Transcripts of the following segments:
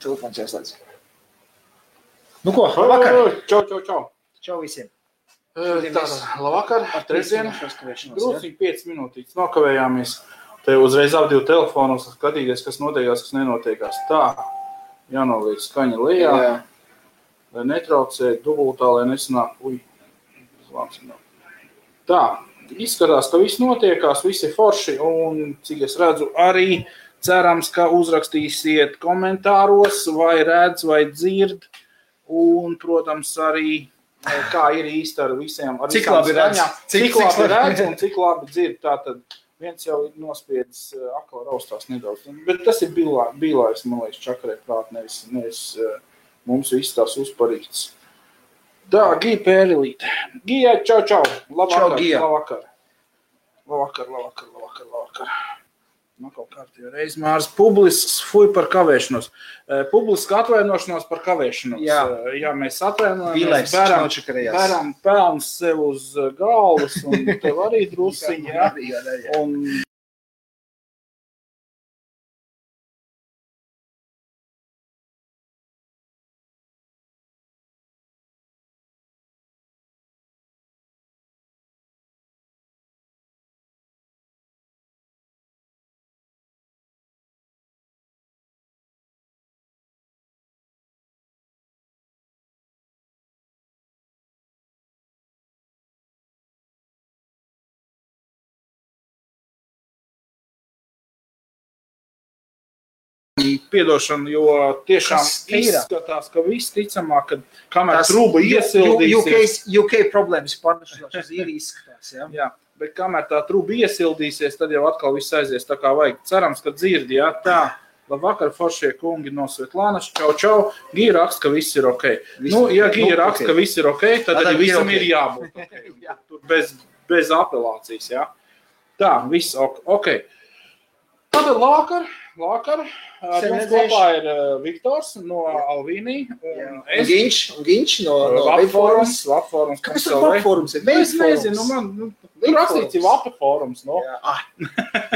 Telefons ieslēdz. Nu ko, labvakar. Čau visiem. Labvakar, trešdien. Drūciņi 5 minūtītes nokavējāmies. Te uzreiz ap 2 telefonus skatīties, kas notiekās, kas nenotiekās. Tā, jānoliek skaņa lejā, lai netraucē dubultā, lai nesanāk. Tā, izskatās, ka viss notiekās, visi forši, un cik es redzu arī cerams, ka uzrakstīsiet komentāros, vai redz, vai dzird, un, protams, arī, kā ir īsti ar visiem, ar cik labi redz, cik labi redz un cik labi dzird. Tātad viens jau ir nospiedis akla raustās nedaudz, bet tas ir bīlājs, man liekas, čakarē prāt, nevis mums viss tās uzparīts. Tā, Gija Pērilīte. Gija, čau. Labvakar, čau, Gija. Labvakar. Nu, kaut kārtībā reiz Mārs publisks fuj par kavēšanos. Publiska atvainošanos par kavēšanos. Jā, mēs atvainojamies, bēram pelns sev uz galvas, un tev arī drusiņi, jā. Un piedošanu, jo tiešām izskatās, ka viss ticamāk, ka kamēr trūba iesildīsies. UK problēmas pārnešās uz īri izskatās, jā? Jā, bet kamēr tā trūba iesildīsies, tad jau atkal viss aizies tā kā vajag. Cerams, ka dzirdi, jā, tā. Labvakar, foršie kungi no Svetlānas, čau. Gija raksta, ka viss ir ok. Ja Gija raksta, ka viss ir ok, tad arī visam ir jābūt ok. Bez apelācijas, jā. Tā, viss ok. Tātad labvakar. Jums kopā ir Viktors no Alvīnī un es. Ginč no Labforums. Kāpēc tas Labforums ir? Es nezinu, man rakstīts ir Labforums, no?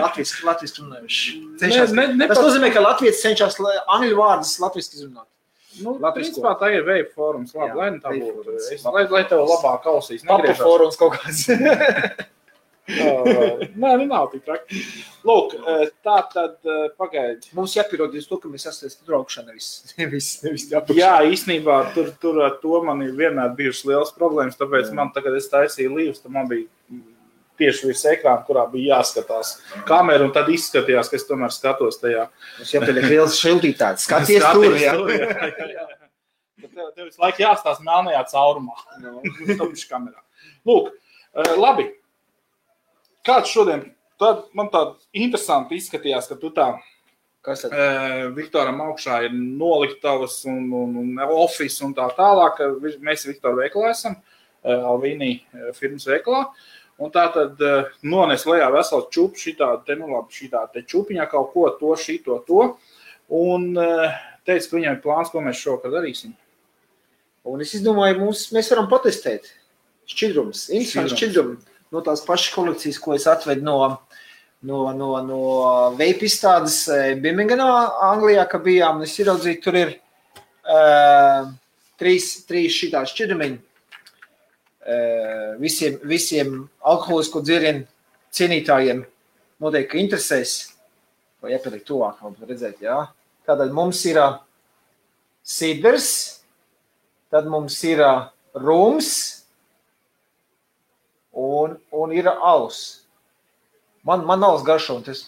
Latviski runājuši. Tas nozīmē, ka Latvijas cenšas angļu vārdus latviski izrunāt. Nu, principā tā ir Vape forums, labi, lai tā būtu. Lai tev labāk klausīs. Papa forums kaut kāds. Nē, nav tik traki. Lūk, tā tad pagaidi. Mums jāpierodies to, ka mēs esam traukšana nevis jāpakšana. Jā, īstenībā tur ar to man ir vienmēr bijušas liels problēmas, tāpēc man tagad es taisīju līvus, tad man bija tieši virs ekrāna, kurā bija jāskatās kameru, un tad izskatījās, ka es tomēr skatos tajā. Mums jāpieliek liels šildītāts. Skaties tur, jā. Tev visu laiku jāstās melnajā caurumā. Kamerā. Lūk, labi. Kāds šodien, man tā interesanti izskatījās, ka tu tā Viktoram augšā ir noliktavas un office un tā tālāk. Mēs Viktora veikalā esam, Alvīnī firmas veikalā. Un tā tad nones lejā vesels čup šitā te čupiņā kaut ko, to. Un teica, ka viņam ir plāns, ko mēs šokar darīsim. Un es izdomāju, mēs varam patestēt šķidrums, interesanti šķidrumi. No tās pašas kolekcijas, ko es atvedu no vape izstādes Birminghamā, Anglijā, ka bijām, es ieraudzīju, tur ir trīs šitās šķidrumiņi. Visiem alkoholisko dzērienu cienītājiem noteikti interesēs, vai jāpieliek tuvāk, redzēt, jā. Tātad mums ir sidrs, tad mums ir rums, un ir alus. Man alus garšo, un tas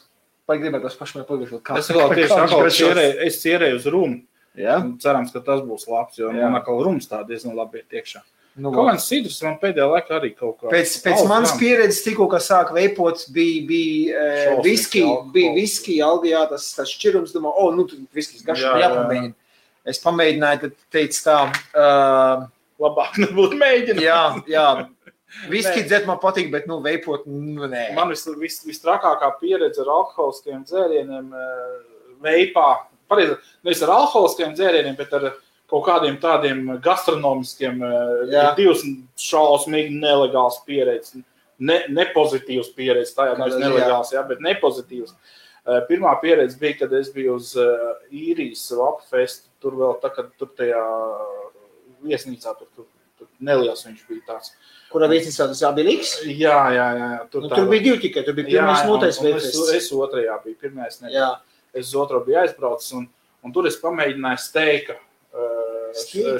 gribētu pašmēr pagaršot. Es vēl tieši es cierēju uz rumu. Ja? Cerams, ka tas būs labs, jo man atkal rums tā diezgan labi ir tiekšā. Kaut kāds sidrs man pēdējā laikā arī kaut kā. Pēc manas pieredzes tikko, kā sāk veipot, bija viski, Algijā, tas šķirums, domā, viskis garšo, jāpamēģina. Es pamēģināju, tad teicu tā. Labāk nebūtu mēģināt. Jā. Viski dzert man patīk, bet, veipot, nē. Man vistrakākā pieredze ar alkoholiskiem dzērieniem veipā. Pareizi, nevis ar alkoholiskiem dzērieniem, bet ar kaut kādiem tādiem gastronomiskiem, divas šausmīgi nelegāls pieredzes. Nepozitīvs pieredzes, tā jau nevis nelegāls, bet nepozitīvs. Pirmā pieredze bija, kad es biju uz īrijas Vapfestu, tur vēl tā, kad tur tajā viesnīcā, tur neliels viņš bija tāds. Kurā viesnīcā tas Abiliks? Jā. Tur bija divi tikai, tur bija pirmais notais Vapfests. Es otrajā biju, pirmais nebija. Es uz otro biju aizbraucis, un tur es pamēģināju steika.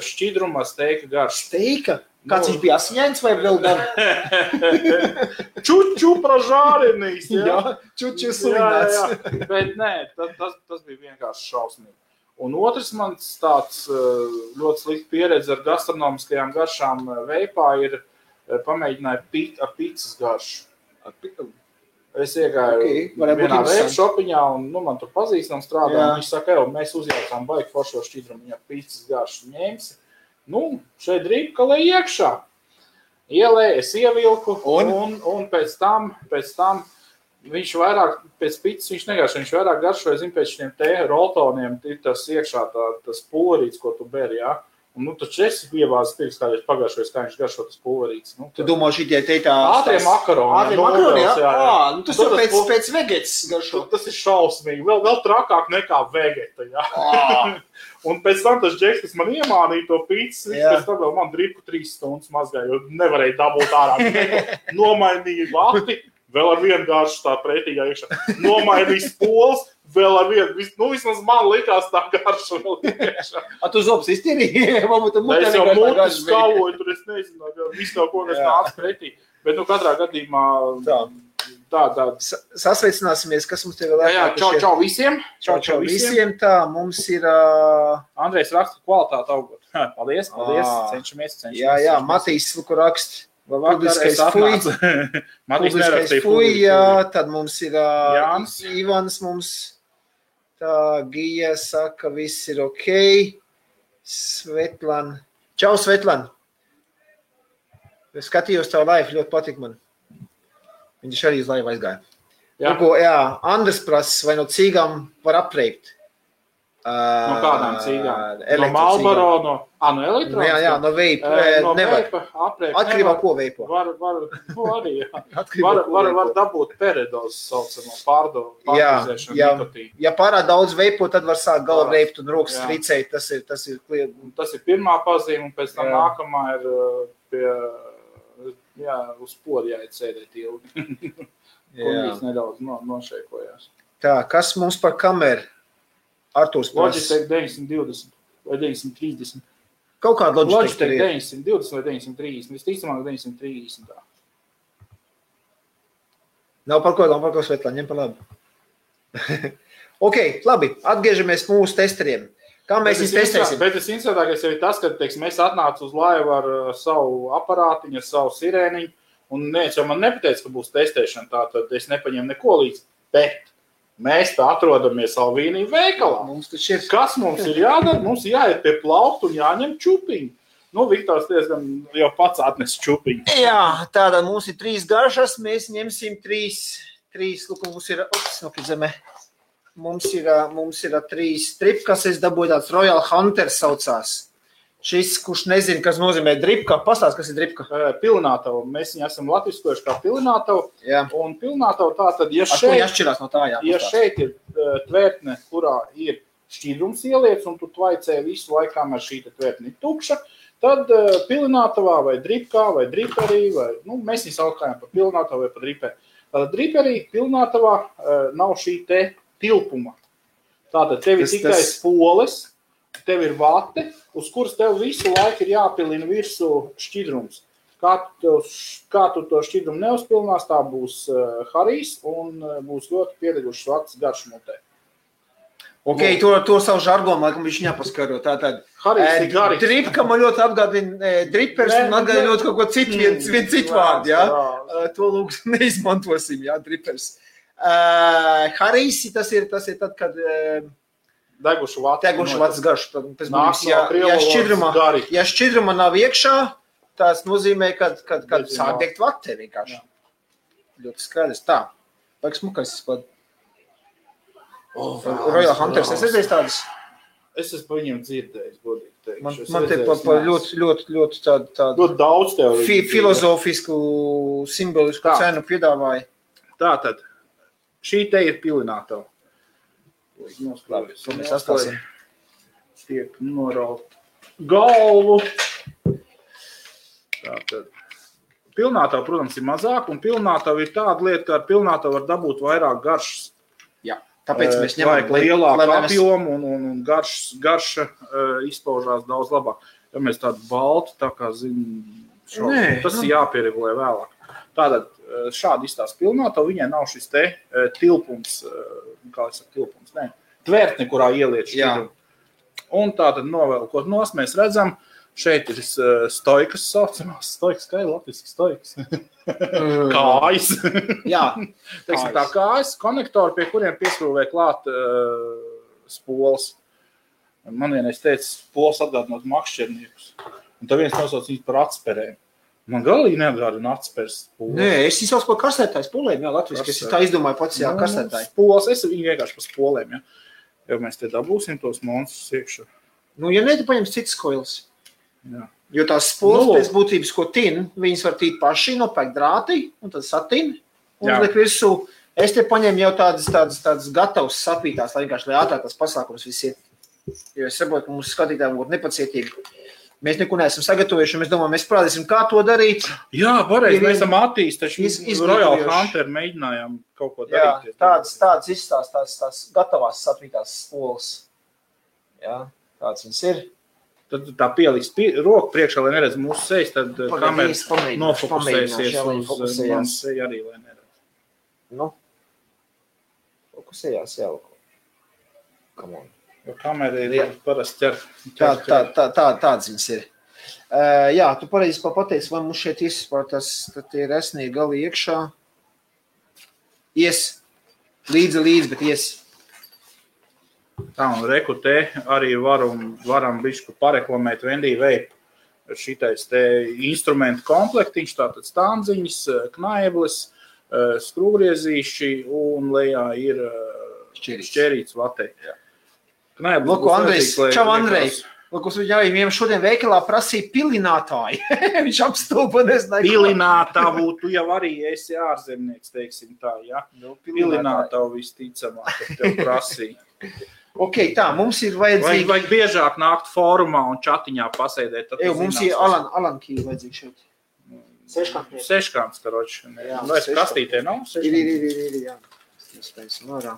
Šķidrumā steika garš. Steika? Kāds viņš bija asiņains vai vēl gan? Čuču pražārinīs, jā, čuču sulināts. Jā. Bet nē, tas bija vienkārši šausmīgi. Un otrs mans tāds ļoti slikta pieredze ar gastronomiskajām garšām veipā ir pamēģināju ar picas garšu. Es iegāju vienā veipu šopiņā un man tur pazīstam strādā. Un viņš saka, mēs uzjaucām baigi foršo šķidrumu, viņa picas garšu ņemsi. Šeit drīpka lai iekšā. Ielēju, es ievilku un pēc tam viņš vairāk, pēc picas viņš negaršo, viņš vairāk garšoja, pēc šiem roltoniem, tas iekšā tas pulverīts, ko tu beri, jā. Un taču es ievāzu pirks, kādreiz pagaršojas, kā viņš garšo tas pulverīts. Tu domā šitie tā... Ātrie makaroni. Jā. Tas jau pēc vegetas garšo. Tas ir šausmīgi, vēl trakāk nekā vegeta, jā. Un pēc tam tas džeks, kas man iemānīja to pīcis, pēc tam vēl man dripku 3 stundas mazgāja, jo nevarēja dabūt ārā. Nomainīja vati, vēl ar vienu garšu tā pretīgā iekšā. Nomainīja spols, vēl ar vienu, vismaz man likās tā garša vēl iekšā. Tu zobs iztīrīji? Es jau mutu skaloju, tur es nezinu, visu kaut ko, kas nāca pretī. Bet katrā gadījumā tā. Sasveicināsimies, kas mums te vēl jā, čau visiem. Čau visiem, tā, mums ir... Andrejs raksta kvalitāti augot. Paldies, cenšamies. Jā, Matīs Luku raksta. Publiskais fuj, jā, tad mums ir Ivans mums, tā, Gija saka, viss ir ok, Svetlan, čau Svetlan, es skatījos tavu live, ļoti patīk man, viņš arī uz live aizgāja. Jā, Andres prasa, vai no cīgām var apreikt? No kādām cīgām? No Marlboro, no elektrons? Jā, no veipa. Nevar. Atkarībā ko veipo. Var arī, jā. Var dabūt peredozes saucamo pārdozēšanu nikotīnu. Ja pārāk daudz veipo, tad var sākt galva veipt un rokas tricēt. Tas ir kliedz. Tas ir pirmā pazīme, un pēc tam nākamā ir uz podu jāiet sēdēt ilgi. Kolīs nedaudz nošeikojās. Tā, kas mums par kameru? Artūrs Logitech 920 vai 930. Kaut kāda Logitech 920 vai 930. Visticamāk 930. Tā. Nav par ko Svetlā, ņem par labi. Ok, labi, atgriežamies mūsu testeriem. Kā mēs viņus testēsim? Bet tas interesantākais jau ir tas, ka mēs atnācu uz laivu ar savu aparātiņu, ar savu sirēniņu, un neviens jau man nepateica, ka būs testēšana, tātad es nepaņēmu neko līdz, bet mēs tā atrodamies Alvīnija veikalā. Kas mums ir jādara? Mums jāiet pie plauktu un jāņem čupiņu. Viktors diezgan jau pats atnes čupiņu. Jā, tātad mums ir 3 garšas, mēs ņemsim 3, lūk, mums ir 3 tripkas, es dabūju tāds Royal Hunter saucās. Šis, kurš nezina, kas nozīmē dripka, pastāst, kas ir dripka? Pilnātavu. Mēs viņu esam latviskojuši kā pilnātavu. Un pilnātavu tātad, ja šeit ir tvērtne, kurā ir šķidrums ieliec, un tu tvaicē visu laiku, kamēr šī tvērtne ir tukša, tad pilnātavā vai dripkā vai driperī, vai, mēs viņu saukājam par pilnātavu vai par driperi. Tātad driperī, pilnātavā nav šī te tilpuma. Tātad tev ir tikai spoles, tev ir vate, uz kuras tev visu laiku ir jāpilina virsū šķidrums. Kā tu to šķidrumu neuzpilnās, tā būs harijs un būs ļoti piedegušas vatas garšmutē. Ok, to savu žargonu, laikam, viņš nepaskaro. Tātad, harijs ir garīgs. Dripka man ļoti atgādina dripers un atgādina ļoti kaut ko citu, vien citu vārdu, jā? To lūk neizmantosim, jā, dripers. Harijs, tas ir tad, kad... Degušu vatas garšu. Ja šķidruma nav iekšā, tas nozīmē, kad sāk degt vate vienkārši. Ļoti skaidrs. Tā. Vajag smukais izpad. Royal Hunters, es redzēju tādas? Es esmu par viņiem dzirdējis, godīgi teikšu. Man te ļoti tādu ļoti daudz tev. Filozofisku, simbolisku cenu piedāvāja. Tātad, šī te ir pilinātava. noskrājas. To mēs atstāsim. Tiek noraut galvu. Tātad. Pilnātavu, protams, ir mazāk, un pilnātavu ir tāda lieta, ka ar pilnātavu var dabūt vairāk garšas. Jā, tāpēc mēs ņemam lielāku apjomu un garša izpaužās daudz labāk. Ja mēs tādu baltu, tā kā tas ir jāpieregulē vēlāk. Tātad šādi izstās pilnātavu, viņai nav šis te tilpums, tvērtne, kurā ieliet šķidrumu. Un tātad novelkot nos, mēs redzam, šeit ir stoikas saucamās, stoikas, kā ir latviski stoikas? Kājas. Jā. Teiksim tā kājas, konektori, pie kuriem pieskrūvē klāt spoles. Man vienreiz teica, spoles atgādinot makšķerniekus. Un tā viens nosauc viņus par atsperēm. Man galīgi neatgādina atspers spoles. Nē, es izsaucu par kastētāju spolēm, jā, latviski. Es tā izdomāju pats, jā, kastētāji. Spoles, es viņu vienkārši par spolēm, jā. Jo mēs te dabūsim tos monstrus iekšā. Nu, ja ne, tu paņems citas koilas. Jā. Jo tās spoles pēc būtības, ko tin, viņas var tīt paši, nopēkt drātī, un tad satin, un liek virsū. Es te paņēmu jau tādas gatavas sapītās, lai vienkārši, lai ātrāk tas pasākums viss ir. Jo es saprotu, ka mums skatītājiem būtu nepacietīgi. Mēs neko neesam sagatavojuši, mēs domājam, mēs parādīsim, kā to darīt. Jā, pareizi, mēs esam attīstījuši, Royal Hunter mēģinājām kaut ko darīt. Jā, tādas izstās, tās gatavās sapītās spoles. Jā, tāds viņas ir. Tad tā pielīst roku priekšā, lai neredz mūsu sejas, tad kamera nofokusēsies uz manas seju arī, lai neredz. Nu, fokusējās jau. Come on. Jo kamera ir parasti ķer. Tāds viņas ir. Jā, tu pareizi pateici, vai mums šeit izspār tas, tad tie resnīgi gali iekšā. Ies. Līdzi, bet ies. Tā, un reku te arī varam bišķi pareklamēt Wendy Vape. Šitais te instrumentu komplektiņš, tātad standziņas, knaibles, skrūvriezīši un lejā ir šķerīts vatei. Lūk, Andrejs, čau Andrej. Lūk, viņam šodien veikalā prasīja pilinātāji. Viņš apstulpa, nezināja. Pilinātavu, tu jau arī esi ārzemnieks, teiksim tā, ja? Pilinātavu visticamāk, ka tev prasīja. Ok, tā, mums ir vajadzīgi... Vajag biežāk nākt fórumā un čatiņā pasēdēt. Mums ir Alan Key vajadzīgi šeit. Seškants, karoči. Vai kastītē nav? Ir, jā. Spēsim ārā.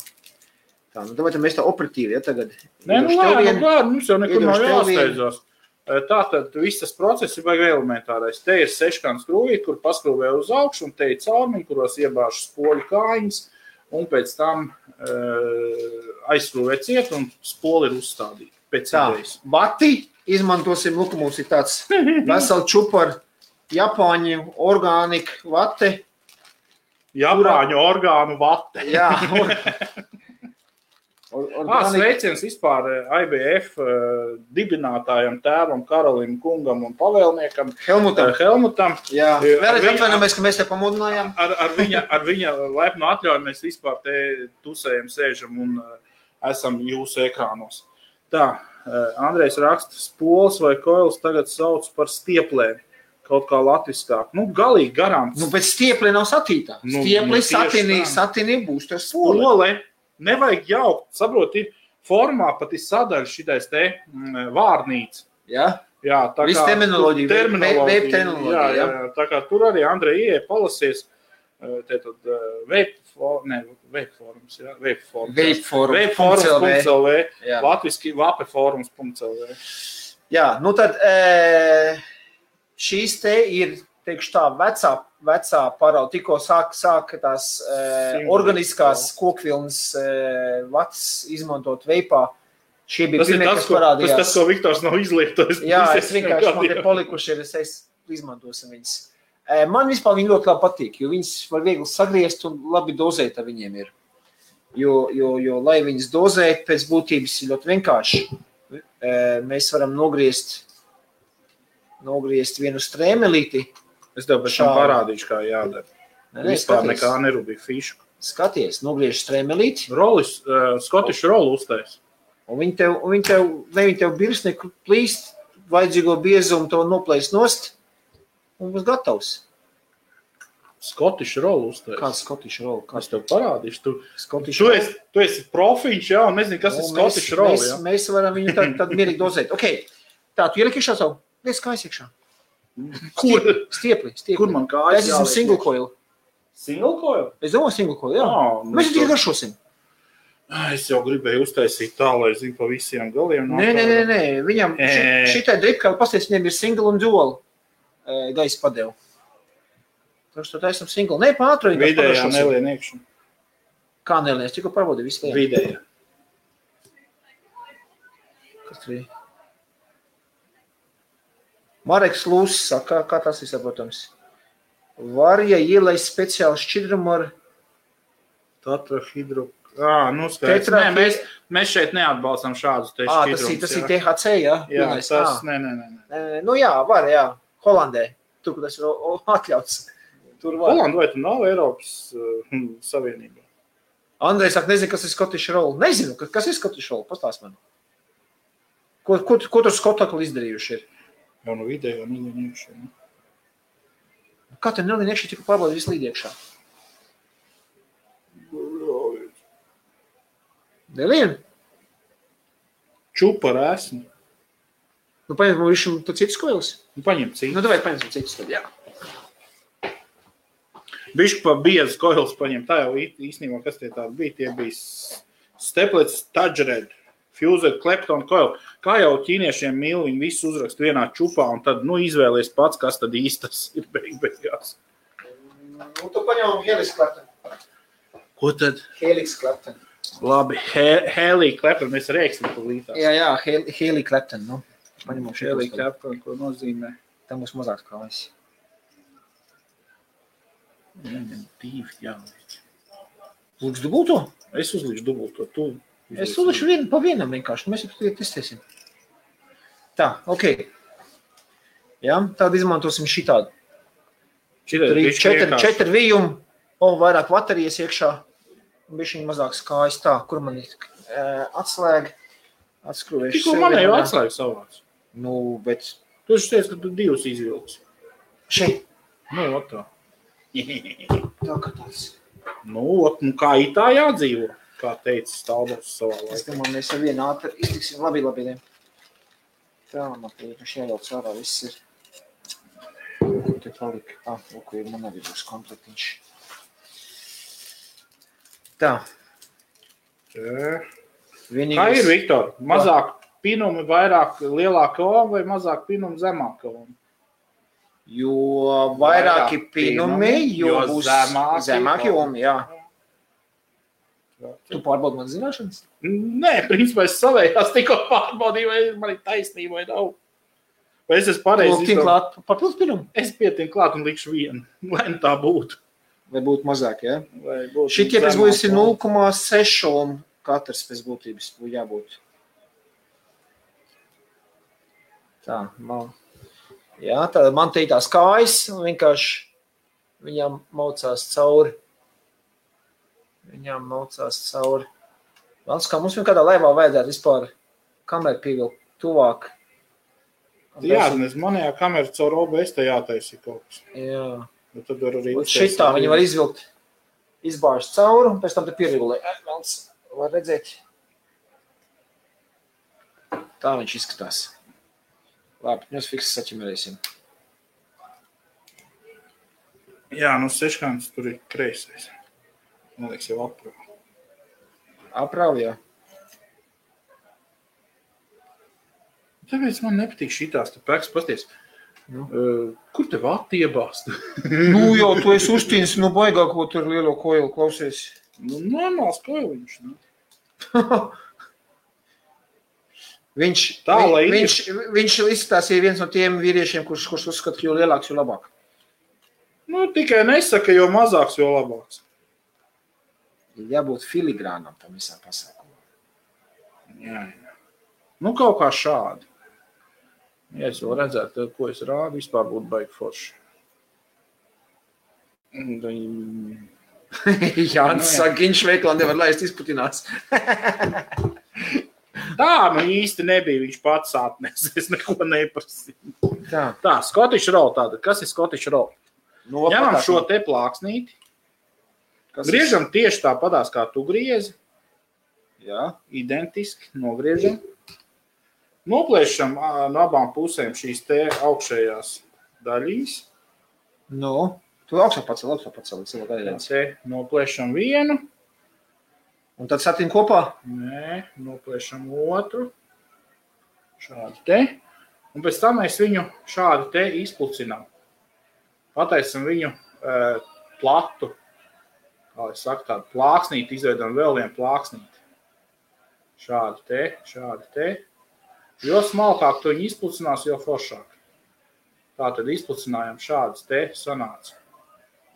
Tā, nu davai mēs tā operatīvi, ja tagad. Nē, nu lēni, mums jau nekur nav jāsteidzās. Tātad viss tas process ir vajag elementārais. Te ir seškāns skrūvīt, kur paskrūvē uz augšu, un te ir caurmiņi, kuros iebāžu spoļu kājiņas, un pēc tam aizskrūvē ciet, un spoli ir uzstādīti. Pēc idejas. Vati izmantosim, lūk, mums ir tāds veseli čupar Japāņu orgānika vate. Japāņu orgānu vate. Jā. Sveiciens vispār IBF dibinātājam, tēvam, Karolim, kungam un pavēlniekam Helmutam. Jā, vēlreiz atvainojamies, ka mēs te pamudinājām. Ar viņa laipnu atļauju mēs vispār te tusējam, sēžam un esam jūsu ekrānos. Tā, Andrejs raksta, spoles vai koilas tagad sauc par stieplēm. Kaut kā latviskāk. Nu, galīgi garām. Nu, bet stieplē nav satītā. Stieplē satinī būs tas spole. Nevajag jaukt, saprot, ir formā pat ir sadaļa šitais te vārnīca. Jā? Jā, tā viss kā... terminoloģija. Jā, tā kā tur arī Andrej ieeja palasies, te tad vapeforums.lv, latviski vapeforums.lv. Jā, nu tad šīs te ir, teikšu tā, vecā parauga, tikko sāka tās organiskās kokvilnas vats izmantot veipā. Šie bija pirmie, kas parādījās. Tas, ko Viktors nav izlietojis. Jā, es vienkārši man te palikuši ir, es izmantosim viņas. Man vispār viņi ļoti labi patīk, jo viņas var viegli sagriezt un labi dozēt ar viņiem ir. Jo lai viņas dozēt, pēc būtības ir ļoti vienkārši. Mēs varam nogriezt vienu strēmelīti. Es tev pēc tam parādīšu, kā jādara. Vispār nekā nerūbīja fišu. Skaties, nogriež strēmelīti. Rolis, skotišu rolu uztais. Un viņi tev birsnieku plīst, vajadzīgo biezumu to noplēst nost un būs gatavs. Scottish roll uztais. Kāds Scottish roll? Es tev parādīšu. Tu esi profiņš, jā, un nezinu, kas ir Scottish roll, jā. Mēs varam viņu tad mierīgi dozēt. Ok, tā, tu ieliki iekšā savu? Lies kājas iekšā. Stiepli. Kur man kājas jāliek? Es esmu single coil. Single coil? Es domāju single coil, jā. Mēs tikai garšosim. Es jau gribēju uztaisīt tā, lai zinu pa visiem galiem. Nē. Viņam šitai dripkāli pasties, viņiem ir single un dual gaisa padevu. Tā esam single. Nē, pātru. Vidējā nelien iekšā. Kā nelien? Es tikko pārbaudīju visu lien. Vidējā. Kas tur ir? Mareks Lūs saka, kā tas ir saprotams. Var, ja ielaist speciāli šķidrumu ar tetrahidro. Nu skaidrs. Nē, mēs šeit neatbalstam šādus te šķidrumus. Tas ir THC, jā? Jā, tas, nē. Nu jā, var, jā. Holandē. Tur, kur tas ir atļauts. Tur var. Holanda vai tu nav Eiropas Savienībā? Andrejs saka, nezinu, kas ir Scottish roll. Nezinu, kas ir Scottish roll. Pastāst man. Ko tur Skotakli izdarījuši ir? Jau no vidējā nelien iekšā. Kā te nelien iekšā tikai pārbaudīt visu līdz iekšā? Nelien? Čupa ar esmu. Nu, paņem višam tu citus koilis? Nu, paņem citus. Nu, davai paņemsim citus tad, jā. Bišķi pa biezas koilis paņem. Tā jau īstenībā, kas tie tādi bija? Tie bija Steplets, Tadgered, Fused, Klepton, Coil. Kā jau ķīniešiem mīl, viņi visu uzrakst vienā čupā un tad, izvēlies pats, kas tad īstas ir beigās. Nu, tu paņem Helix Klepton. Ko tad? Helix Klepton. Labi, Helix Klepton, mēs rēksim pa lītās. Jā, Helix Klepton, nu. Paņemam Helix Klepton, ko nozīmē? Tā būs mazāks kājas. Viņam divi jāliek. Lūks dubulto? Es uzlīšu dubulto, tu. Es uzlīšu pa vienam vienkārši, mēs jau testēsim. Tā, ok. Jā, tādu izmantosim šitādu. Tur ir 4 vījumi, vairāk baterijas iekšā. Bišķiņ mazāks kājas tā, kur man ir atslēga, atskrūvējuši. Tikko man jau atslēga savāds. Nu, bet... Tu esi teici, ka tu divus izvilksi. Šeit? Nu, tā. Tā kā tāds. Nu, kā itā jādzīvo, kā teica Stalbos savā laikā. Es domāju, mēs ar vienu ātri iztiksim labi. Tā, man pieņemši jājauc ārā, viss ir. Ko te palika? Ok, man arī būs komplektiņš. Tā. Vienīgais... Kā ir, Viktor? Mazāk pinumi, vairāk lielāka oma vai mazāk pinumi zemāka oma? Jo vairāki pinumi, jo būs zemāki omi, jā. Tu pārbaudi man zināšanas? Nē, principā es savējās tikko pārbaudīju, vai man ir taisnība vai nav. Vai es esmu pareizi izdomāt? Papildus pinumu? Es pietinu klāt un likšu vienu, lai tā būtu. Vai būtu mazāk, jā? Šitie pēc būtības ir 0,6 un katrs pēc būtības būtu jābūt. Tā, jā, tā man te ir tās kājas, un vienkārši viņām maucās cauri. Vēl kā mums vienkādā laivā vajadzētu vispār kameru pievilkt tuvāk. Jā, manējā kamera caur OBS te jātaisi kaut kas. Jā. Tad var arī šitā viņi var izvilkt, izbāžt cauri, un pēc tam te pieregulē. Vēlns var redzēt. Tā viņš izskatās. Labi, mēs fiksas saķimerēsim. Jā, seškāns tur ir kreisais. Man liekas jau aprāv. Aprāv, jā. Tāpēc man nepatīk šitās, tu pēks pasties. Kur tev attiebāst? Jau tu esi uztīnis, baigā, ko tur lielo koilu klausies. Normāls koiliņš. Viņš izskatās ir viens no tiem vīriešiem, kurš uzskata, ka jo lielāks, jo labāk. Tikai nesaka, jo mazāks, jo labāks. Jābūt filigrānam tam visā pasākumā. Jā. Kaut kā šādi. Ja es vēl redzētu, ko es rādu, vispār būtu baigi forši. Jānis saka, viņš veiklā nevar laist izputinās. Tā, īsti nebija, viņš pats atnes, es neko neprasīju. Tā, Scottish roll tāda. Kas ir Scottish roll? Ņemam šo te plāksnīti. Griežam tieši tāpatās, kā tu griezi. Jā, identiski nogriežam. Noplēšam no abām pusēm šīs te augšējās daļīs. Tu augšā pacel. Te noplēšam vienu. Un tad satīm kopā? Nē, noplēšam otru. Šādi te. Un pēc tam mēs viņu šādi te izplucinām. Pataisam viņu platu. Kā es saku, tādu plāksnīti, izveidam vēl vienu plāksnīti. Šādi te. Jo smalkāk tu viņu izplucinās, jo foršāk. Tā tad izplucinājām šādas te sanāca.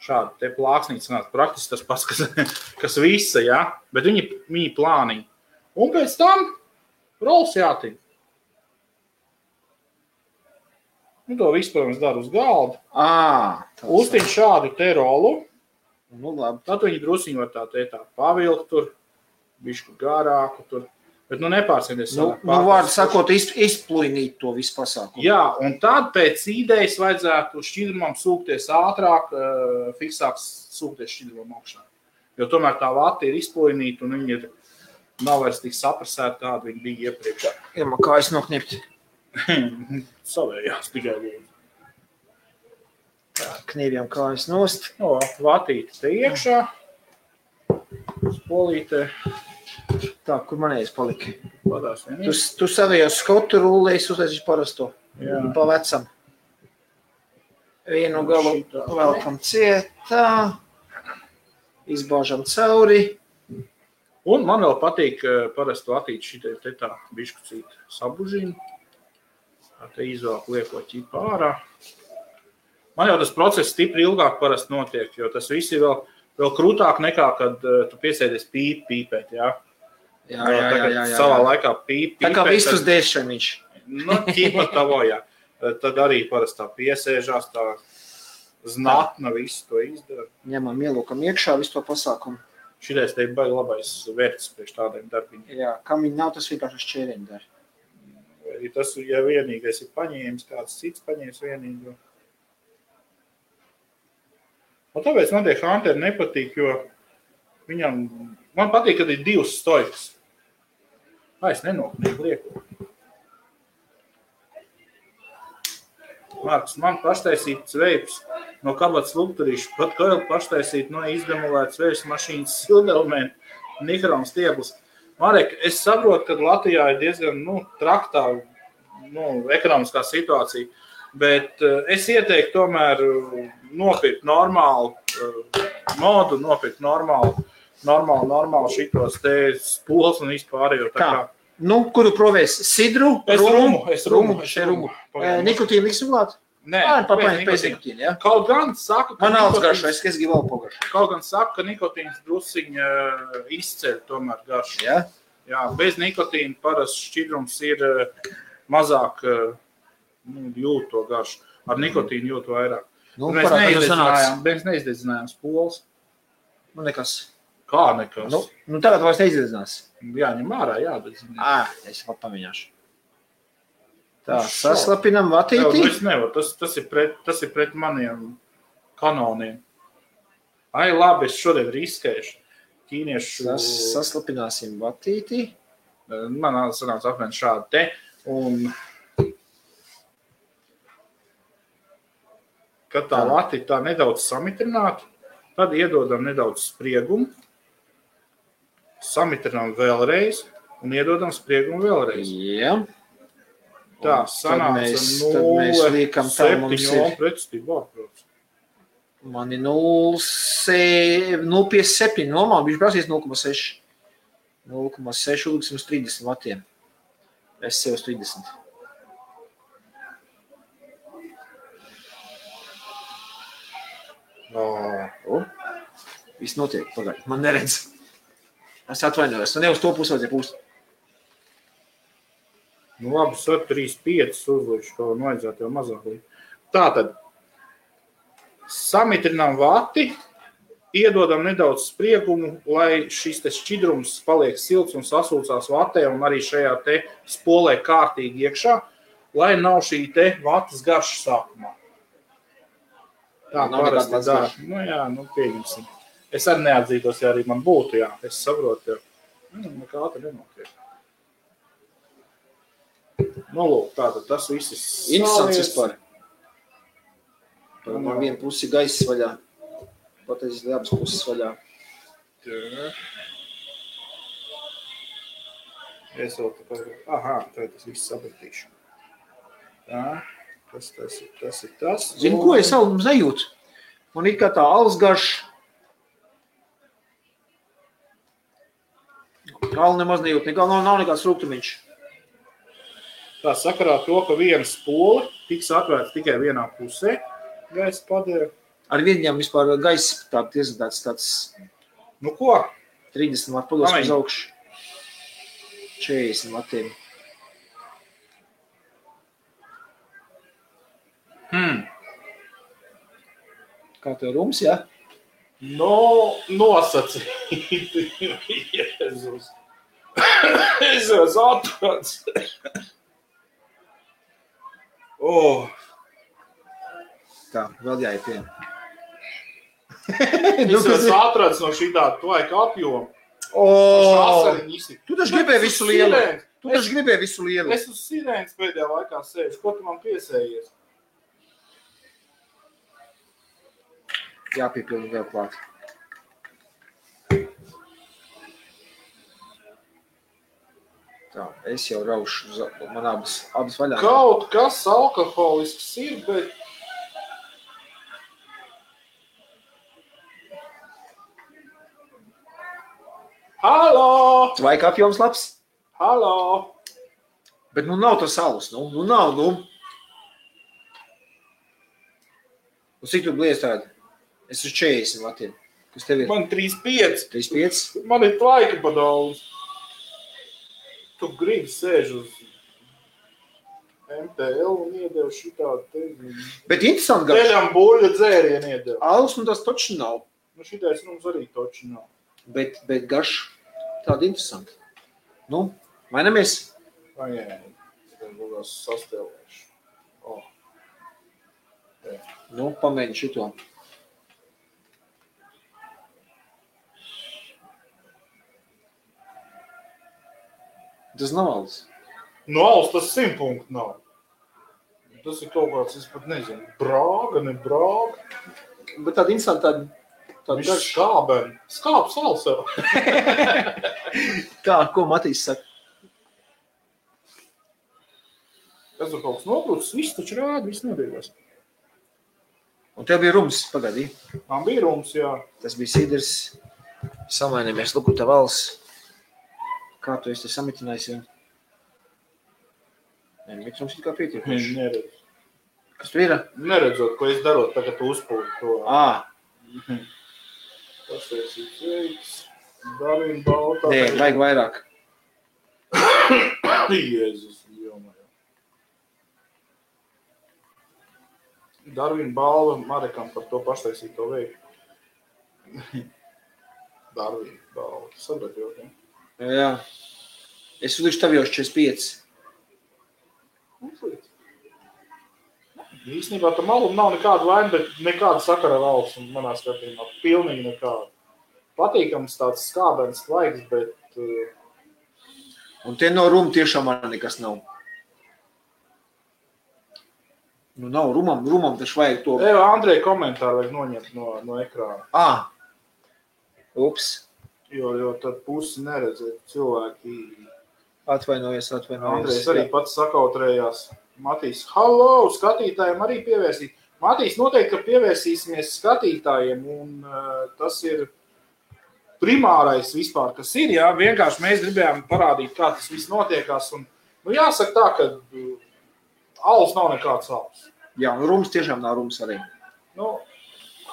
Šādi te plāksnīti sanāca. Praktiski tas pats, kas visa, ja? Bet viņi plāniņi. Un pēc tam rols jātiņ. To visu, protams, dara uz galda. Uztiņ šādu te rolu. Tad viņi drusiņi var tā pavilkt tur. Bišku garāku tur, bet nepārsēdies. Vārdu sakot, izplūnīt to visu pasākumu. Jā, un tad pēc idejas vajadzētu šķidrumam sūkties ātrāk, fiksāk sūkties šķidrumam augšā. Jo tomēr tā vata ir izplūnīta un viņi nav vairs tik saprasēti, kāda viņi bija iepriekš. Ja man kājas noknipt. Savējās tikai lūdzu. Knīvjam kājas nost. Vatīte te iekšā. Spolīte. Tā, kur manējais palika? Padās vienīgi. Tu savējos skotu rullējis uzliesīši parasto. Pa vecam. Vienu galu velkam cietā. Izbāžam cauri. Un man vēl patīk parastu atīt šitai te tā biškucīt sabužīnu. Te izvēlku lieko ķipa ārā. Man jau tas process stipri ilgāk parasti notiek, jo tas viss ir vēl krūtāk nekā, kad tu piesēdies pīpēt, jā? Jā. Savā laikā pīpēt. Tā kā vistus dēšaniņš. Ķipa tavo, jā. Tad arī parasti tā piesēžās, tā znatna visu to izdara. Ņemam ielūkam iekšā visu to pasākumu. Šitais te ir baigi labais vērts priekš tādiem darbiņiem. Jā, kam viņi nav, tas vienkārši šķēriņi dara. Vai tas, ja vienīgais ir paņēmis, kāds cits paņēmis vienīgo. Un tāpēc man tie Hunteri nepatīk, jo man patīk, kad ir divas stojkas. Es nenoknīgu lieku. Marks, man paštaisīt veips no kabatas lukturīšu, pat Koil paštaisīt no izdemolētas veips mašīnas sildelemēnu Nikron stieblis. Marek, es saprotu, ka Latvijā ir diezgan traktā ekonomiskā situācija, bet es ieteiktu tomēr nopirkt normālu modu, nopirkt normālu šitos te spols un vispārējo. Kuru provēs? Sidru? Es rumu. Nikotīnu liksim klāt? Nē, pēc nikotīnu, jā? Kaut gan saka, ka man alts garšo, es gribu vēl pogaršo. Kaut gan saka, ka nikotīns drusiņa izceļ tomēr garšu. Jā? Jā, bez nikotīna parasti šķidrums ir mazāk jūt to garšu. Ar nikotīnu jūt vairāk. Mēs neizdedzinājām spols. Nekas. Kā nekas? Tagad vairs neizdedzinās. Jāņem ārā, jādedzinās. Es pat pamēģināšu. Tā, saslapinam vatīti. Es nevaru, tas ir pret maniem kanoniem. Labi, es šodien riskēšu. Ķīniešu... Saslapināsim vatīti. Man sanāca apmēram šādi te. Un kad tā vatīti tā nedaudz samitrinātu, tad iedodam nedaudz spriegumu. Samitrinām vēlreiz un iedodam spriegumu vēlreiz. Jā. Tā sanāca 0,7 pretstībā, protams. Man ir 0,57, normāli, viņš prasīs 0,6. 0,6 uzliksim uz 30 vatiem. Es sev uz 30. Viss notiek, pagaid, man neredz. Es atvainojos, ne uz to pusi vajadzēja pūst. Labi, 3,5 uzlikšu, ko vajadzētu jau mazāk līdz. Tātad, samitrinām vati, iedodam nedaudz spriegumu, lai šis te šķidrums paliek silts un sasūcās vatē un arī šajā te spolē kārtīgi iekšā, lai nav šī te vatas garša sākumā. Tā parasti dara. Nu jā, nu pieņemsim. Es arī neatzītos, ja arī man būtu, jā. Es saprotu, jā. Nekā te nenotiek. Nu, lūk, tātad tas viss ir interesants vispār. Man viena pusi gaiss vaļā. Pateicis, abas puses vaļā. Jā. Es vēl te pagāju. Aha, tad tas viss sapratīšu. Tā. Tas ir tas. Zini, ko es savu sajūtu? Man ir kā tā alus garš. Alu nemaz nejūt, nav nekāds rūgtumiņš. Tā sakarā to, ka viena spole tiks atvērts tikai vienā pusē, gaisa padēra. Ar viņam vispār gaisa tāds. Nu ko? 30 vatu pados uz augšu. 40 vatiem. Kā tev rums, jā? Nosacīti. Jēzus. Es esmu atrodas. Tā, vēl jāiet pie. Es esmu atrodas no šī tāda tvaika apjoma. Tu taču gribēji visu lielu. Es uz sirēnas pēdējā laikā sēžu. Ko tu man piesējies? Jāpiepilda vēl klāt. Tā, es jau raušu, man abas vaļā. Kaut kas alkoholisks ir, bet... Halo! Tvaika apjoms labs? Halo! Bet nav tas alus, nav. Cik tu blies tādi? Es uz 40 vatiem. Kas tev ir? Man 35. 35? Man ir tvaika pa daudz. Tu gribi sēž uz MTL un iedev šitādu te... Bet interesanti garš. Teļam buļļa dzērienu iedev. Alus tas toči nav. Nu šitais mums arī toči nav. Bet garš tādi interesanti. Nu, mainamies? Pagaid. Tad būs sastēlēšu. Nu, pamēģi šito. Tas nav alus. Nu, alus tas 100 punktu nav. Tas ir kaut kāds, es pat nezinu, brāga, ne brāga. Bet tāda interesanta, tāda garš skābeni. Skābs alus jau. Kā, ko Matīs saka? Es tur kaut kas nokrūtas, viss taču rāda, viss nodīgās. Un tev bija rums, pagaidī? Man bija rums, jā. Tas bija sidrs. Samainamies, luku tev alus. Kā tu esi te samitinājis jau? Nē, mitrums ir kā pietiekuši. Neredz. Kas tu ir? Neredzot, ko es darot, tagad tu uzpūti to. Tas esi veiks. Darvina baltā. Nē, vajag vairāk. Jēzus, jomajā. Darvina balva Marekam par to paštaisīto veiku. Darvina balva. Sabraļot, ja? Jā. Es uzlikšu tev jau 45. Īstenībā tam alum nav nekāda vaina, bet nekāda sakara ar alus manā skatījumā. Pilnīgi nekāda. Patīkams tāds skābens tvaiks, bet... Un tie no ruma tiešām man nekas nav. Nu nav, rumam taču vajag to... Andrej komentāru vajag noņemt no ekrāna. Ups. Jo tad pusi neredzēt cilvēki. Atvainojies. Andrejs arī pats sakautrējās. Matīs, halo, skatītājiem arī pievērsīt. Matīs, noteikti, ka pievērsīsimies skatītājiem, un tas ir primārais vispār, kas ir, jā. Vienkārši mēs gribējām parādīt, kā tas viss notiekās, un, nu, jāsaka tā, ka alus nav nekāds alus. Jā, un rums tiešām nav rums arī. Nu,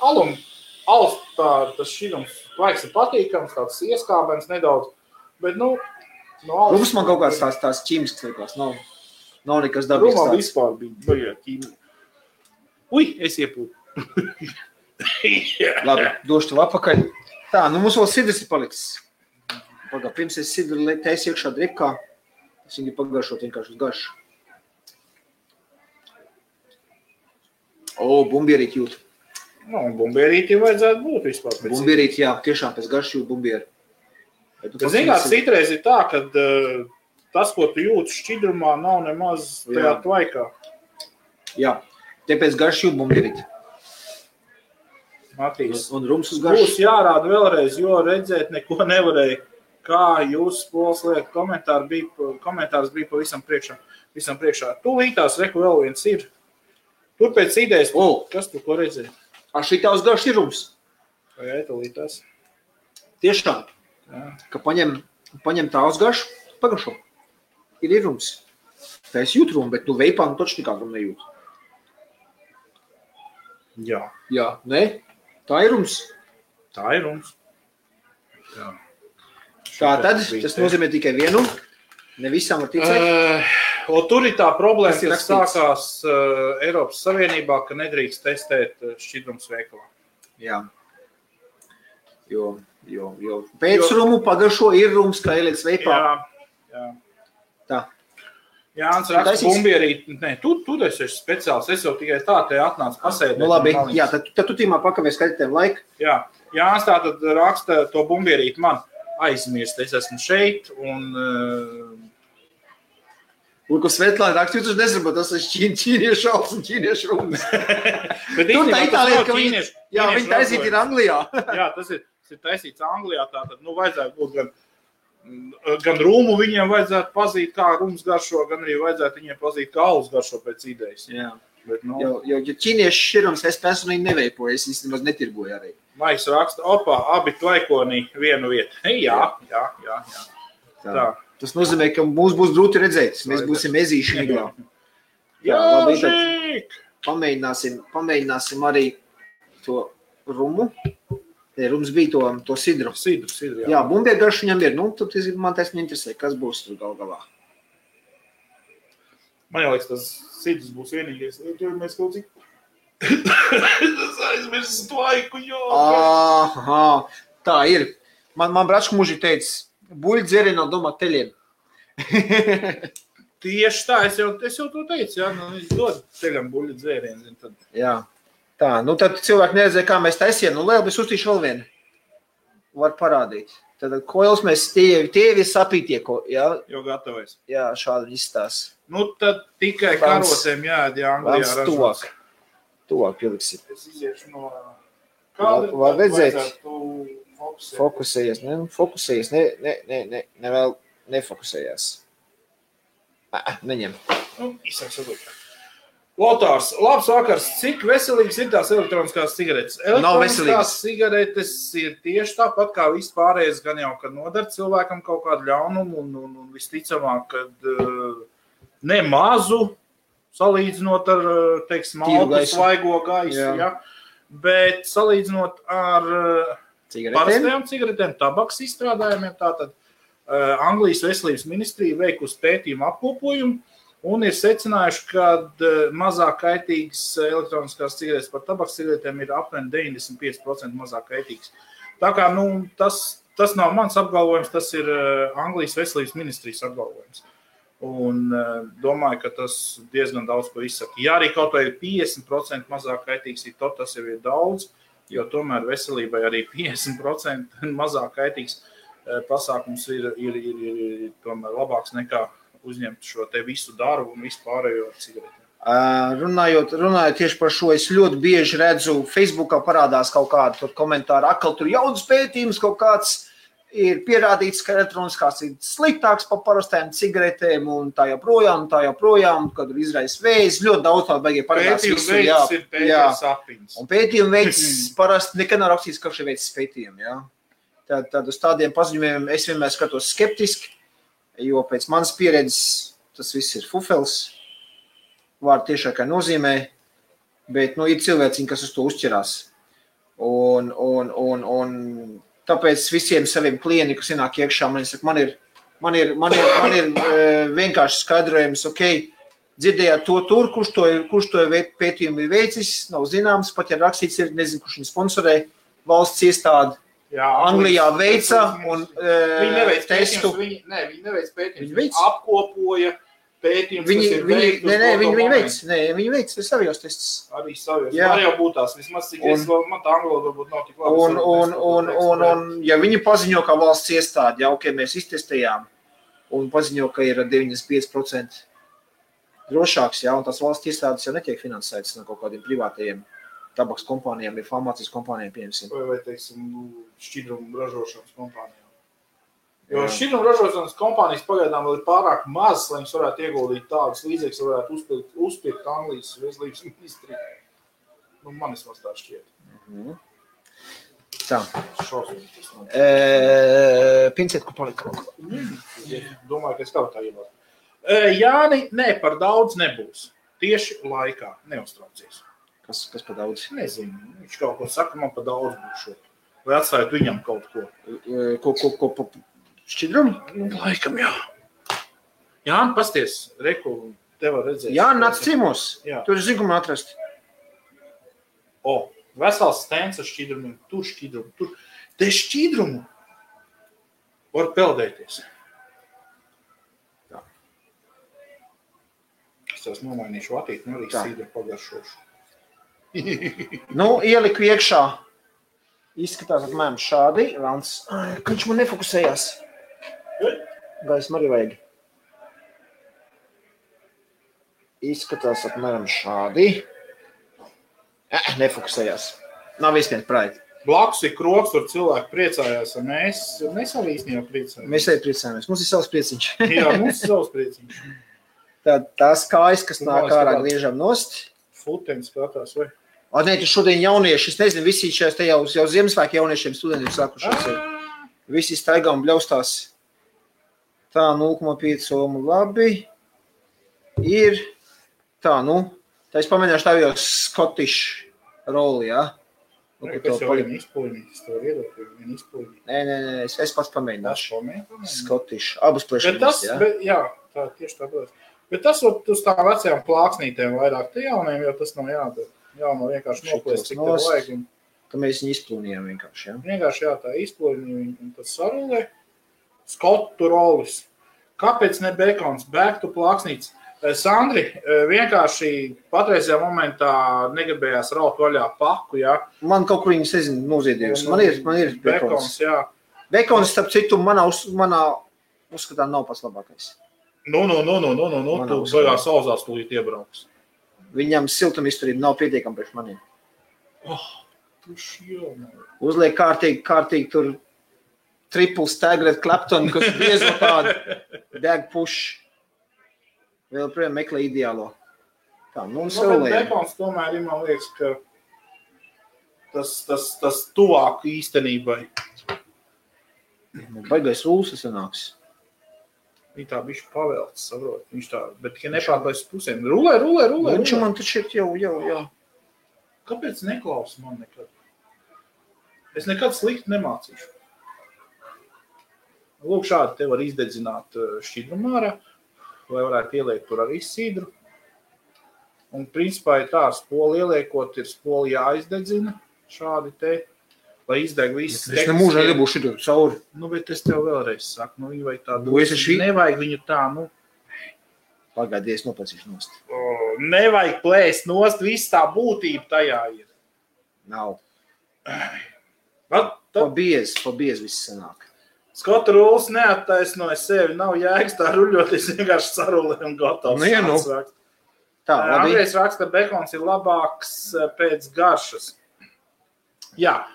alus tas šķirums tvaiks ir patīkams, tāds ieskābens nedaudz, bet, nu, no alus... Rums man kaut kāds tās ķīmisks likās, nav nekas dabīgs tāds. Rumam vispār bija baigā ķīmija. Ui, es iepūtu. Labi, došu tev apakaļ. Tā, nu mums vēl sidrs ir palicis. Pirms es sidru taisu iekšā dripkā, es viņu pagaršot vienkārši uz garšu. Bumbierīt jūt. Nu, un bumbierītī vajadzētu būt vispār. Bumbierīti, jā, tiešām pēc garšību bumbieri. Zināt, citreiz ir tā, ka tas, ko tu jūti šķidrumā, nav nemaz tajā tvaikā. Jā, te pēc garšību bumbierīti. Matīs, un rums uz garšu. Būs jārāda vēlreiz, jo redzēt neko nevarēja. Kā jūs, Pols, liek, komentārs bija pavisam priekšā. Tūlītās, reku vēl viens ir. Tur pēc idejas, kas tu ko redzēji? Šitā uz garšu ir rums. Jā, tūlītās. Tiešām, ka paņem tā uz garšu, pagašo. Ir rums. Tā es jūtu rumu, bet veipā taču nekā rumu nejūtu. Jā. Jā, ne? Tā ir rums. Tā ir rums. Jā. Tā tad, tas nozīmē tikai vienu. Ne visām var ticēt. Tur ir tā problēma, kas sākās Eiropas Savienībā, ka nedrīkst testēt šķidrums veikalā. Jā. Jo pēc rumu pagašo ir rums, kā ieliec veipā. Jā. Tā. Jānis raksta bumbierīt. Nē, tu esi speciāls. Es jau tikai tā te atnācu pasēdēt. Nu labi, jā, tad tu tīmā pakavēs skatītēm laiku. Jā, Jānis tātad raksta to bumbierīt man aizmirst. Es esmu šeit un... Ko Svetlāna raksta, jūs nezinu, tas ir ķīniešu šals un ķīniešu rums. Tur tā Itālijā, ka viņi taisīt ir Anglijā. Jā, tas ir taisīts Anglijā, tātad, vajadzētu būt gan rūmu viņiem vajadzētu pazīt, kā rums garšo, gan arī vajadzētu viņiem pazīt, kā alus garšo pēc idejas. Jā. Bet, jo ķīniešu širums es personīgi neveipoju, es īstenībā netirgoju arī. Maiks raksta, abi tvaikoni vienu vietu. Jā. Tā. Tas nozīmē, ka mums būs grūti redzēt. Mēs būsim ezīši miglā. Jā, žīk! Pamēģināsim arī to rumu. Rums bija to sidru. Sidru, jā. Jā, bumbieru garšu viņam ir. Tad man taisni interesē, kas būs tur galā. Man liekas, tas sidrs būs vienīgais. Tur mēs kaut cik... Tas aizmirst tvaiku, jo... Aha, tā ir. Man bračku muži teica, buļļi dzērienā domā teļiem. Tieši tā, es jau to teicu, jā, viņš dod teļam buļļi dzērienu. Tad... Jā, tā, tad cilvēki neredzēja, kā mēs taisījām. Lielu, es uztīšu vēl vienu. Var parādīt. Tad koils mēs tievi sapītie, jā? Jo gatavojas. Jā, šādi izstās. Tad tikai karotēm jāēd, jā, Anglijā ražos. Tuvāk pieliksim. Es iziešu no... Var redzēt? Fokusējies, fokusējies, vēl nefokusējās. Neņem. Izsāks atlikt. Lotārs, labs vakars. Cik veselīgas ir tās elektroniskās cigaretes? Elektroniskās cigaretes ir tieši tāpat kā viss pārējais, gan jau, kad nodara cilvēkam kaut kādu ļaunumu un visticamāk, kad ne mazu salīdzinot ar, teiksim, maltu svaigo gaisu, ja? Bet salīdzinot ar parastajām cigaretēm, tabaks izstrādājumiem, tātad Anglijas veselības ministrija veikusi pētījumu apkopojumu un ir secinājuši, ka mazāk kaitīgas elektroniskās cigaretes par tabaks cigaretēm ir apmēram 95% mazāk kaitīgas. Tā kā, tas nav mans apgalvojums, tas ir Anglijas veselības ministrijas apgalvojums. Un domāju, ka tas diezgan daudz ko izsaka. Ja arī kaut vai 50% mazāk kaitīgs ir to, tas jau ir daudz, jo tomēr veselībai arī 50% mazāk kaitīgs pasākums ir tomēr labāks nekā uzņemt šo te visu darbu un visu pārējo cigaretēm. Runājot tieši par šo, es ļoti bieži redzu, Facebookā parādās kaut kādu tur komentāru, tur jauns pētījums kaut kāds, ir pierādīts, ka elektroniskās ir sliktāks par parastajām cigaretēm un tā joprojām, kad ir izraisa vējs, ļoti daudz tādu baigie parādās. Pētījuma veids ir pētījuma sapiņas. Un pētījuma veids parasti nekad nav rakstīts, ka šī veids pētījumi, jā. Tad uz tādiem paziņojumiem es vienmēr skatos skeptiski, jo pēc manas pieredzes tas viss ir fufels, vārdu tiešākā nozīmē, bet, ir cilvēciņi, kas uz to uzķerās. Un tāpēc visiem saviem klientiem, kas ienāk iekšā, man ir vienkārši skaidrojums, dzirdējāt to tur, kurš to pētījumu ir veicis, nav zināms, pat ja rakstīts ir, nezinu, kurš viņu sponsorē, valsts iestādi Anglijā veica un testu. Viņi neveic pētījumus, viņi apkopoja pētījums, viņi, kas ir veikts. Viņi veic savijos testus. Arī savijos. Var jau būt tās, vismaz cik es vēl, man tā angloda varbūt nav tik labi. Un, ja viņi paziņo, ka valsts iestādi, ja ok, mēs iztestējām, un paziņo, ka ir 95% drošāks, ja, un tās valsts iestādes jau netiek finansētas no kaut kādiem privātajiem tabaks kompānijām, vai farmācijas kompānijām, pieņemsim. Vai teiksim, šķidrumu ražošanas kompānijām. Jo šķidrumu ražošanas kompānijas pagaidām vēl ir pārāk mazas, lai viņas varētu ieguldīt tādas līdzekļus, varētu uzpirkt Anglijas veselības ministriju. Man vismaz tā šķiet. Tā. Šausmīgi. Pincēt, ko palika. Domāju, ka es kaut tā ievāru. Jāni, par daudz nebūs. Tieši laikā. Neuztraucies. Kas par daudz? Nezinu. Viņš kaut ko saka, man par daudz būs šo. Vai atstājot viņam kaut ko. Ko šķidrumu? Laikam, jā. Jāni, pasties, reku, tev var redzēt. Jāni, nāc ciemos. Tur ir zigumu atrast. Vesels stends ar šķidrumiem. Tur šķidrumu. Te šķidrumu var peldēties. Tā. Es tās nomainīšu vatīti, arī sīdru pagaršošu. Ieliku iekšā. Izskatās apmēram šādi. Ka viņš man nefokusējās. Gaismu arī vajag. Izskatās apmēram šādi. Nefokusējās. Nav īstenībā praiti. Blakus ir kroks, tur cilvēki priecājās, un mēs arī īstenībā priecājamies. Mēs arī priecājamies. Mums ir savs prieciņš. Jā, mums ir savs prieciņš. Tās kājas, kas nāk ārā griežam nost. Futeņi skatās, vai? Nē, tu šodien jaunieši, es nezinu, visi šajās te jau Ziemassvētku jauniešiem studentiem sākušies. Visi staigā un bļaustās. Tā, 0,5 omu labi. Ir tā, tā es pamēģināšu tā jau Scottish roli, jā? Kas jau viena izpūļņītis, to var iedot, viena izpūļņītis. Nē, es pats pamēģināšu. Scottish, abas plešamies, jā? Jā, tā tieši tā būs. Bet tas uz tām vecajām plāksnītēm vairāk te jauniem, jo tas nav jādara. Jāno vienkārši noplēst, cik tev vajag. Ka mēs viņu izplūnījām vienkārši, jā? Vienkārši, jā, tā izplūnījām, un tas sarulē. Skotu rolis. Kāpēc ne bekons? Bēgtu plāksnītes. Sandri, vienkārši patreizajā momentā negribējās raut vaļā paku, jā? Man kaut kur viņas, nezinu, noziedījusi. Man ir bekons, jā. Bekons, starp citu, manā uzskatā nav pats labākais. Tu baigās sauzās tūlīt iebrauks. Viņam siltumizturība nav pietiekama priekš maniem. Tuši uzliek kārtīgi tur triple staggered Clapton, kas biezo tādu bag push. Vēl projām meklē ideālo. Tā, un bet bekons tomēr ir, man liekas, ka tas tuvāk īstenībai. Baigais rūlis sanāks. Viņa tā bišķi pavēlts, saprot. Viņš tā, bet tikai nepārklājas pusēm. Rulē. Viņš man taču ir jau. Kāpēc neklausa man nekad? Es nekad slikti nemācīšu. Lūk, šādi te var izdedzināt šķidrumu ārā, vai varētu ieliekt tur arī sidru. Un principā ir tā, spoli ieliekot, ir spoli jāizdedzina šādi te. Lai izdeg viss. Es nemūžā nebūšu šitu cauri. Bet es tev vēlreiz saku, viņi vajag tādu. Nevajag viņu tā, Pagaidies, nopacīšu nost. Nevajag plēst nost, viss tā būtība tajā ir. Nav. Pa biez viss sanāk. Skotu rūlis neattaisnoja sevi, nav jēgas tā ruļoties vienkārši sarulē un gatavs. Tā, labi. Andrejs raksta, bekons ir labāks pēc garšas. Jā,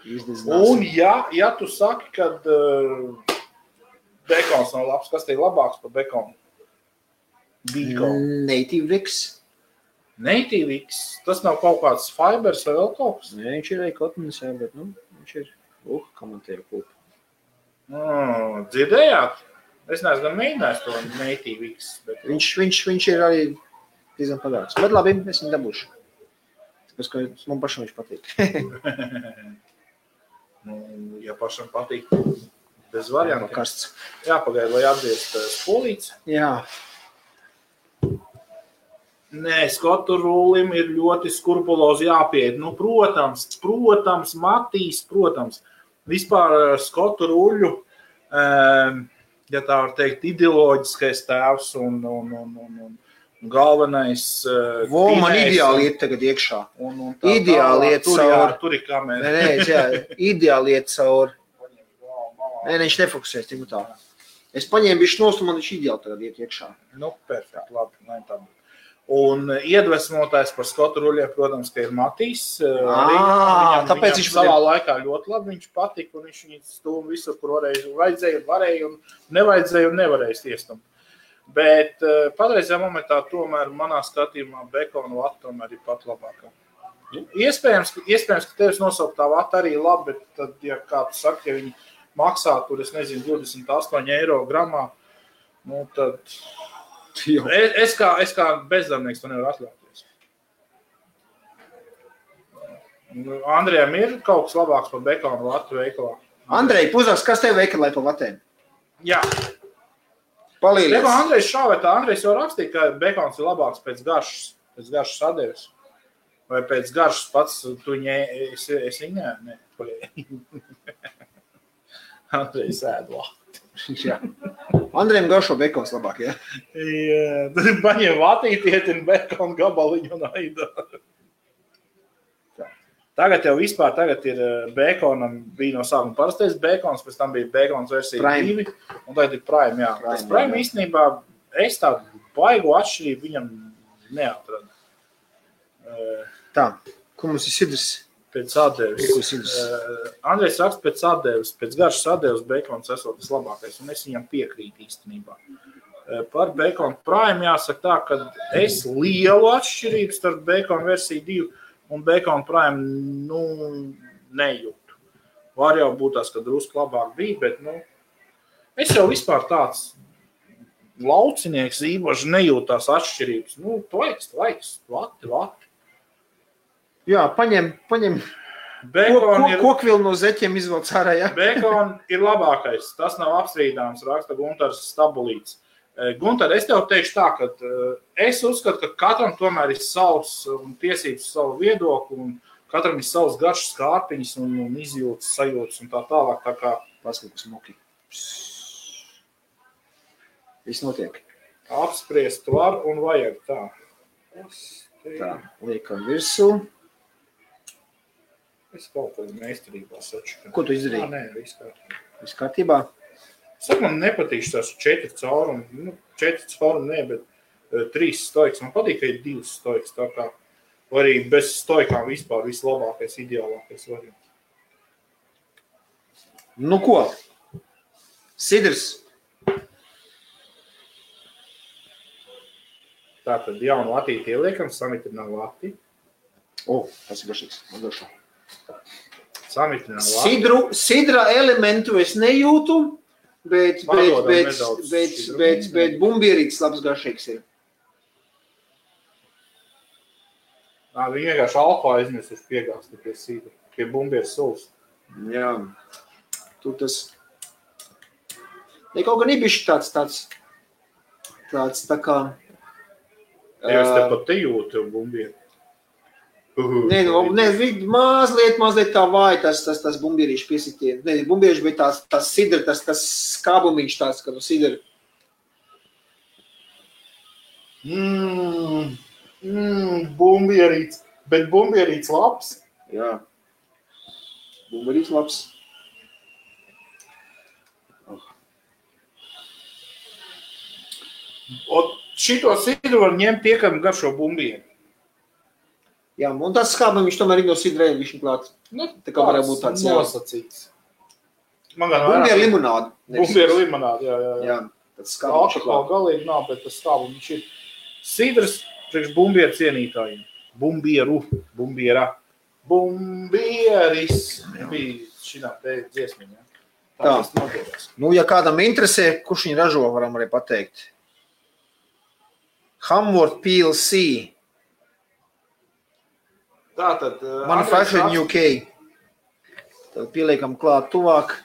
un ja tu saki, kad bekons nav labs, kas te ir labāks par bekonu? Native X. Native X? Tas nav kaut kāds fibers vai vēl kaut kas? Nē, viņš ir arī kotnes, jā, bet viņš ir, kā man tev kūpa. Dzirdējāt? Es neesmu gan mēģinājis to Native X. Bet... Viņš ir arī diezgan padāks. Bet labi, es viņu dabūšu. Tāpēc, man pašam viņš patīk. Ja pašam patīk, bez variantiem. Karsts. Jāpagaida, lai atgriezt spolītes. Jā. Nē, skotu rūlim ir ļoti skrupulozi jāpieiet. Protams, Matīs, protams. Vispār skotu rūļu ja tā var teikt, ideoloģiskais tēvs un galvenais man ideāli iet tagad iekšā. Ideāli iet caur. Tur ir kamera. Ideāli iet caur. Nē, viņš nefokusēs tik tā. Es paņēmu bišķi nost, un man viņš ideāli tagad iet iekšā. Perfekt, labi. Un iedvesmotājs par Skotu ruļiem, protams, ka ir Matīs. Tāpēc viņš savā laikā ļoti labi viņš patika, un viņš viņu stūma visur, kur vajadzēja, varēja, un nevajadzēja un nevarēja stiestumt. Bet patreizajā momentā tomēr manā skatījumā Bekona vata tomēr ir pat labākā. Iespējams, ka tevis nosaukt tā vata arī labi, bet tad, ja kāds saka, ja viņi maksā tur, es nezinu, 28 eiro gramā, tad es kā bezdarbnieks to nevaru atļauties. Andrejam ir kaut kas labāks par Bekona vatu veikalā? Andrej, puzaks, kas tev veikalā par vatēm? Jā. Palīlies. Andrejs šāvētā, Andrejs jau rakstīja, ka Bekons ir labāks pēc garšas sadeves. Vai pēc garšas pats tu es viņā? Nē. Andrejs ēd vati. Jā. Andrejam garšo Bekons labāk, jā? Jā, tad paņem vatītiet un Bekonu gabaliņu un aidā. Tagad jau vispār ir Bekonam, bija no sākuma parastais Bekons, pēc tam bija Bekons versija 2, un tagad ir Prime, jā. Tas Prime īstenībā, es tādu baigu atšķirību viņam neatradu. Tā, ko mums ir sidrs? Pēc atdeves. Andrejs raksta pēc atdeves, pēc garšas atdeves Bekons esot tas labākais, un es viņam piekrītu īstenībā. Par Bekonu Prime jāsaka tā, ka es lielu atšķirību starp Bekonu versiju 2 un Bekona Prime, nejūtu. Var jau būt tās, ka drusku labāk bija, bet, es jau vispār tāds laucinieks īpaši nejūtu tās atšķirības. Tvaiks, vati. Jā, paņem kokvilu no zeķiem izvelc ārā, jā. Bekona ir labākais, tas nav apstrīdāms, raksta Guntars Stabulīts. Guntar, es tev teikšu tā, ka es uzskatu, ka katram tomēr ir savs un tiesības savu viedokli, un katram ir savs garšas kārpiņas un izjūtas, sajūtas un tā tālāk, tā kā paskatās moki. Viss notiek. Apspriest var un vajag tā. Tā, liekam virsū. Es kaut kādā meistarībā saču. Ko tu izdarīji? Nē, viss kārtībā. Saka, man nepatīk tās 4 caurumi. 4 caurumi, ne, bet 3 stoiks. Man patīk, ka ir 2 stoiks. Tā kā arī bez stoikām vispār vislabākais, ideālākais variants. Ko? Sidrs. Tātad jaunu latīti ieliekam, samitrinām lati. Tas ir garšīgs. Samitrinām lati. Sidra elementu es nejūtu. Bet bumbierītis labs garšīgs ir. Viņi vienkārši alko aizmirsuši piegāsti pie sīda, pie bumbieras sulas. Jā. Tu tas... Ne kaut gan ibiši tāds tā kā... Jā, es te pat te jūtu bumbieru. Mazliet tā vāja tas bumbierīšu piesitieni. Ne, bumbierīši, bet tās sidra, tas skābumiņš tāds, ka tu sidra. Bumbierīts. Bet bumbierīts labs. Jā. Bumbierīts labs. Šito sidru var ņemt tiekam garšo bumbieri. Jā, un tas skābam viņš tomēr ir no sidrēm, viņš klāt. Tā kā varētu būt tāds nosacīts. Bumbieru limonādi. Bumbieru limonādi, jā. Jā, tāds skābam viņš klāt. Alkohola galīgi nav, bet tas skābam viņš ir. Sidrs priekš bumbieru cienītājiem. Bumbiera. Bumbieris. Bija šinā te dziesmiņā. Tā. Ja kādam interesē, kurš viņi ražo, varam arī pateikt. Hamworth PLC. Tātad, Manufacturing UK. Tad pieliekam klāt tuvāk.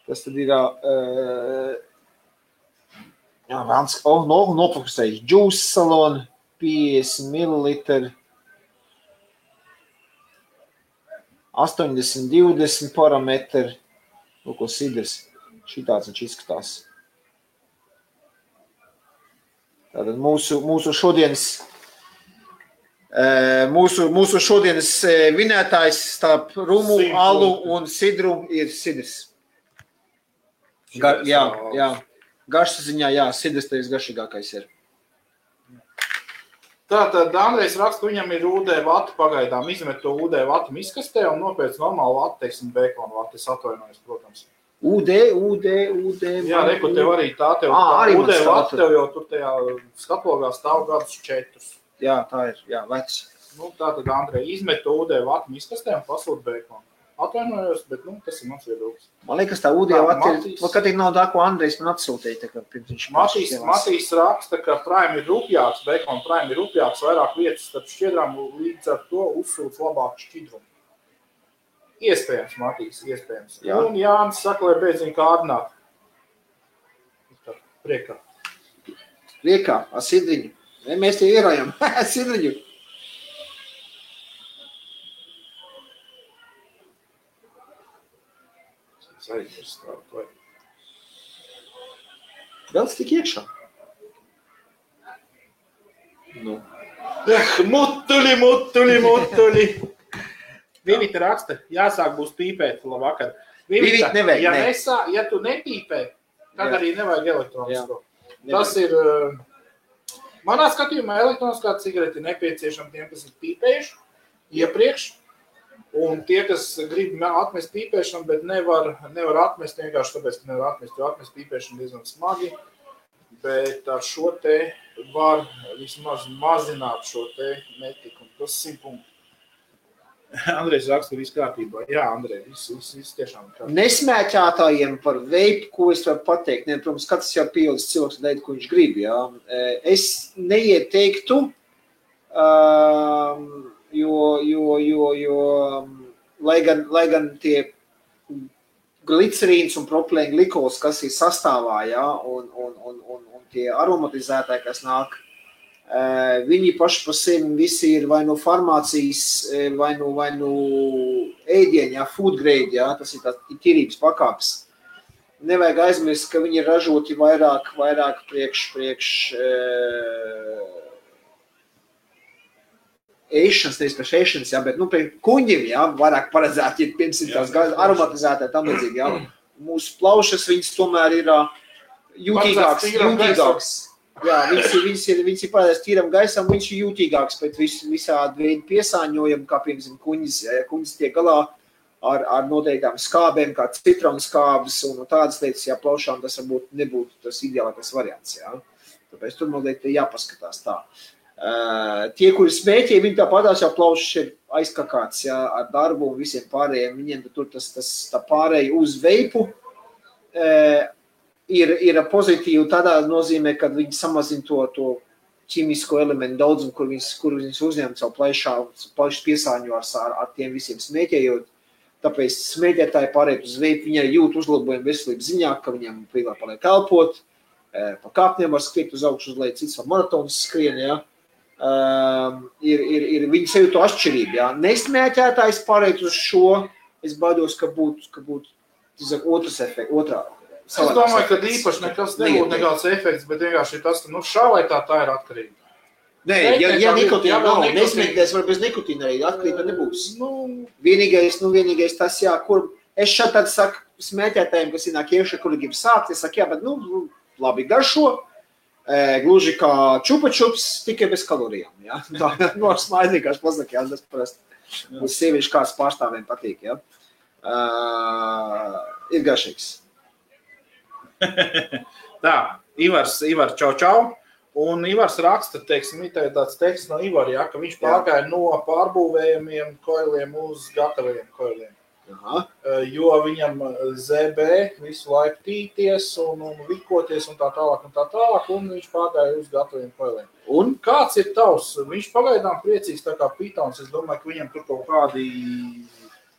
Tas tad ir nofokusējuši juice salon, 50 ml, 80-20 parametri. Ko sidrs. Šitāds viņš izskatās. Tātad mūsu šodienas vinētājs starp rumu, alu un sidru ir sidrs. Jā. Garšas ziņā, jā, sidrs tevis garšīgākais ir. Tātad Andrejs raksta, viņam ir UD vata pagaidām, izmet to UD vatu miskastē un nopēc normālu vatu, teiksim, bēkonu vatu, es atvainojos, protams. UD. Jā, reku, tev arī tā, tev UD vata, tev jau tur tajā skatlogā stāv gadus 4. Jā, tā ir, jā, vecs. Tātad Andrej izmet to UD vatu miskastē un pasūt bēkonu. Atvainojos, bet, tas ir mans viedoklis. Man liekas, tā UD vata ir, kad ir nav tā, ko Andrejs man atsūtīja, tā kā pirms viņš Matīs raksta, ka Prime ir rupjāks, Bacon Prime ir rupjāks, vairāk vietas starp šķiedrām, līdz ar to uzsūc labāku šķidrumu. Iespējams, Matīs, iespējams. Jā. Un Jānis saka, lai beidziņ kārdināt. Priekā. Ar sidriņu. Mēs tie ierājam. Sidriņu. Vēl tik iekšā. Mutuli. Vivita raksta, jāsāk būs pīpēt, labvakar. Vivita nevajag, ja tu nepīpē, tad arī nevajag elektronisko. Tas ir, manā skatījumā elektroniskā cigarete ir nepieciešama tiem, kas ir pīpējuši iepriekš. Un tie, kas grib atmest pīpēšanu, bet nevar atmest vienkārši tāpēc, ka nevar atmest, jo atmest pīpēšanu diezgan smagi, bet ar šo te var vismaz mazināt šo te netiku. Tas 100 punkti. Andrejs raksta viss kārtībā. Jā, Andrej, viss tiešām kārtībā. Nesmēķētājiem par veipu, ko es varu pateikt, protams, katrs jau pieaudzis cilvēks dēļ, ko viņš grib, jā. Es neieteiktu, jo lai gan tie glicerīns un propilēna glikols, kas ir sastāvā, ja, un tie aromatizētāji, kas nāk, viņi paši par sevi visi ir vai no farmācijas, vai no ēdieņa, ja, food grade, ja, tas ir tāds tīrības pakāpes. Nevajag aizmirst, ka viņi ir ražoti vairāk priekš ēšanas, nevis priekš ēšanas, jā, bet, priekš kuņģim, jā, vairāk paredzēt, ja piemēram tās aromatizētāji tam līdzīgi, jā. Mūsu plaušas, viņas tomēr ir jūtīgāks. Jā, viņas ir paredzēts tīram gaisam, viņš ir jūtīgāks pret visādi veidu piesāņojumu, kā piemēram kuņģis, ja kuņģis tiek galā ar noteiktām skābēm, kā citronskābes un tādas lietas, ja plaušām tas varbūt nebūtu tas ideālākais variants, jā. Tāpēc tur noteikti jāpaskatās tā. Tie, kuri smēķē, viņi tāpatās jau plaušas ir aizkakāts, jā, ar darbu un visiem pārējiem, viņiem tur tā pārēja uz veipu ir pozitīvi tādā nozīmē, kad viņi samazina to ķimisko elementu daudzumu, kur viņas uzņem savu plaišas piesāņu ar tiem visiem smēķējot. Tāpēc smēķētāji pārējot uz veipu, viņi arī jūt uzlabojumu veselības ziņā, ka viņam vieglāk paliek elpot, pa kāpniem var skriet uz augšu uz leju, cits var maratonas skrien, jā. Viņi sevi to atšķirību, jā. Nesmēķētājs pārējot uz šo, es baidos, ka būtu otrs efekts, otrā. Es domāju, ka īpaši nekas nebūtu nekāds efekts, bet vienkārši tas, ka šā vai tā ir atkarība. Nē, ja nikotīna nav, nesmēķēs var bez nikotīna arī, atkarība nebūs. Vienīgais tas, jā, kur es šeit tad saku smēķētājiem, kas ienāk iekšā, kuri grib sākt, es saku, jā, bet, labi garšo, gluži kā čupa-čups, tikai bez kalorijām, jā. Tā, ar smaidu vienkārši pasaka, jā, tas parasti uz sieviešu kāds pārstāviem patīk, jā. Ir garšīgs. Tā, Ivars čau. Un Ivars raksta, teiksim, tāds teksts no Ivar, ja, ka viņš pārgāja no pārbūvējumiem koiliem uz gataviem koiliem. Aha. Jo viņam ZB visu laiku tīties un vikoties un tā tālāk, un viņš pārgāja uz gataviem koiliem. Un kāds ir tavs? Viņš pagaidām priecīgs tā kā pitons, es domāju, ka viņam tur kaut kādi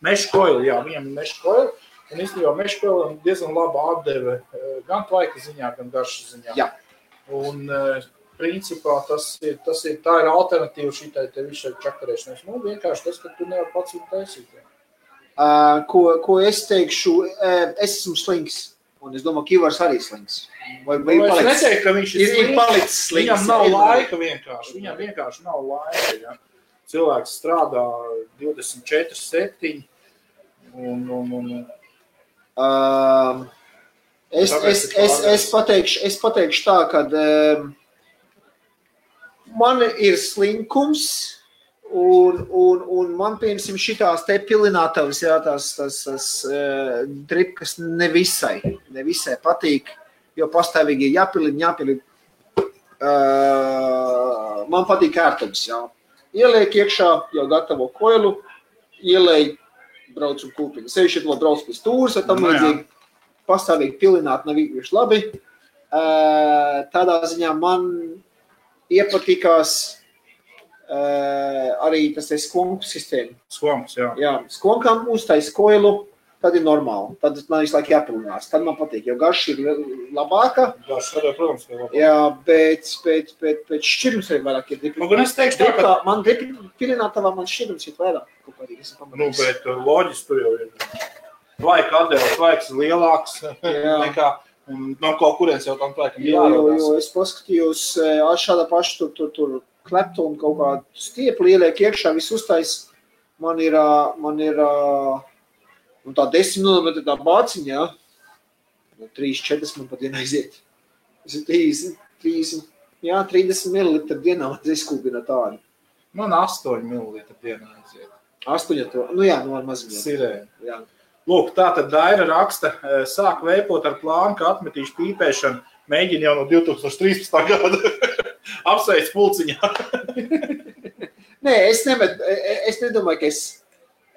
mešu koili, jā, viņam mešu koili. Un īstenībā mešu koilim diezgan laba atdeve gan tvaika ziņā, gan garšas ziņā. Jā. Un principā tā ir alternatīva šitai te visai čakarēšanai. Vienkārši tas, ka tu nevar pats viņu taisīt. Ko es teikšu, es esmu slings, un es domāju, ka Ivars arī slings. Vai es neteiktu, ka viņš ir palicis slims. Viņam nav laika vienkārši. Viņam vienkārši nav laika. Ja. Cilvēks strādā 24/7. Es pateikšu tā, ka man ir slinkums un man, piemēram, šitās te pilinātavas, jā, tās dripkas nevisai patīk, jo pastāvīgi jāpilina. Man patīk ērtums, jā. Ieliek iekšā jau gatavo koilu, ielēj, brauc un kūpiņu. Sevišķi to brauc pēc tūras, vai tam līdzīgi. Pastāvīgi pilināt nav īpaši labi. Tādā ziņā man iepatikās arī tas ir skonku sistēma. Skonks, jā. Jā, skonkam uztais koilu, tad ir normāli. Tad man visu laiku jāpilinās. Tad man patīk, jo garš ir labāka. Garš arī, protams, ir labāka. Jā, bet šķirums arī vairāk ir dripi. Nu, gan es teikšu tā, ka... Man dripi pilinātavā man šķirums ir vairāk. Nu, bet loģiski tur jau ir. Tvaika atdēles, tvaiks ir lielāks nekā, un no kaut kurienes jau tam tvaikam jārodās. Jo es paskatījos šādā pašu tur kleptu un kaut kādu stiepli ieliek iekšā, viss uztais. Man ir tā 10 mm tā bāciņa, jā. 3-4 man pat dienā aiziet. Tas ir 30 ml dienā izkūpina tādu. Man 8 ml dienā aiziet. 8, nu jā, no maziņā. Sirēni. Jā. Lūk, tātad Daira raksta, sāk veipot ar plānu, ka atmetīšu pīpēšanu, mēģina jau no 2013. gada apsveic pulciņā. Nē, es nedomāju, ka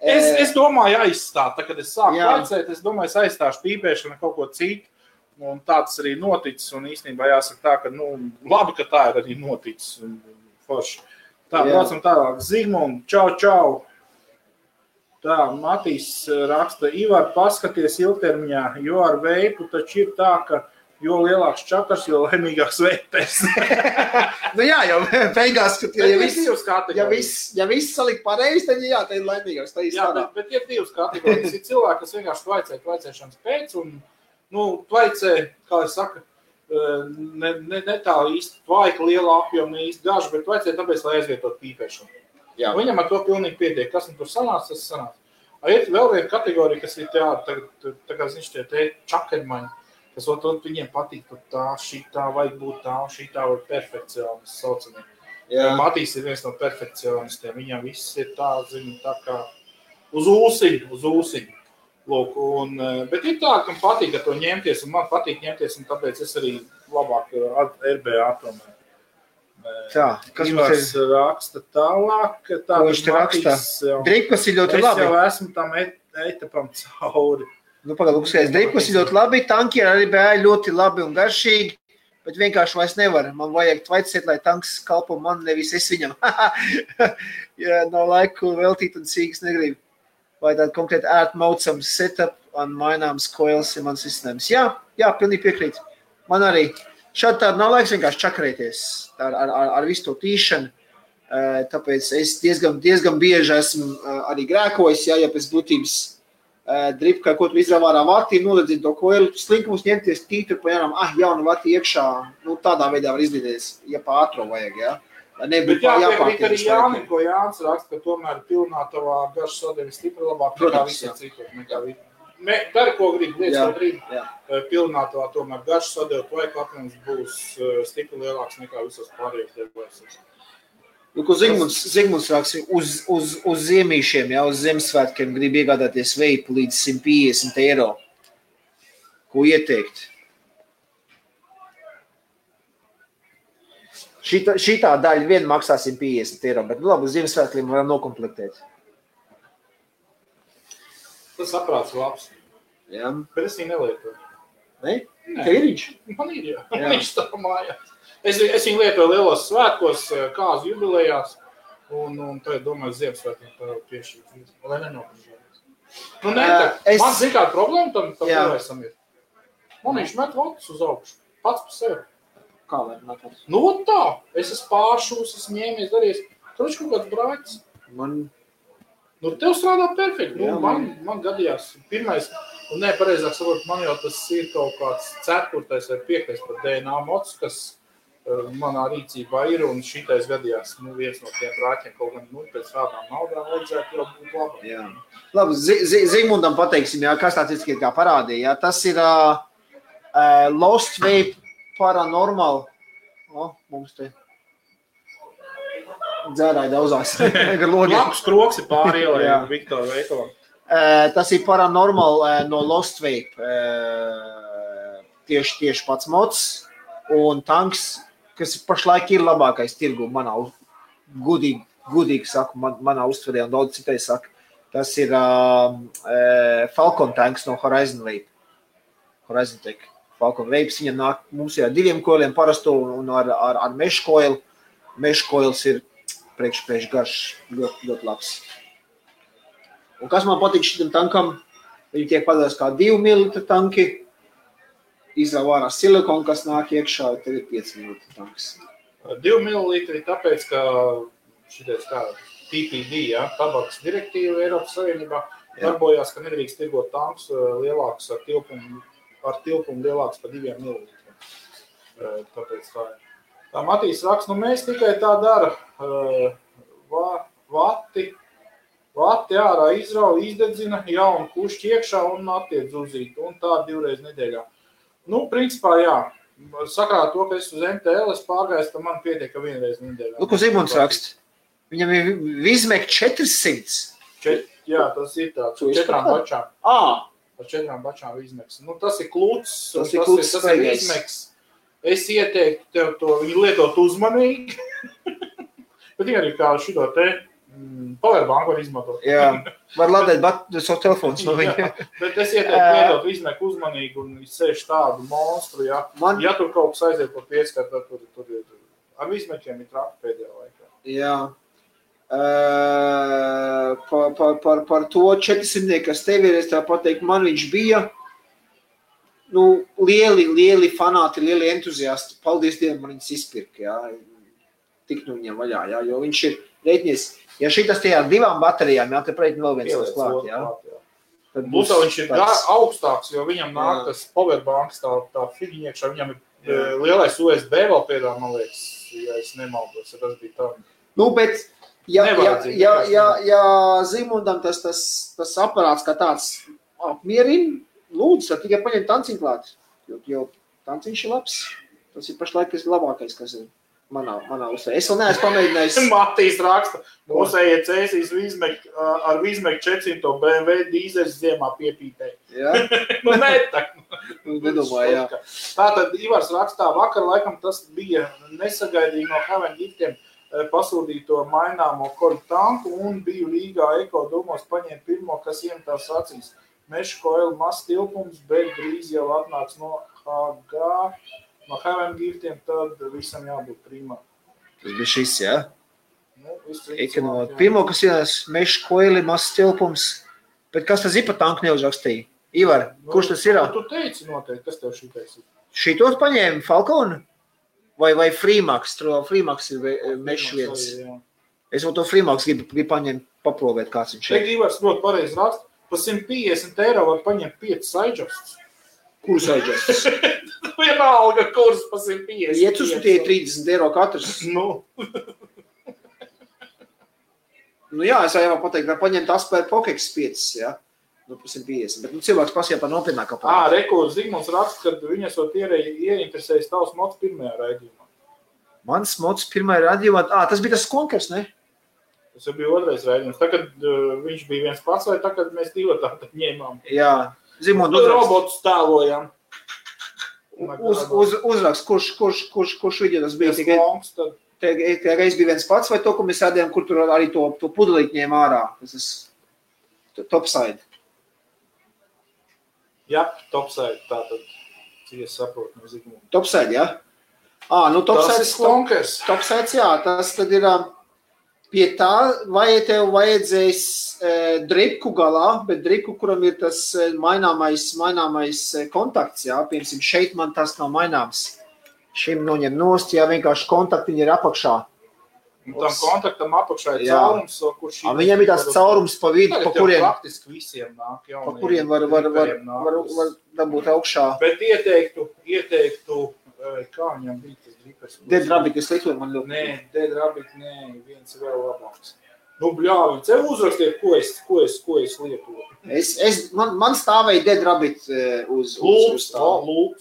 Es domāju aizstāt, tā, kad es sāku laicēt, es domāju, es aizstāšu pīpēšanu kaut ko citu, un tāds arī noticis, un īstenībā jāsaka tā, ka, labi, ka tā ir arī noticis, forši. Tā, braucam tālāk, Zigmund, čau. Tā, Matīs raksta, Ivar, paskaties ilgtermiņā, jo ar veipu taču ir tā, ka jo lielāks čakars, jo laimīgāks veipēs. Nu jā, jau beigās, ja viss salikt pareizi, tad jā, tā ir laimīgāks. Jā, bet ir divas kategorijas. Ir cilvēki, kas vienkārši tvaicēšanas pēc, un, tvaicē, kā es saku, ne tā īsti tvaika, liela apjoma, ne īsti gaža, bet tvaicē tāpēc, lai aizvietot pīpēšanu. Jā. Viņam ar to pilnīgi pietiek. Kas tur sanāca, tas sanāca. Ir vēl viena kategorija, kas ir tā kā ziņš tie čakermaņi, kas viņiem patīk tā, šitā, vajag būt tā, šitā vai perfekcionists saucamie. Matīs ir viens no perfekcionistiem. Viņam viss ir tā, tā kā uz ūsiņu. Lūk, bet ir tā, kam patīk ar to ņemties, un man patīk ņemties, un tāpēc es arī labāk RBA tomēr. Tā, kas Ivars raksta tālāk, ko viņš te raksta? Dripkas ir ļoti labi. Es jau esmu tam etapam cauri. Pagaidām, dripkas ir ļoti labi, tanki arī bija ļoti labi un garšīgi, bet vienkārši vairs nevar. Man vajag tvaicēt, lai tanks kalpo man, nevis es viņam. Ja nav laiku veltīt un sīgas negribu. Vai tāda konkrēti ērtmaucams setup un maināms coils ir mans izcinājums. Jā, pilnīgi piekrīt. Man arī. Šādi tāda nav laiks vienkārši čakarēties ar visu to tīšanu, tāpēc es diezgan bieži esmu arī grēkojis, ja pēc būtības dripkā, ko tu izrāvā ārā vārtīm, noledzina to koilu, slinkumus ņemties tītru pa jaunam, jaunu vārtī iekšā, tādā veidā var izlīdēties, ja pa ātro vajag, ja. Bet jāpiekrīt arī Jānim, ko Jānis raksta, ka tomēr pilnātavā garš sodevi stipri labāk nekā visiem citur. Dari, ko gribi, lietas, ko gribi. Pilnātavā tomēr garš sodevi tvaika apjoms būs stipri lielāks nekā visos pārējos debēsos. Ko Zigmunds raksta, uz ziemīšiem, uz Ziemassvētkiem grib iegādāties veipu līdz 150 eiro. Ko ieteikt? Šitā daļa vien maksā 150 eiro, bet labi, uz Ziemassvētkiem varam nokomplektēt. Tas saprāts labs. Jā. Bet es viņu nelietoju. Ne? Ka ir viņš? Man ir, jā. Viņš tā mājās. Es viņu lietoju lielos svētkos, kāzu jubilejās, un tad domāju, Ziemassvētkiem piešķirt. Lai nenopažējas. Man zin kāda problēma tam vēsam ir. Man viņš met votus uz augšu. Pats pa sevi. Kā var metot? Tā. Es esmu pāršūs, esmu ņēmies, darījies. Tur viņš kaut kāds brāķis. Tev strādā perfekti. Man gadījās. Pirmais Un pareizāk sakot, man jau tas ir kaut kāds 4. vai 5. par DNA mods, kas manā rīcībā ir, un šitais gadījās, viens no tiem rāķiem kaut gan, pēc tādām naudām vajadzētu jau būt labi. Jā. Labi, Zigmundam pateiksim, jā, kas tāds ir kā parādīja, jā, tas ir Lost Vape Paranormal. Mums te dzērāja daudzās. Labs kroks ir pāri ielai Viktora veikalam. Tas ir Paranormal no Lost Vape. Tieši pats mods un tanks, kas pašlaik ir labākais tirgu manā, gudīgi saku, manā uztverē un daudz citai saka. Tas ir Falcon tanks no Horizon Vape. Horizon Tech. Falcon Vapes, viņam nāk mums ir ar 2 koiliem parasto un ar mesh coil. Mesh coils ir priekš garš, ļoti labs. Un kas man patīk šitam tankam, viņi tiek padās kā 2 ml tanki, izrauj ārā silikonu, kas nāk iekšā, tev ir 5 ml tanks. 2 ml tāpēc, ka šitais kā TPD, tabakas direktīva Eiropas Savienībā, darbojās, ka nedrīkst tirgot tanks lielāks ar tilpumu lielāks par 2 ml. Tāpēc tā ir. Tā Matīs raksta, mēs tikai tā dara, vati ārā izrauj, izdedzina, jaunu kušķi iekšā un attiec uzīt, un tā 2 reizes nedēļā. Principā, jā, sakrāt to, ka es uz MTL pārgājis, tad man pietiek, ka 1 reizi nedēļā. Ko Zigmunds raksta? Viņam ir Vizmek 400. Jā, tas ir tāds, ar 4 bačām. Ar 4 bačām Vizmeks. Tas ir kluts, tas ir Vizmeks. Es ieteiktu tev to, viņu lietot uzmanīgi, bet viņi arī kā šito te powerbanku var izmantot. Jā, var ladēt savu telefons no viņa. Bet es ieteiktu lietot Vizmeku uzmanīgi un sēž tādu monstru, ja tur kaut kas aiziet par pieskatu, tad tur ir. Ar Vizmekiem ir traki pēdējā laikā. Jā. Par to 400, kas tev ir, es tā pateikt, man viņš bija, lieli fanāti, lieli entuziasti. Paldies Dievam, man viņas izpirka, jā. Tik viņam vaļā, jā, jo viņš ir reiķinies. Ja šitas tajā 2 baterijām, jā, te reiķini vēl viens tas klāt, jā. Būtā viņš ir augstāks, jo viņam nāk tas powerbanks, tā figiņiekšā, viņam ir lielais USB vēl pēdā, man liekas, ja es nemaldos, ja tas bija tā. Bet, ja Zigmundam tas aparāts kā tāds apmierina, lūdzu, tad tikai paņem tanciņu klāt, jo tanciņš ir labs. Tas ir pašlaik labākais, kas ir manā uzsvērē. Es vēl neesmu pamēģinājis. Matīs raksta, mūsējie cēsīs ar Vizmek 400 BMW dīzeļs ziemā piepītēja. Jā? Nedomāju, jā. Tātad Ivars rakstā, vakar laikam tas bija nesagaidīgi no Heaven Giftiem pasūdīto maināmo koļu tanku un biju Rīgā Eko domos paņēma pirmo, kas iemetās acīs. Mesh coil mazs tilpums, bet drīz jau atnāks no HG, no Heaven Giftiem, tad visam jābūt primā. Tas bija šis, jā? Pirmo, kas ir mesh coili, mazs tilpums, bet kas tas ir pa tanku neuzrakstīja? Ivar, kurš tas ir? Tu teici noteikti, kas tev šitais ir? Šitos paņēma Falcon? Vai Freemax? Freemax ir mesh viens. Es vēl to Freemax gribu paņemt, paprovēt, kāds viņš ir. Ivars ļoti pareizi raksta. Pa 150 eiro var paņemt 5 sidejustus. Kurus sidejustus? Vienalga kurs pa 150. 5 uz tie 30 eiro katrs. Jā, es jau pateikt, var paņemt Asper Pokex 5, jā. Pa 150. Bet cilvēks pasīja par nopietnāku aparātu. Rekords Zigmunds raksta, kad viņas vēl ieinteresējas tavs mods pirmajā raidījumā. Mans mods pirmajā raidījumā? Tas bija tas konkurs, ne? Tas jau bija otrais raidījums. Tagad viņš bija viens pats, vai tagad mēs 2 tātad ņēmām? Jā. Zigmund, robotus tēlojam. Uzrakst, kurš video tas bija? Tikai reiz bija viens pats, vai to, ko mēs rādījām, kur tur arī to pudelīt ņēma ārā? Tas ir topside. Jā, topside. Tātad, cik es saprotu no Zigmunda. Topside, jā? Topsides, jā. Tas tad ir... Pie tā, vai tev vajadzēs dripku galā, bet dripku, kuram ir tas maināmais kontakts, jā, piemēram, šeit man tas nav maināms. Šim noņem nost, jā, vienkārši kontaktiņi ir apakšā. Un tam kontaktam apakšā ir caurums, kurš... Viņam ir tās caurums pa vidu, pa kuriem... Praktiski visiem nāk jauniem. Pa kuriem var dabūt augšā. Bet ieteiktu, kā viņam bija tas dripers? Dead Rabbit, es lietoju man ļoti. Nē, Dead Rabbit, viens vēl labāks. Nu, bļāvi, tev uzrakstiet, ko es lietoju. Man stāvēja Dead Rabbit uz stāvu.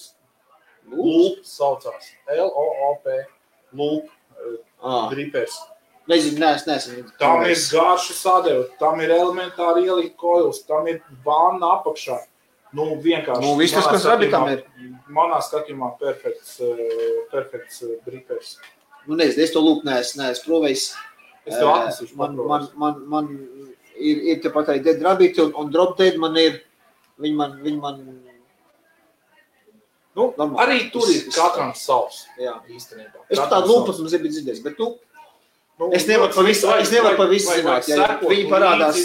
Loop saucās. L-O-O-P. Loop. Dripers. Nezinu. Tam ir garša sadeva, tam ir elementāri ielikt koils, tam ir vanna apakšā. Nu, vienkārši. Nu, viss tas, kas Rabbitam ir. Manā skatījumā perfekts dripers. Nu, nezinu, es to lūk neesmu provējis. Es tev atnesīšu paprovējis. Man ir tepat arī Dead Rabbit un Drop Dead man ir, viņi man nu, arī tur ir katram savs. Jā. Īstenībā. Es par tādu lūpas mums nebija dzirdējis, bet es nevaru pa visu zināt. Viņi parādās.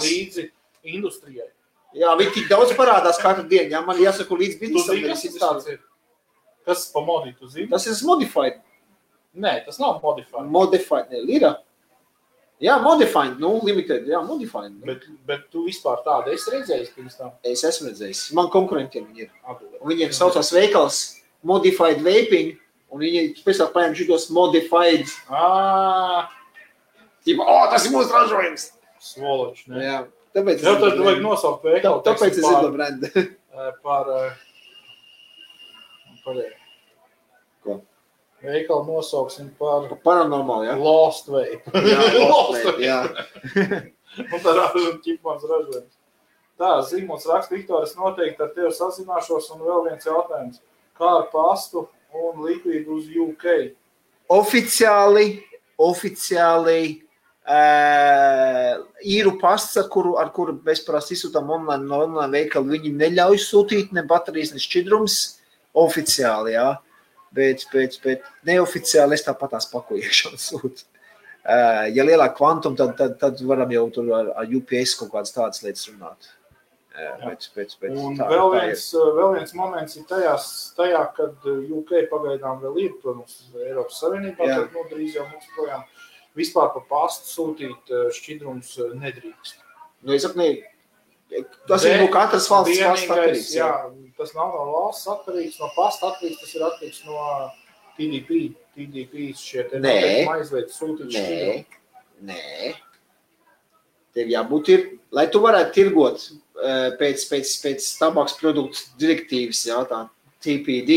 Līdzi industrijai. Jā, viņi tik daudz parādās katru dienu. Jā, man jāsaka līdz biznesam. Tas ir? Kas pa modī, tu zini? Tas ir modified. Nē, tas nav modified. Modified, lira. Jā, modified, limited, jā, modified. Bet tu vispār tādu esi redzējis pirms tā? Es esmu redzējis. Man konkurentiem viņi ir. Viņiem saucās veikals Modified Vaping, un viņi pēc tā paņem šitos Modified. Tipa, tas ir mūsu ražojums. Svoloči, ne? Jā, tāpēc jau tad vajag nosaukt veikalu. Tāpēc es zinu brendu. Par Ko? Veikalu nosauksim par paranormāli, jā? Lost Vape. Jā, Lost Vape, jā. Un tā ražojuma ķipmans ražojums. Tā, Zīmuls raksta, Viktor, es noteikti ar tevi sazināšos, un vēl viens jautājums. Kā ar pastu un likvīdu uz UK? Oficiāli īru pasts, ar kuru mēs parasti izsūtām online veikalu, viņi neļauj sūtīt ne baterijas, ne šķidrums oficiāli, jā. Bet neoficiāli es tāpatās pakojiešanu sūtu. Ja lielāk kvantum, tad varam jau tur ar UPS kaut kādas tādas lietas runāt. Un vēl viens moments ir tajā, kad UK pagaidām vēl ir, protams, Eiropas Savienībā, tad drīz jau mums projām vispār pa pastu sūtīt šķidrums nedrīkst. Nu, es saku, tas ir no katras valsts pasta atkarīgs. Jā, tas nav no valsts atkarīgs, no pasta atkarīgs, tas ir atkarīgs no TDP. TDP šeit ir aizliedz sūtīt šķidrumu. Nē. Tev jābūt lai tu varētu tirgot pēc tabaks produktu direktīvas, jā, tā TPD,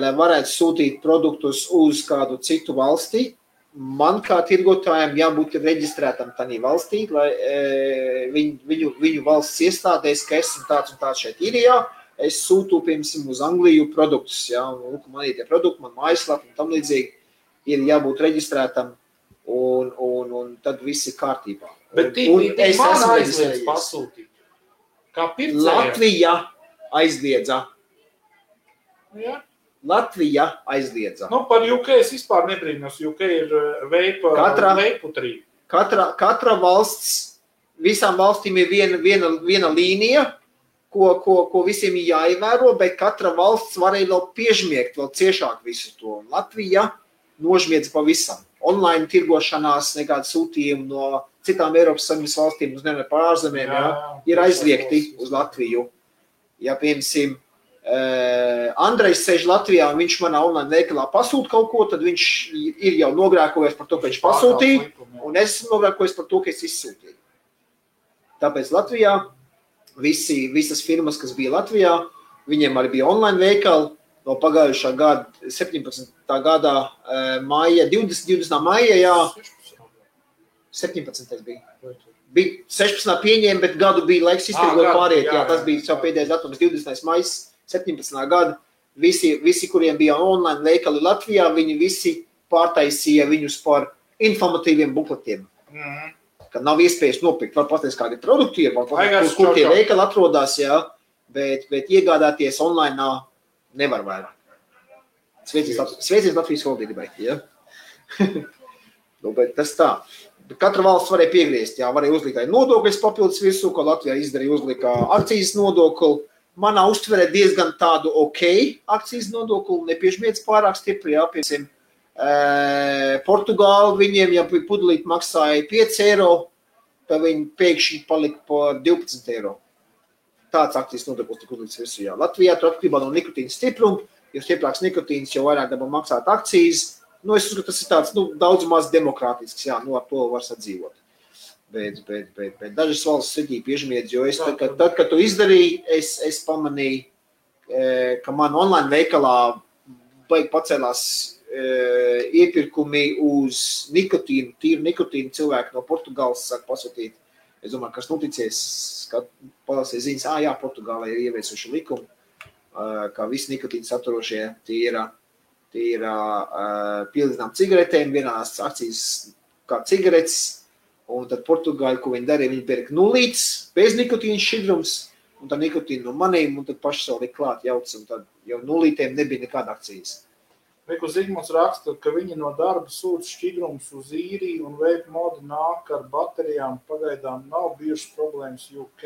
lai varētu sūtīt produktus uz kādu citu valstī, man kā tirgotājiem jābūt reģistrētam tādā valstī, lai viņu valsts iestādēs, ka esmu tāds un tāds šeit Īrijā, es sūtu, piemēram, uz Angliju produktus, jā, un man ir tie produkti, man mājaslapa un tam līdzīgi, ir jābūt reģistrētam, un tad viss ir kārtībā. Bet man aizliedz pasūtīt. Kā pircējiem? Latvija aizliedza. Jā. Latvija aizliedza. Nu, par UK es vispār nebrīnos. UK ir veiputrī. Katra valsts, visām valstīm ir viena līnija, ko visiem ir jāievēro, bet katra valsts varēja vēl piežmiegt vēl ciešāk visu to. Latvija nožmiedz pavisam. Online tirgošanās, nekāda sūtījuma no citām Eiropas Savienības valstīm, uz nevienu par ārzemēm, ir aizliegti uz Latviju. Ja, piemēram, Andrejs sēž Latvijā un viņš manā online veikalā pasūta kaut ko, tad viņš ir jau nogrēkojies par to, ka viņš pasūtīja, un es esmu nogrēkojies par to, ka es izsūtīju. Tāpēc Latvijā visas firmas, kas bija Latvijā, viņiem arī bija online veikali no pagājušā gada, 17. gadā maija, 20. maija, jā, 17. bija 16. pieņēma, bet gadu bija laiks iztirgot pāriet, jā, tas bija savu pēdējais datums, 20. maijas, 17. gada, visi, kuriem bija online veikali Latvijā, viņi visi pārtaisīja viņus par informatīviem bukletiem. Kad nav iespējas nopirkt, var pateikt, kādi produkti ir, kur tie veikali atrodās, jā, bet iegādāties online nevar vairāk. Sveicins Latvijas valdībai, jā. Bet tas tā. Katra valsts varēja piegriezt, jā, varēja uzlikt nodokļus papildus virsū, ko Latvijā izdarīja, uzlika akcijas nodokli. Manā uztverē diezgan tādu akcijas nodokli, nepiežmiedz pārāk stipri, jā, piemēram, Portugāli viņiem, ja pudelīti maksāja 5 eiro, tad viņi pēkšņi palika par 12 eiro. Tāds akcijas nodoklis tika uzlikts visu. Jā. Latvijā tur atkarībā no nikotīna stipruma, jo stiprāks nikotīns, jo vairāk dabā maksāt akcijas. Es uzskatu, tas ir tāds, daudz maz demokrātisks, jā, ar to var sadzīvot. Bet dažas valsts sirdī piežmiedz, jo tad, kad tu izdarīji, es pamanīju, ka man online veikalā pacēlās iepirkumi uz nikotīnu, tīru nikotīnu cilvēki no Portugāles sāk pasūtīt. Es domāju, kas noticies, kad palasīja ziņas, jā, Portugālē ir ieviesuši likumu, ka visi nikotīni saturošie tīra pielīdzinām cigaretēm, vienās akcijas kā cigaretes, un tad Portugāļi, ko viņi darīja, viņi pērka nulītes, bez nikotīna šķidrums, un tad nikotīnu no manīm, un tad paši savu liek klāt jauc, un tad jau nulītēm nebija nekāda akcijas. Reku Zigmunds raksta, ka viņi no darba sūta šķidrumus uz īriju un vape modi nāk ar baterijām. Pagaidām nav bijušas problēmas UK.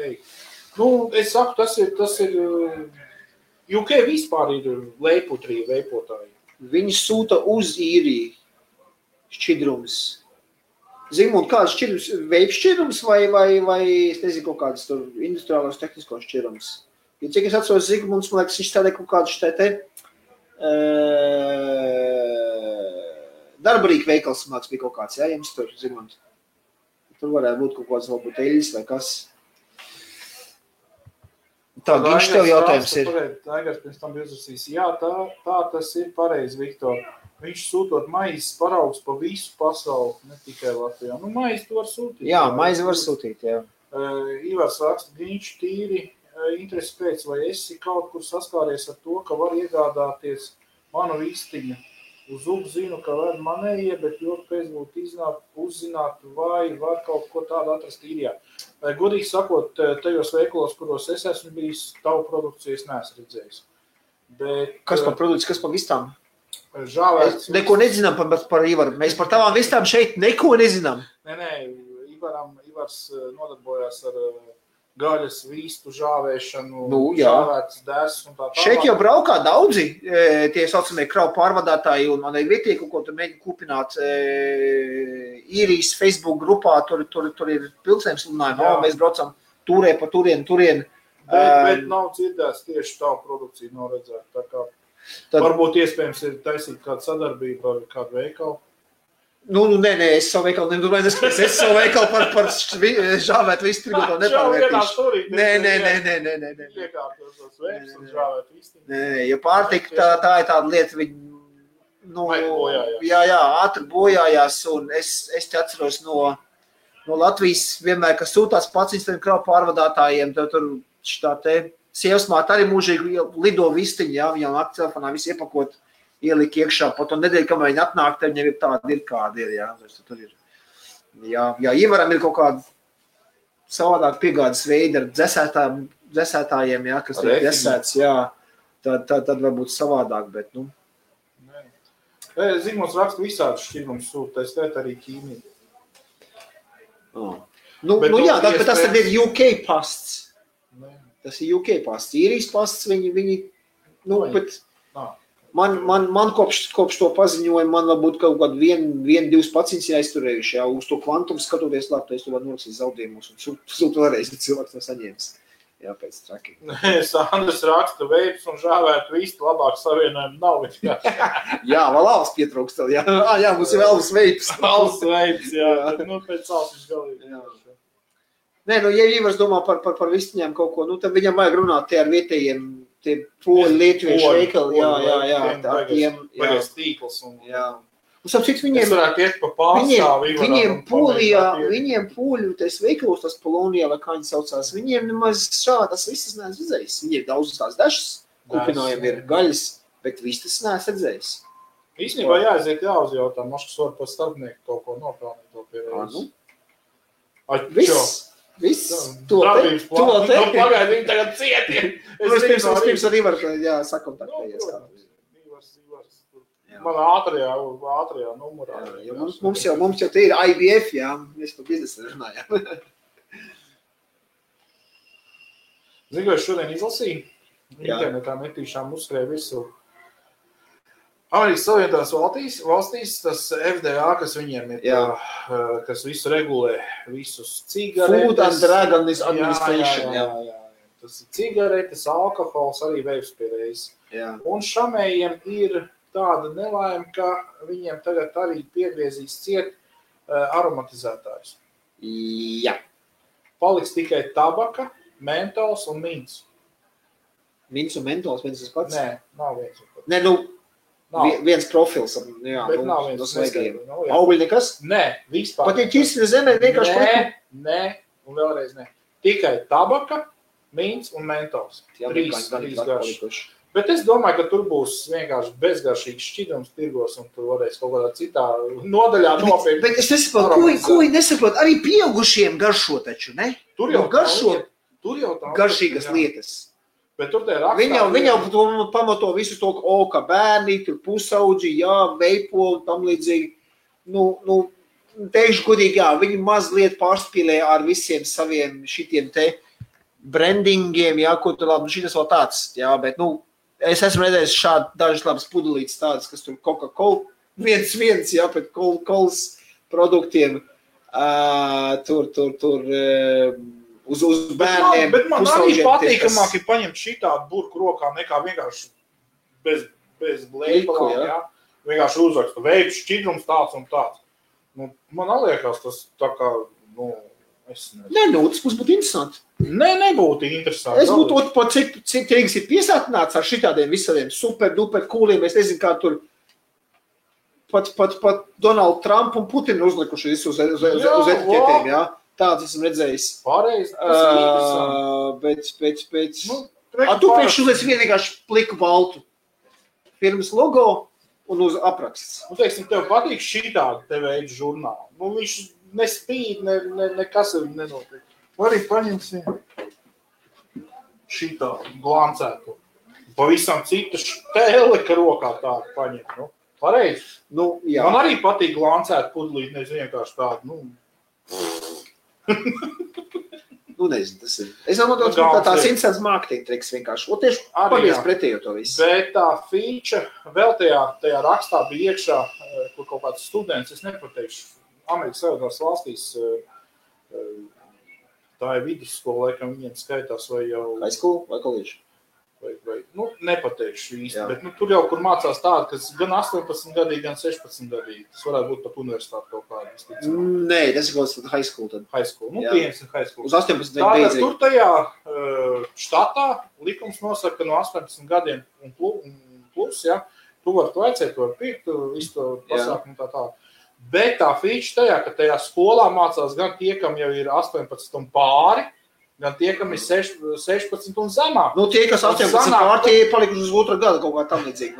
Es saku, tas ir UK vispār ir leiputrija veipotāji. Viņi sūta uz īriju šķidrumus. Zigmund, kāds šķidrums? Vape šķidrums vai es nezinu, kaut kādas tur industriālos tehniskos šķidrums? Ja cik es atceros Zigmunds, man liekas, viņš tādē kaut kādu šitē darbarīka veikals māks bija kaut kāds, jā, jums tur, Zigmund. Tur varētu būt kaut kāds varbūt eļas vai kas. Tā, Ginš, tev jautājums ir. Aigars pirms tam uzrasīs. Jā, tā tas ir pareizi, Viktor. Viņš sūtot maizes paraugs pa visu pasauli, ne tikai Latvijā. Maizi tu var sūtīt. Jā, maizi var sūtīt, jā. Ivars raksta, Ginš tīri. Interesi pēc, vai esi kaut kur saskāries ar to, ka var iegādāties manu vistiņu. Uz ugu zinu, ka var manējie, bet ļoti pēc būtu uzzināt, vai var kaut ko tādu atrast īrijā. Godīgi sakot, tajos veikalos, kuros es esmu bijis, tavu produkciju es neesmu redzējis. Bet, kas par produkciju, kas par vistām? Žāvēts. Neko nezinām par Ivaru. Mēs par tavām vistām šeit neko nezinām. Nē, Ivars nodarbojās ar gaļas, vistu, žāvēšanu, žāvētas dēs un tā. Šeit jau braukā daudzi tie saucamie kravu pārvadātāji un man ir vietīgi, ko tur mēģina kupināt īrijas Facebook grupā, tur ir pilsēm sludinājumi, mēs braucam turē pa turien. Bet nav dzirdēts tieši tavu produkciju noredzēt, tā kā varbūt iespējams ir taisīt kādu sadarbību ar kādu veikalu. Nē, es savu veikalu nedomāju, es savu veikalu par žāvēt visu tirgotāju nepārvērtīšu. Nē. Iekārtos tos veips un žāvēt visu. Nē, jo pārtika tā ir tāda lieta, ātri bojājās, un es te atceros no Latvijas vienmēr, kas sūtās pats tiem kravu pārvadātājiem, tur šitā te sievasmāte arī mūžīgi lido vistiņi, jā, viņam nakti telefonā visu iepakot. Ielika iekšā, pa to nedēļu, kamēr viņi atnāk, tad viņam ir tāda ir, kāda ir, jā. Tur ir. Jā, Ivaram ir kaut kāda savādāk piegādes veidi ar dzesētājiem, jā, kas ir dzesēts, jā. Tad varbūt savādāk, bet, Zigmunds raksta visādi šķidrums sūta, es tēt arī ķīmiju. Jā, bet tas tad ir UK pasts. Tas ir UK pasts. Īrijas pasts, viņi bet... Man kopš to paziņoja, man varbūt kaut kādu 1-2 pacients jāizturējuši, jā, uz to kvantumu skatoties labi, es to var norakstīt zaudējumus un sūt vēlreiz, bet cilvēks to saņēmis. Jā, pēc traki. Sandrs raksta veips un žāvēt vistu, labāk savienojumu nav. Jā, vēl alvas pietrūkst tev, jā. Jā, mums ir alvas veips. Alvas veips, jā. Pēc alvas viņš galīgi. Jā. Nē, ja Ivars domā par vistiņām kaut ko, tad viņam vajag runāt tie ar vietējiem, tie poļu lietuviešu veikali, jā, ar tiem, jā. Tīkls un... Jā. Un sapcīt, viņiem poļu, tais veikalos, tas Polonijā, vai kā viņi saucās, viņiem nemaz šādas vistas neesmu redzējis. Viņiem daudz tās dažas kupinājumi ir gaļas, bet vistas neesmu redzējis. Īstenībā jāaiziet jāuzjautā, maškas var par starpnieku kaut ko nopelnīt to pierēdzi. Viss, to te. Pagaid, viņi tagad cieti. Pirms ar Ivaru, jā, sakontaktējies. Man ātrajā numurā. Mums jau te ir IBF, jā, mēs par biznesu runājām. Zinu, es šodien izlasīju, internetā metīšām uzskrēja visu. Amerikas Savienotās valstīs tas FDA, kas viņiem ir, kas visu regulē, visus cigaretes. Food and Drug Administration. Jā. Tas ir cigaretes, alkohols, arī vējspirējs. Un šamējiem ir tāda nelaime, ka viņiem tagad arī piegriezīs ciet aromatizētājus. Jā. Paliks tikai tabaka, mentols un mints. Mints un mentols, viens tas pats? Nē, nav viens un pats. Nē, viens profils. Jā, bet nav viens svaigiem. Augļi nekas? Nē, vispār. Pat ja ķisri zemē vienkārši Nē, un vēlreiz nē. Tikai tabaka, mints un mentols. Trīs garšas. Bet es domāju, ka tur būs vienkārši bezgaršīgs šķidrums tirgos, un tur varēs kaut kādā citā nodaļā nopirkt. Bet es nesaprotu, ko viņi nesaprot? Arī pieaugušiem garšo taču, ne? Tur jau garšo garšīgas jā. Lietas. Bet tur te rakstā... Viņi jau pamato visu to, ka bērni, tur pusauģi, veipo un tam līdzīgi. Teikšu godīgi, viņi mazliet pārspīlē ar visiem saviem šitiem te brandingiem, ko tur labi, šitas vēl tāds, bet, es esmu redzējis šādi dažas labas pudelītes tādas, kas tur Coca-Cola, viens, pret Coca-Colas produktiem, tur, uz bērniem. Bet man arī patīkamāk ir paņemt šitādu burku rokā, nekā vienkārši bez blēpalām, vienkārši uzrakstu veids, šķidrums tāds un tāds. Man liekas, tas tā kā, es nezinu. Tas mums būtu interesanti. Nebūtu interesanti. Es būtu pat cik tirgus ir piesātināts ar šitādiem visādiem super kūliem. Es nezinu, kā tur pat Donald Trump un Putin uzlikuši visu uz etiķetēm, Tāds esmu redzējis. Pareizi, tas ir interesanti. Bet... Tu priekš uzliec vienkārši pliku baltu. Firmas logo un uz apraksts. Teiksim, tev patīk šitādi te veidu žurnāli. Viņš nespīd, nekas ir nenotiek. Arī paņemsim šitā glancētu. Pavisam cita štēle, ka rokā tādu paņem. Pareizi. Man arī patīk glancēt pudelīt, nezinu, vienkārši tādu. Nezinu, tas ir. Es domāju, ka tās interesants marketing triks vienkārši. Tieši pavies pretējo to visu. Bet tā feature vēl tajā rakstā bija iekšā, kur kaut kāds students, es nepateikšu, Amerikas Savienotās valstīs, tā ir vidusskola, laikam viņiem skaitās vai jau... High school vai college? Vai nepateikšu īsti, bet tur jau, kur mācās tādi, kas gan 18 gadīgi, gan 16 gadīgi. Tas varētu būt pat universitāti kaut kādā. Nē, tas ir kaut kāds high school tad. High school, pieņems ir high school. Uz 18 gadiem beidzīgi. Tur tajā štatā likums nosaka, ka no 18 gadiem un plus, tu vari pirkt, visu to pasākumu un tā. Bet tā feature tajā, ka tajā skolā mācās gan tie, kam jau ir 18 un pāri, gan tie, kam ir 16 un zemāk. Tie, kas 18 pāri, tie ir palikuši uz otru gadu kaut kā tam līdzīgi.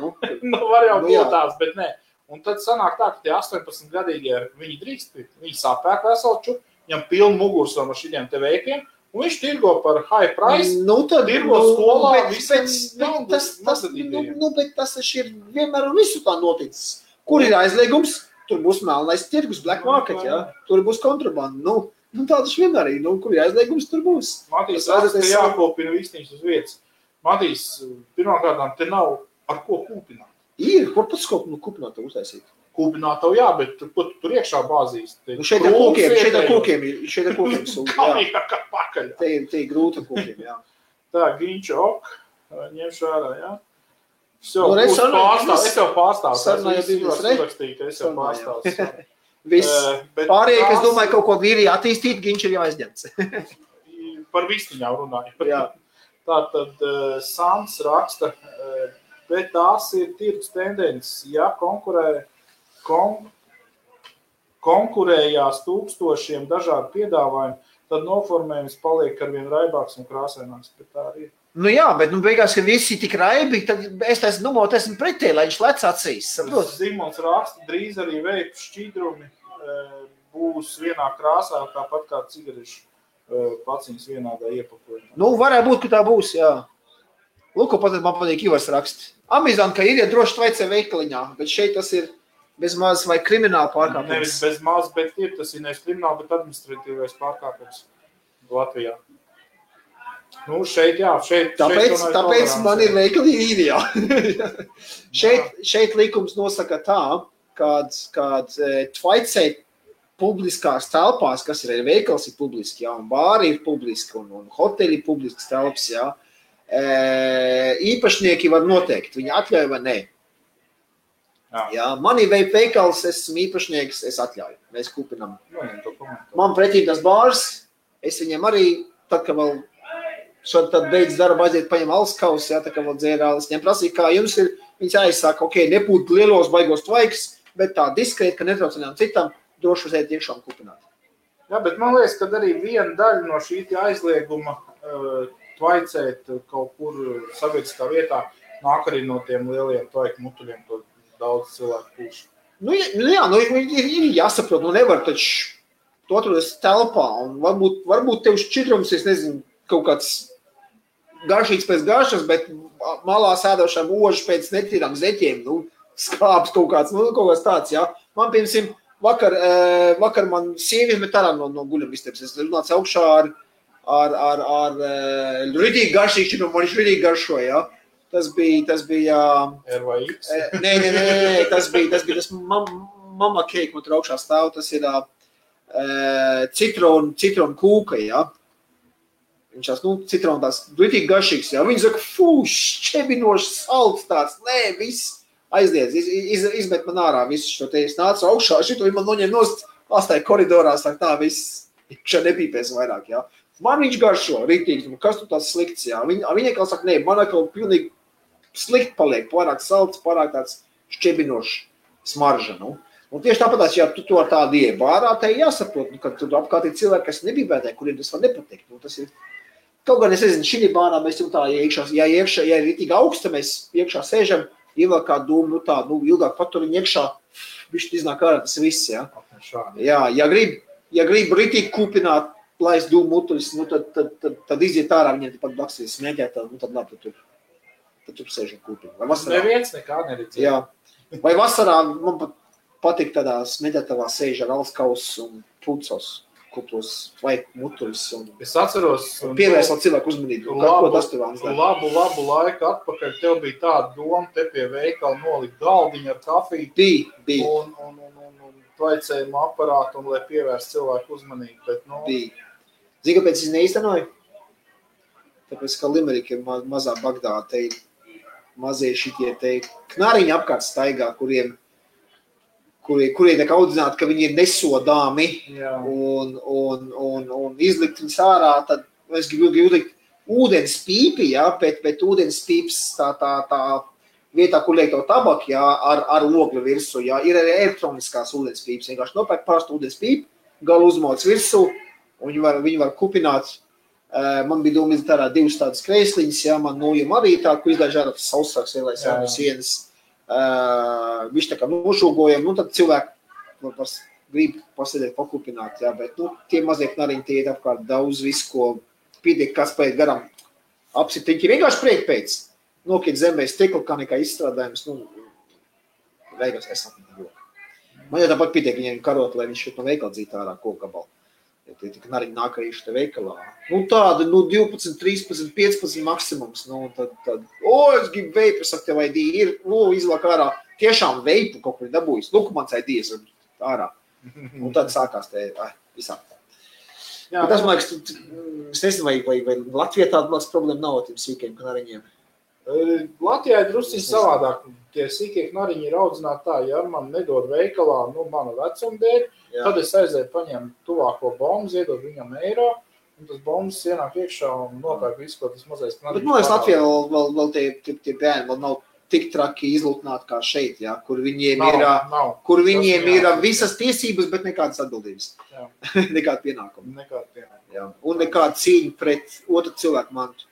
Var jau būt tās, bet nē. Un tad sanāk tā, ka tie 18 gadīgie, viņi drīkst pirkt, viņi sapēk veselču, viņam pilnu mugursam ar šitiem te veikiem, un viņš tirgo par high price, tirgo skolā, bet tas ir vienmēr un visu tā noticis. Kur ir aizliegums? Tur būs melnais tirgus, black market, tur būs kontrabanda. Tā taču vienmēr ir, kur ir aizliegums, tur būs. Matīs, tas jākopina vistiņas uz vietas. Matīs, pirmkārtām, te nav ar ko kūpināt. Ir, kur pats kūpināt uztaisīt? Kūpināt tev bet tur iekšā bāzīs. Šeit ar kūkiem ir. Kā pakaļ. Te ir grūti ar kūkiem, Tā, Ginča, ņemšu ārā, Es tev pārstāvu. Es tev pārstāvu. Viss. Pārējie, kas domāju, kaut ko vīrī attīstīt, viņš ir jau aizņemts. Par vistiņām runāju. Tātad Sants raksta, bet tās ir tirgus tendences. Ja konkurējās tūkstošiem dažādu piedāvājumu, tad noformējums paliek arvien raibāks un krāsaināks. Bet tā arī ir. Bet beigās, ka visi tik raibi, tad es esmu pretī, lai viņš lec acīs. Zimons raksta, drīz arī veipu šķidrumi būs vienā krāsā, tāpat kā cigarešu paciņas vienādā iepakojumā. Varētu būt, ka tā būs, Lūk, pat man patīk Ivars rakst. Amizant, ka ir, droši tvaicē veikaliņā, bet šeit tas ir bez maz vai krimināla pārkāpums. Nevis bez maz, bet tas ir nevis krimināla, bet administratīvais pārkāpums Latvijā. Nu, šeit, jā, Tāpēc man ir veikali ideāli. šeit likums nosaka tā, kāds tvaicēt publiskās telpās, kas ir veikals ir publiski, jā, un bāri ir publiski, un hoteļi ir publiskas telpas, jā. Īpašnieki var noteikt, viņi atļauj vai nē. Jā, man ir veikals, esmu īpašnieks, es atļauju, mēs kupinam. Man pretī tas bārs, es viņiem arī, tad, ka vēl tad beidz darba aiziet, paņem alskaus, jā, tā kā vēl dzērālis, viņiem prasīja, kā jums ir, viņas aizsāka, ok, nepūt lielos baigos tvaiks, bet tā diskrēt, ka netraucinām citam, droši uzēt iekšā un kupināt. Jā, bet man liekas, ka arī viena daļa no šī aizlieguma tvaicēt kaut kur sabiedriskā vietā nāk arī no tiem lieliem tvaiku mutuļiem, ko daudz cilvēku pūš. Ir jāsaprot, nevar taču tu atrodas telpā, un varbūt tev šķidrums, es nezinu, kaut kāds garšīgs pēc garšas, bet malā sēdošām ožas pēc netīrām zeķiem, skāps kaut kāds tāds, jā. Man, piemēram, vakar man sievieti met ārā no guļamistabas. Es runācu augšā ar ritīgi garšīgu šķidrumu, man viņš ritīgi garšo, jā. Tas bija RVX? Nē, tas bija tas mama cake, man tur augšā stāv, tas ir citronu kūka, jā. Viņš tās, citronu tās ritīgi garšīgs, jā. Viņi saka, šķebinošs, salds tāds, viss aizliedz, izmet man ārā visu šo te, es nācu augšā, šito man noņem nost, astāja koridorā, saka, tā viss, šā nepīpēs vairāk, jā. Man viņš garšo, ritīgi, kas tu tāds slikts, jā. Viņa kā saka, man atkal pilnīgi slikt paliek, pārāk salds, pārāk tāds šķebinošs smarža, Un tieši tāpatās, ja tu to ar tādu iebārā, te jāsaprot, ka tur apkārt ir cilvēki, kas nebībētē, kuriem tas var nepatikt. Tas ir, kaut gan es nezinu, šī bārā mēs jau tā, ja ir ritīgi augsta, mēs iekšā sēžam, ievēl kā dūmu, ilgāk paturiņu iekšā, viņš iznāk ārā, tas viss, jā. Jā, ja grib ritīgi kūpināt, laist dūmu mutuļus, tad iziet ārā, viņiem pat blaksies smēķēt, tad labi, tad tur sēžam kūpinu. Neviens nekā neredzēja. Jā. Vai vasarā man pat patīk tādā smēķētavā sēž ar alskaus un pucos, kuplos vai mutuļus. Es atceros. Pievērst vēl cilvēku uzmanību. Labu laiku atpakaļ tev bija tāda doma, te pie veikala nolikt galdiņu ar kafiju. Bija. Un tvaicējumu aparātu, un lai pievērst cilvēku uzmanību. Bet, Bija. Zini, kāpēc es neīstenoju? Tāpēc, ka Limerika ir mazā Bagdāda, te mazie šitie te knariņi apkārt staigā, kuriem tiek audzināti, ka viņi ir nesodāmi un izlikt viņus ārā, tad es gribu likt ūdens pīpi, jā, bet ūdens pīps tā vietā, kur liek to tabaku, jā, ar ogļu virsū, jā, ir arī elektroniskās ūdens pīps, vienkārši nopērk parastu ūdens pīpi, galu uzmoc virsū, un viņi var kupināt. Man bija doma izdarīt ārā divas tādas kreisliņas, jā, man nojuma arī tā, ko izdāž ārā tas sausāks ielais no sienas. Viņš tā kā nošūgojam, tad cilvēki grib pasēdēt, pakupināt, jā, bet, tie mazie knariņi, tie iet apkārt daudz visu, ko pietiek, kas pēc garam apsitiņķi, vienkārši priek pēc, nokiet zemē stikla, kā nekā izstrādājums, beigās es apmēr. Man jau tāpat pietiek viņiem karot, lai viņš šeit no veikala dzīt ārā kokgabalu. Tie knariņi nāk arī šeit veikalā. Tāda, 12, 13, 15 maksimums. Tad, es gribu veipu, es saku, tev ID ir, izlāk ārā. Tiešām veipu kaut kur dabūjis. Mans ID ir ārā. Un tad sākās te, visāk tā. Bet tas, man liekas, es nezinu, vai Latvijā tāda problēma nav ar tiem sīkiem knariņiem. Latvijā ir drusciņi savādāk. Tie sīkie knariņi ir audzināti tā, ja man nedod veikalā, mana vecuma dēļ, tad es aizēju paņēmu tuvāko bombu, iedod viņam eiro, un tas bombas ienāk iekšā un nopērk visu, ko tas mazais knariņš. Bet man liekas, Latvijā vēl tie bērni vēl nav tik traki izlūtināti kā šeit, jā, kur viņiem ir visas tiesības, bet nekādas atbildības. Nekāda pienākuma. Jā. Un nekāda cīņa pret otru cilvēku mantu.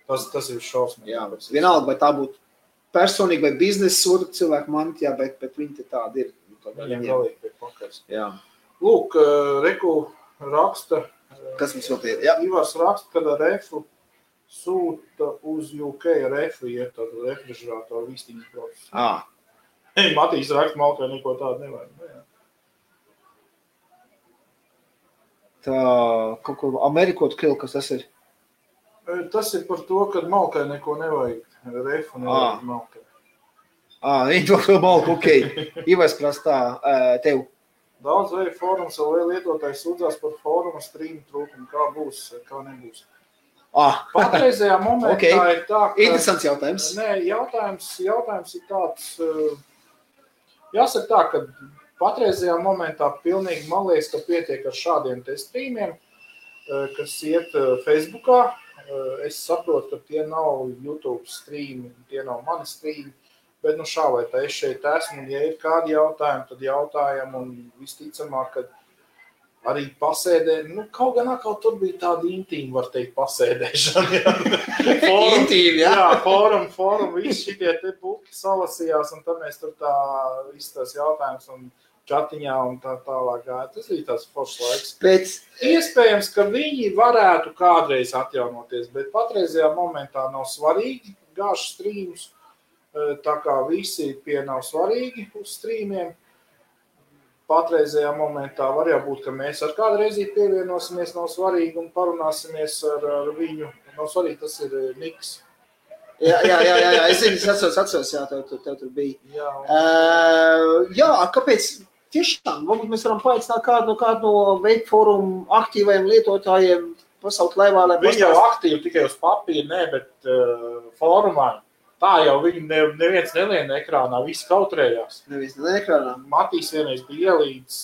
Tas ir šausmīgi. Jā, vienalga, vai tā būtu personīgi vai biznesa otru cilvēku manti, jā, bet viņi te tādi ir. Viņiem galīgi pie pakaļs. Jā. Lūk, Reku raksta. Kas mums vēl tie? Jā. Ivars raksta, kad ar refu sūta uz UK refu iet tādu refrižerātoru vīstīņas procesu. Matīs raksta, Malkai neko tādu nevajag. Tā, kaut ko Amerikot krilu, kas tas ir? Tas ir par to, ka malkai neko nevajag. Refu nevajag malkai. Viņi to malku, ok. Ivars prastā tev. Daudz vai fórums vai lietotājs sūdzās par fóruma stream trūkumu. Kā būs, kā nebūs. Patreizajā momentā ir tā, ka... Interesants jautājums. Nē, jautājums ir tāds... Jāsaka tā, ka patreizajā momentā pilnīgi man liekas, ka pietiek ar šādiem te streamiem, kas iet Facebookā. Es saprotu, ka tie nav YouTube streami, tie nav mani streami, bet nu šā vai tā es šeit esmu, un ja ir kādi jautājumi, tad jautājam, un visticamāk, ka arī pasēdē, nu kaut gan atkal tur bija tāda intīma, var teikt, pasēdēšana. Intīma, jā? Jā, fórum, visi šitie te buki salasījās, un tad mēs tur tā visu tās jautājumus un čatiņā un tā tālāk gāja. Tas bija tāds foršs laiks. Iespējams, ka viņi varētu kādreiz atjaunoties, bet patreizajā momentā nav svarīgi gāžu streamus, tā kā visi pie nav svarīgi uz streamiem. Patreizajā momentā var jābūt, ka mēs ar kādu reizi pievienosimies, nav svarīgi, un parunāsimies ar viņu. Nav svarīgi, tas ir Niks. Jā, es zinu, es atceros, jā, tev tur bija. Jā, kāpēc tiešām, varbūt mēs varam paaicināt kādu no Vape Forum aktīvajiem lietotājiem pasaukt laivā, lai viņi jau aktīvi tikai uz papīra, ne, bet fórumā. Tā jau viņi neviens nelien ekrānā, visi kautrējās. Neviens nelien ekrānā. Matīs vienreiz bija ielīdz,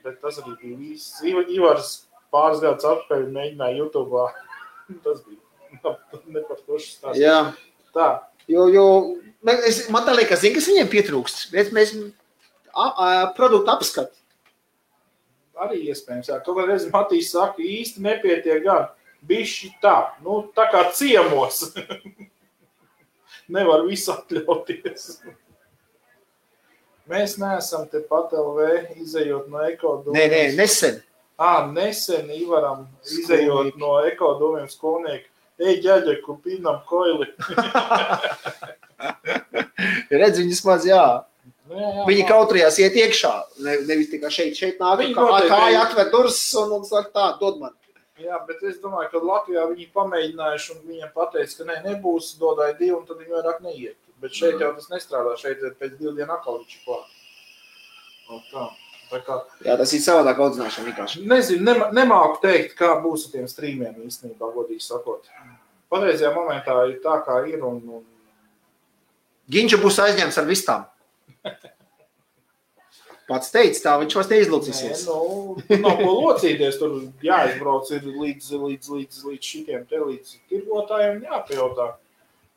bet tas arī bija viss. Ivars pāris gadus atpakaļ mēģināja YouTube'ā. Tas bija nepartošs stāsts. Jā. Tā. Jo man tā liekas, zini, kas viņiem pietrūkst. Mēs produktu apskatu. Arī iespējams, jā. Kaut reiz Matīs saka, īsti nepietiek gan. Bišķi tā, nu tā kā ciemos. Nevar visu atļauties. Mēs neesam te pat LV izejot no ekodomiem. Nē, nesen. Nesen Ivaram izejot no ekodomiem skolnieku. Ej, ģaļeku, pinam koili. Redz, viņas maz, jā. Viņi kautrījās iet iekšā. Nevis tikai šeit nāk, kāja atver durvis un saka tā, dod man. Jā, bet es domāju, ka Latvijā viņi pamēģinājuši un viņiem pateica, ka nebūs, dodāja 2 un tad viņi vairāk neiet. Bet šeit jau tas nestrādā, šeit pēc 2 dienu atkal viņš ir klāt. Tā kā... Jā, tas ir savādāk audzināšana vienkārši. Nezinu, nemāku teikt, kā būs ar tiem streamiem īstenībā, godīgi sakot. Patreizajā momentā ir tā, kā ir un... Ginča būs aizņemts ar vistām. Pats teica tā, viņš vairs neizlocīsies. Nē, nav ko locīties, tur jāizbrauc ir līdz šitiem te, līdz tirgotājiem jāpajautā,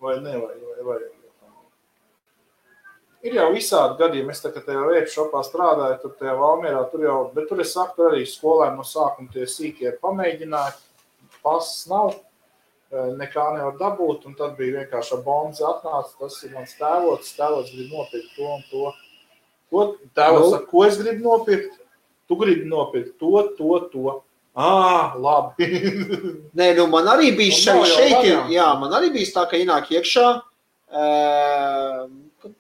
vai ne, vai. Ir jau visādi gadījumi, es tā, ka tajā Vape shopā strādāju, tur tajā Valmierā, bet tur es saku, arī skolēni no sākuma tie sīkie pamēģināja, pasas nav, nekā nevar dabūt, un tad bija vienkārši bonzi atnāca, tas ir mans tēvots grib nopirkt to un to. Tēvos saka, ko es gribu nopirkt? Tu gribi nopirkt to. Labi. Nē, man arī bija man arī bija tā, ka ienāk iekšā,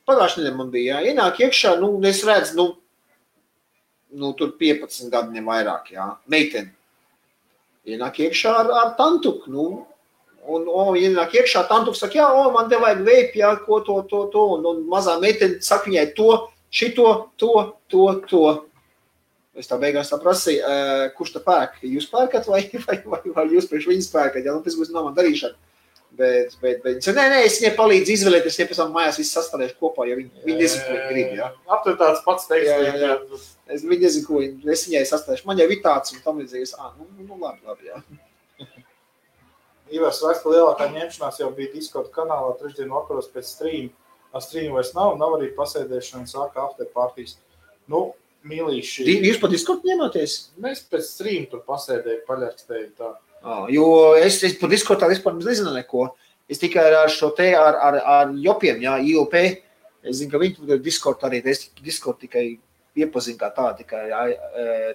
pagājušajā nedēļā man bija, ienāk iekšā, es redzu, tur 15 gadu nevairāk, meiteni. Ienāk iekšā ar tantuku, un ienāk iekšā tantuku, saka, man te vajag vape, ko to, un mazā meiteni saka viņai to, šito, to. Es tā beigās tā prasīju, kurš tā pērk? Jūs pērkat vai jūs priekš viņas pērkat? Tas būs nav man darīšana. Bet nē, es viņai palīdzu izvēlēties, ja pēc tam mājās viss sastādēšu kopā, ja viņi nezinu, ko viņi grib, jā. Aptur tāds pats teiks. Jā. Viņi nezinu, ko es viņai sastādēšu. Man jau ir tāds un tam līdzīgs, labi, jā. Ivars raksta, lielākā ņemšanās jau bija Discord kanālā 3. dienu vakaros pēc stream. Stream vairs nav arī pasēdēšana, sāka after partijas. Mīlīši. Jūs pat Discord ņemāties? Mēs pēc stream tur pasēdēju, paļarkstēju tā. Jo es par Discordā vispār nezinu neko. Es tikai ar šo te, ar Jopiem, IOP. Es zinu, ka viņi tur Discord arī, es Discord tikai iepazinu kā tā, tikai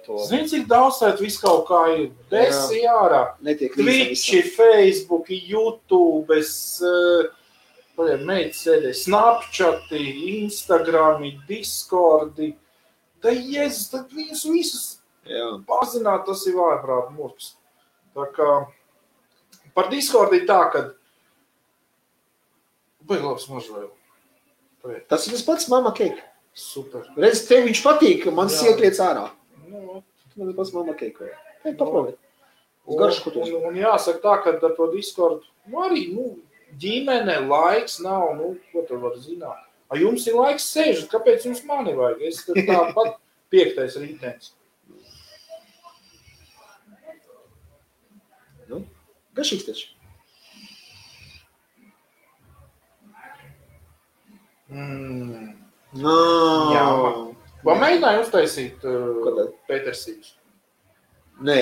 to... Zini, cik daudz tēt visu kaut kā ir? Desi ārā. Twitch, Facebook, YouTube, meitas sēdēja Snapchati, Instagrami, Discordi. Jēzus, tad viņus visus pazināt, tas ir vājprāt murks. Tā kā Par Discord ir tā, ka... Baigi labs mažvēl. Tas ir tas pats Mama Cake. Super. Redz, tev viņš patīk, man siekliec ārā. Nu, tas ir pats Mama Cake. Paprobiet. Un jāsaka tā, ka ar to Discord, arī, ģimene, laiks nav, ko tu var zināt. A jums ir laiks sēžat, kāpēc jums mani vajag? Es tāpat 5. rītens. Gašīgs taču. Jā. Vai mēģināju uztaisīt Petersīgus? Nē.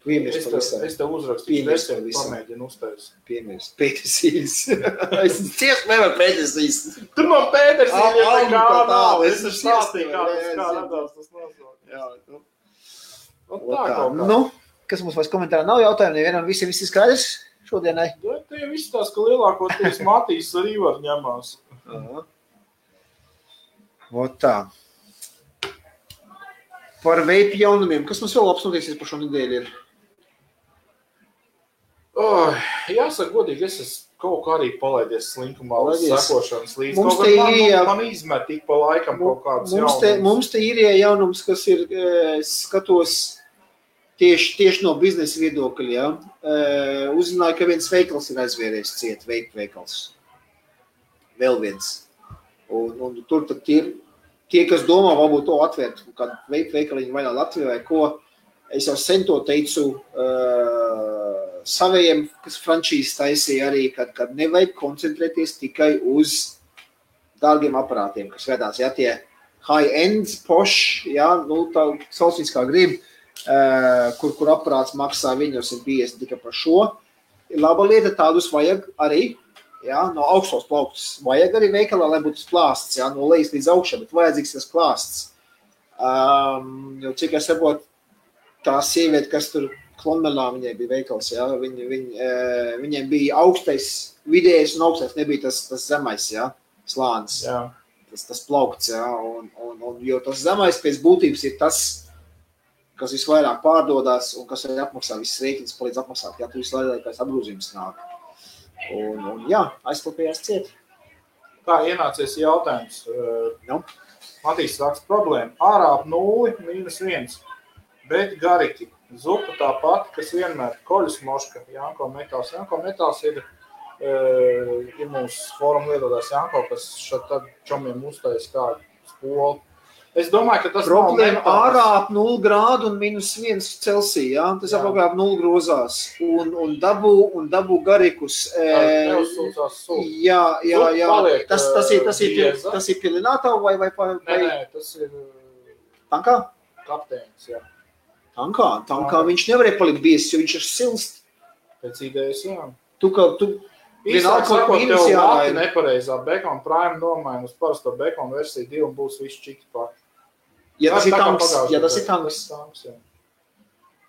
Piemērs pavisam. Es tev uzrakstīšu, pamēģinu uztaisīt. Piemērs Petersīgus. Es cieši nevaru Petersīgus. Tu man Petersīgus tā kā nav. Es stāstīju, kā radās tas nosaukt. Jā, Tā kaut kā. Kas mums vairs komentārā nav jautājumu, nevienam visi skaidrs šodienai? Tie visi tās, ka lielākoties Matīs arī var ņemās. Tā. Par veipu jaunumiem. Kas mums vēl labs notiksies par šo nedēļu ir? Jāsaka godīgi, es esmu kaut kā arī palaidies slinkumā uz sekošanas līdz. Man izmet tik pa laikam kaut kāds jaunums. Mums te ir jaunums, kas ir, skatos, tieši no biznesa viedokļa, ja? Uzzināju, ka viens veikals ir aizvērējis ciet, veipu veikals. Vēl viens. Un tur tad tie, kas domā, varbūt to atvērt, kad veipu veikaliņu vaļā Latvijā vai ko, es jau sen to teicu savējiem, kas frančīzes taisīja arī, kad nevajag koncentrēties tikai uz dārgiem aparātiem, kas vedās, ja, tie high-end, posh, ja, tā saucīs kā grib, kur aparāts maksā 150 tikai par šo. Laba lieta, tādus vajag arī, ja, no augstos plauktus. Vajag arī veikalā, lai būtu plāsts, ja, no lejas līdz augšā, bet vajadzīgs tas plāsts. Jo cik es saprotu, tā sieviete, kas tur Klonmelā, viņai bija veikals, ja, viņai bija augstais, vidējais un augstais, nebija tas zemais, ja, slānis. Jā. Tas plaukts, ja, un jo tas zemais pēc būtības ir tas, kas visvairāk pārdodās un kas arī apmaksā visas rēķinas, palīdz apmaksāt, ja tu vislēdākais apgrūzījums nāk. Un jā, aizklapējās ciet. Tā ienācies jautājums. Matīs raksta problēma. Ārā ap 0, -1, bet gariki. Zupa tā pati, kas vienmēr koļus moška, Janko Metāls. Janko Metāls ir mūsu fórumu lietotājs Janko, kas šad tad čomiem uztais kādu spolu. Es domāju, ka tas problēma ārā ap 0 grādu un -1 Celsija, ja? Tas apmēram ap 0 grozās. Un dabū garikus. Jā. Tas ir pilinātā vai? Nē, tas ir... Tankā? Kapteinis, jā. Tankā viņš nevarēja palikt biezs, jo viņš ir silst. Pēc idejas, jā. Īsāk sakot, tev vati nepareizā Bacon Prime nomaina uz parasto Bacon versiju 2 un būs viss čiki pati. Ja tas ir tanks.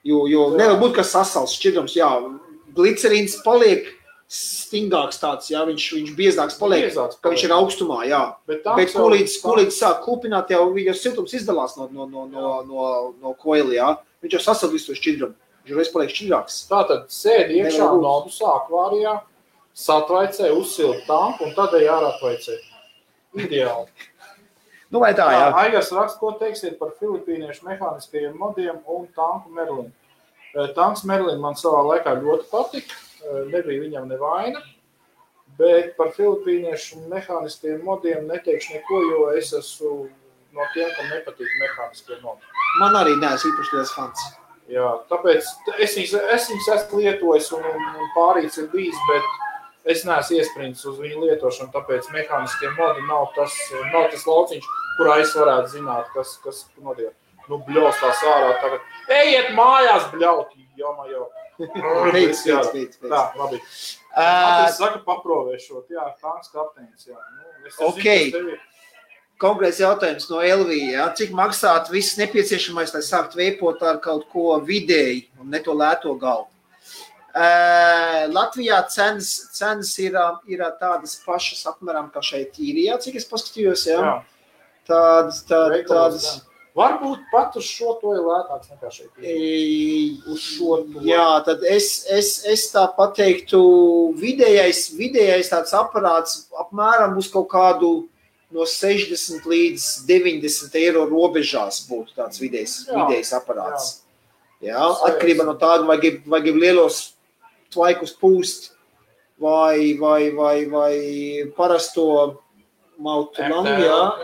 Jo nevar būt, ka sasals šķidrums, jā, glicerīns paliek stingāks tāds, jā, viņš biezāks paliek, ka viņš ir augstumā, jā. Bet kolīdz sāk kūpināt, jau siltums izdalās no koili, jā. Viņš jau sasal visu to šķidrumu, viņš reiz paliek šķidrāks. Tātad sēdi iekšā nodus akvārijā, satvaicē, uzsilt tanku un tad ārā atvaicē. Ideāli. Vai tā, jā. Aigars raksta, ko teiksiet par filipīniešu mehāniskajiem modiem un tanku Merlin. Tanks Merlin man savā laikā ļoti patika, nebija viņam nevaina, bet par filipīniešu mehāniskajiem modiem neteikšu neko, jo es esmu no tiem, kam nepatīk mehāniskie modi. Man arī neesmu īpaši liels fans. Jā, tāpēc es viņus esmu lietojis un pārīts ir bijis, bet es neesmu iesprindis uz viņu lietošanu, tāpēc mehāniskie modi nav tas lauciņš, kurā es varētu zināt, kas notiek. Bļaus tās ārā tagad. Ejiet mājās, bļaut, jo. Beidz. Tā, labi. Matīs saka paprovēšot, jā, tanks kapteinis, jā. Ok. Konkrēts jautājums no Elvija, jā. Cik maksāt viss nepieciešamais, lai sākt veipot ar kaut ko vidēji un ne to lēto galvu? Latvijā cenas ir tādas pašas apmēram kā šeit īrijā, cik es paskatījos, jā. Tādas, Varbūt pat uz šo to ir lētāks nekā šeit. Uz šo to. Jā, tad es tā pateiktu, vidējais tāds aparāts apmēram uz kaut kādu no 60 līdz 90 eiro robežās būtu tāds vidējais aparāts. Jā, atkarībā no tāda, vai grib lielos tvaikus pūst, vai parasto mautu langu,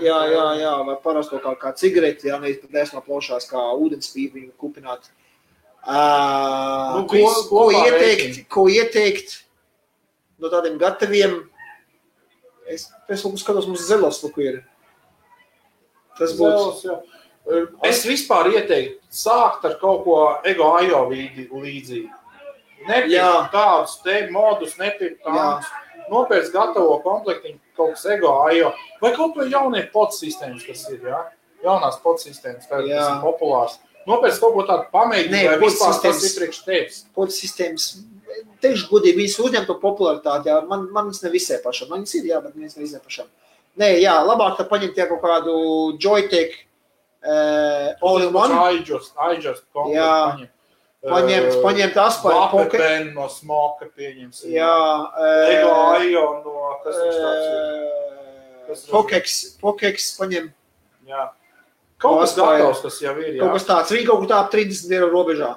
jā, vai parasto kā cigareti, jā, nevis pat esmu plaušās kā ūdenspīpi viņu kupināt. Ko ieteikt no tādiem gataviem? Es skatos, mums zelos luku ir. Tas būtu. Es vispār ieteiktu sākt ar kaut ko Ego Ajo līdzīgi. Nepirkt tādus te modus, nepirkt tādus. Nopēc gatavo komplektiņu kaut kas Ego Ajo. Vai kaut vai jaunie podsistēmas, kas ir, jā? Jaunās podsistēmas, kas ir populārs. Nopēc kaut ko tādu pamēģināt, vai vispār tas ir priekš tevis. Podsistēmas, teikšu godīgi, viņas uzņem to popularitāti, jā. Manis ne visai pašam. Manis ir, jā, bet manis ne visai pašam. Nē, jā, labāk tā paņemt jā kaut kādu Joytech all-in-one. iJust komplektu paņemt. Paņemt Aspire Pocket. Pen no Smoka pieņemsim. Jā. Ego Ajo no, kas viņš tāds ir? Pokex paņem. Jā. Kaut kas gatavs, kas jau ir, jā. Kaut kas tāds, viņi kaut kur tā 30 eiro robežā.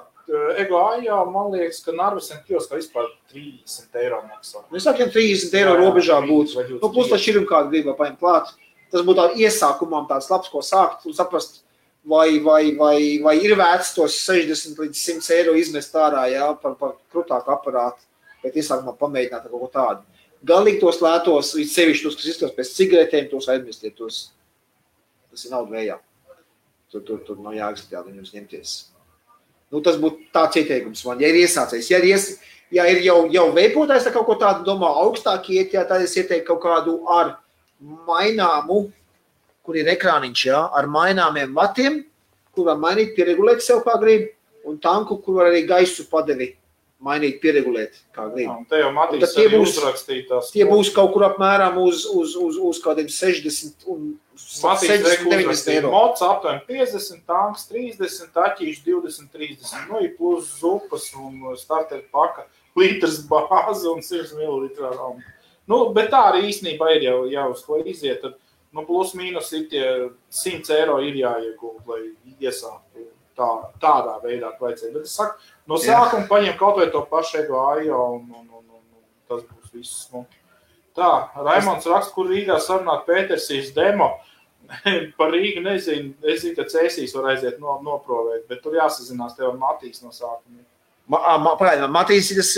Ego Ajo, man liekas, ka Narvesen kioskā vispār 30 eiro maksā. Mēs sākiem 30 eiro robežā būtu. Nu, plus tā šķirum kādu gribā paņemt klāt. Tas būtu tā iesākumam tāds labs, ko sākt un saprast, vai ir vērts tos 60 līdz 100 eiro izmest ārā, jā, par krutāku aparātu, bet iesākumā pamēģināt kaut ko tādu. Galīgi tos lētos, sevišķi tos, kas izskatās pēc cigaretēm, tos aizmirstiet, tas ir naudu vējā. Tur nav jāgatāt viņus ņemties. Nu, tas būtu tāds ieteikums man, ja ir iesācējis. Ja ir jau veipotājs, tā kaut ko tādu domā augstāk iet, jā, tad es ieteiktu kaut kādu ar maināmu, kur ir ekrāniņš, jā, ar maināmiem vatiem, kur var mainīt, pieregulēt sev kā grib, un tanku, kur var arī gaisu padevi mainīt, pieregulēt kā grib. Un te jau Matīs arī uzrakstītās. Tie būs kaut kur apmēram uz kādiem 60 un 70 eiro. Mods aptuveni 50, tanks 30, taķīši 20, 30. Nu, ir plus zupas un starter paka, litrs bāze un 100 ml rauma. Nu, bet tā arī īstenībā ir jau uz ko iziet. Tad, nu, plus mīnus ir tie 100 eiro ir jāiegūt, lai iesāktu tādā veidā vajadzēja. Bet es saku, no sākuma paņem kaut vai to pašu Ego Ajo un tas būs viss. Nu. Tā, Raimonds raksta, kur Rīgā sarunāt Pētersīs demo. Par Rīgu nezinu, es zinu, ka Cēsīs var aiziet noprovēt, bet tur jāsazinās tev ar Matīs no sākuma. Matīs ir tas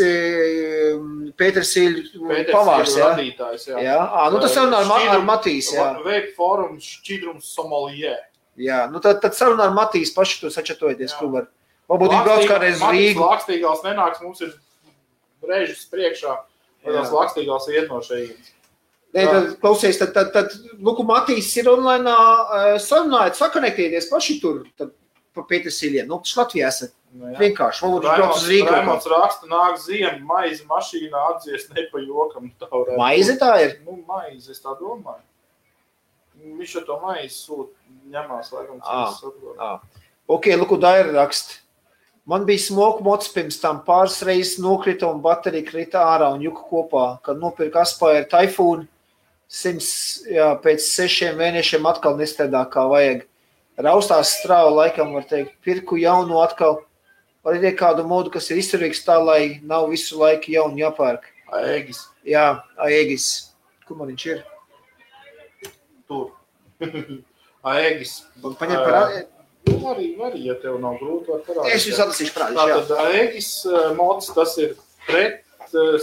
Pētersīļu pavārs, jā? Radītājs, jā. Jā, nu tas sarunā ar Matīs, jā. Vape forums šķidrums Somalijē. Jā, nu tad sarunā ar Matīs paši tur sačatojoties, kur var. Varbūt ir brauc kādreiz Rīgu. Matīs Lakstīgals nenāks, mums ir brēžas priekšā, vai tās Lakstīgals iet no šeit. Nē, tad klausies, tad Luku Matīs ir online sarunājot, sakonektēties paši tur, tad pa Pētersīļiem. Nu, tas Latvijā esat vienkārši, varbūt viņš brauc uz Rīgu. Raimonds raksta, nāk ziema, maizi mašīnā atdzies ne pa jokam. Maizi tā ir? Nu, maizi, es tā domāju. Viņš ar to maizi sūt, ņemās, laikam, Ok, Luku Daira raksta. Man bija smoku mods pirms tam pāris reizes nokrita un baterija krita ārā un juka kopā, kad nopirka Aspire Typhoon. 100, jā, pēc 6 mēnešiem atkal nestrādā kā vajag. Raustās strāva laikam, var teikt, pirku jaunu atkal. Var ir kādu modu, kas ir izturīgs tā, lai nav visu laiku jaunu jāpērk. Aegis. Jā, Aegis. Kur man viņš ir? Tur. Aegis. Paņem par... Arī, ja tev nav grūti, var parādīt. Es jūs atlasīšu prādīšu, jā. Tātad Aegis mods, tas ir pret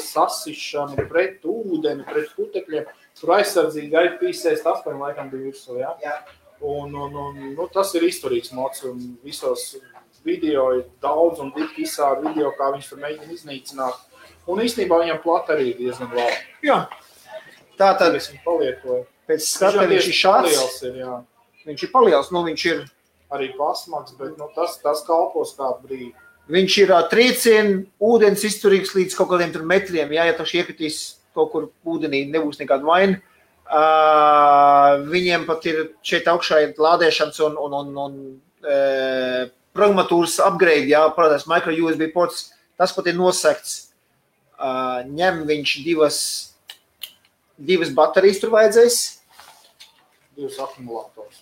sasišanu, pret ūdeni, pret putekļiem. Tur aizsardzīgi IP68 laikam bija virsū, jā? Jā. Un tas ir izturīgs mods, un visos video ir daudz un dikti izsādi video, kā viņš tur mēģina iznīcināt. Un īstenībā viņam plata arī diezgan labi. Jā. Tātad, es viņu palietoju. Pēc skata viņš ir šāds. Paliels ir, jā. Viņš ir paliels, nu viņš ir... Arī pasmaks, bet tas kalpos kādu brīdi. Viņš ir triecienu, ūdens izturīgs līdz kaut kādiem tur metriem, jā, ja taši iekritīs kaut kur ūdenī, nebūs nekāda vaina. Viņiem pat ir šeit augšā ir lādēšanas un programmatūras upgrade, jā, parādās micro USB ports, tas pat ir nosekts. Ņem viņš divas baterijas tur vajadzēs. 2 akumulators.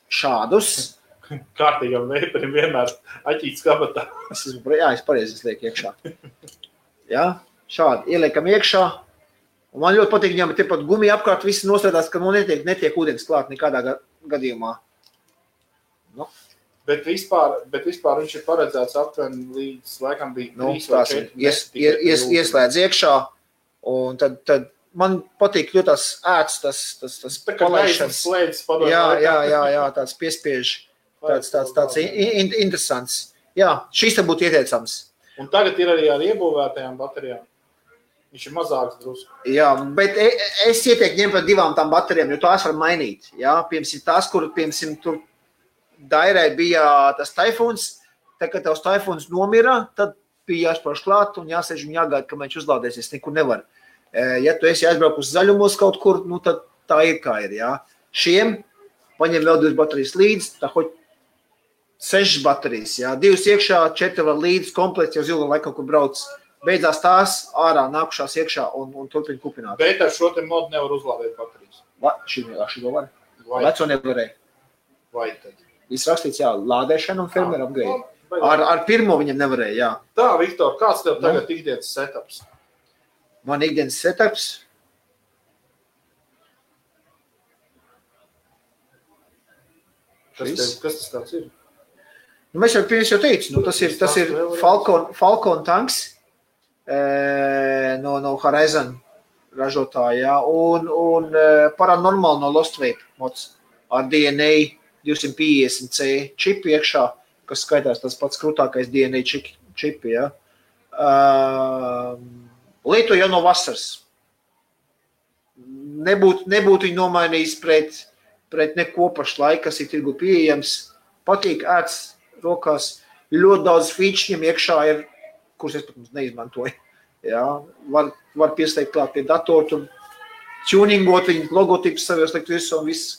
Šādus. Kārtīgam veiparim vienmēr aķīts kabatā. Es pareizi lieku iekšā. Jā, šādi ieliekam iekšā. Un man ļoti patīk, viņam ir pat gumija apkārt, visi nostrādās, ka netiek ūdens klāt nekādā gadījumā. Nu. Bet vispār viņš ir paredzēts aptuveni līdz, laikam, bija 3 vai 4. Ieslēdz iekšā, un tad man patīk ļoti tas ēts, tas palaišanas. Jā, tāds piespiež, tāds interesants. Jā, šis te būtu ieteicams. Un tagad ir arī ar iebūvētajām baterijām. Viņš ir mazāks drusku. Jā, bet es ieteiktu ņemt par 2 tām baterijām, jo tās var mainīt. Jā, piemēram, tās, kur, tur Dairai bija tas taifuns, tad, kad tavs taifuns nomira, tad bija jāspārš klāt un jāsēž un jāgaida, ka viņš uzlādēsies, nekur nevar. Ja tu esi aizbraukt uz zaļumos kaut kur, nu tad tā ir kā ir, jā. Šiem paņem vēl 2 baterijas līdz, tā hoķi 6 baterijas, jā. 2 iekšā, 4 var līdz, komplekts jau zilga laikam, kur brauc. Beidzās tās ārā, nākušās iekšā un turpina kupināt. Bet ar šo te modu nevar uzlādēt baterijas. Šito var? Veco nevarēja. Vai tad? Viss rakstīts, jā, lādēšana un firmware upgrade. Ar pirmo viņam nevarēja, jā. Tā, Viktor, kāds tev tagad ikdienas setups? Man ikdienas setups? Kas tas tāds ir? Nu, mēs jau teicu, nu, tas ir Falcon tanks no Horizon ražotāja, un paranormāli no Lost Vape mods ar DNA 250C čipi iekšā, kas skaitās tas pats krūtākais DNA čipi, ja. Lietu jau no vasaras. Nebūtu viņu nomainījis pret neko pašlaik, kas ir tirgu pieejams. Patīk ēts rokās. Ļoti daudz feature iekšā ir, kurus es pat neizmantoju. Ja. Var pieslēgt klāt pie datoru, tur tuningot viņu logotipus savos likt visu un viss,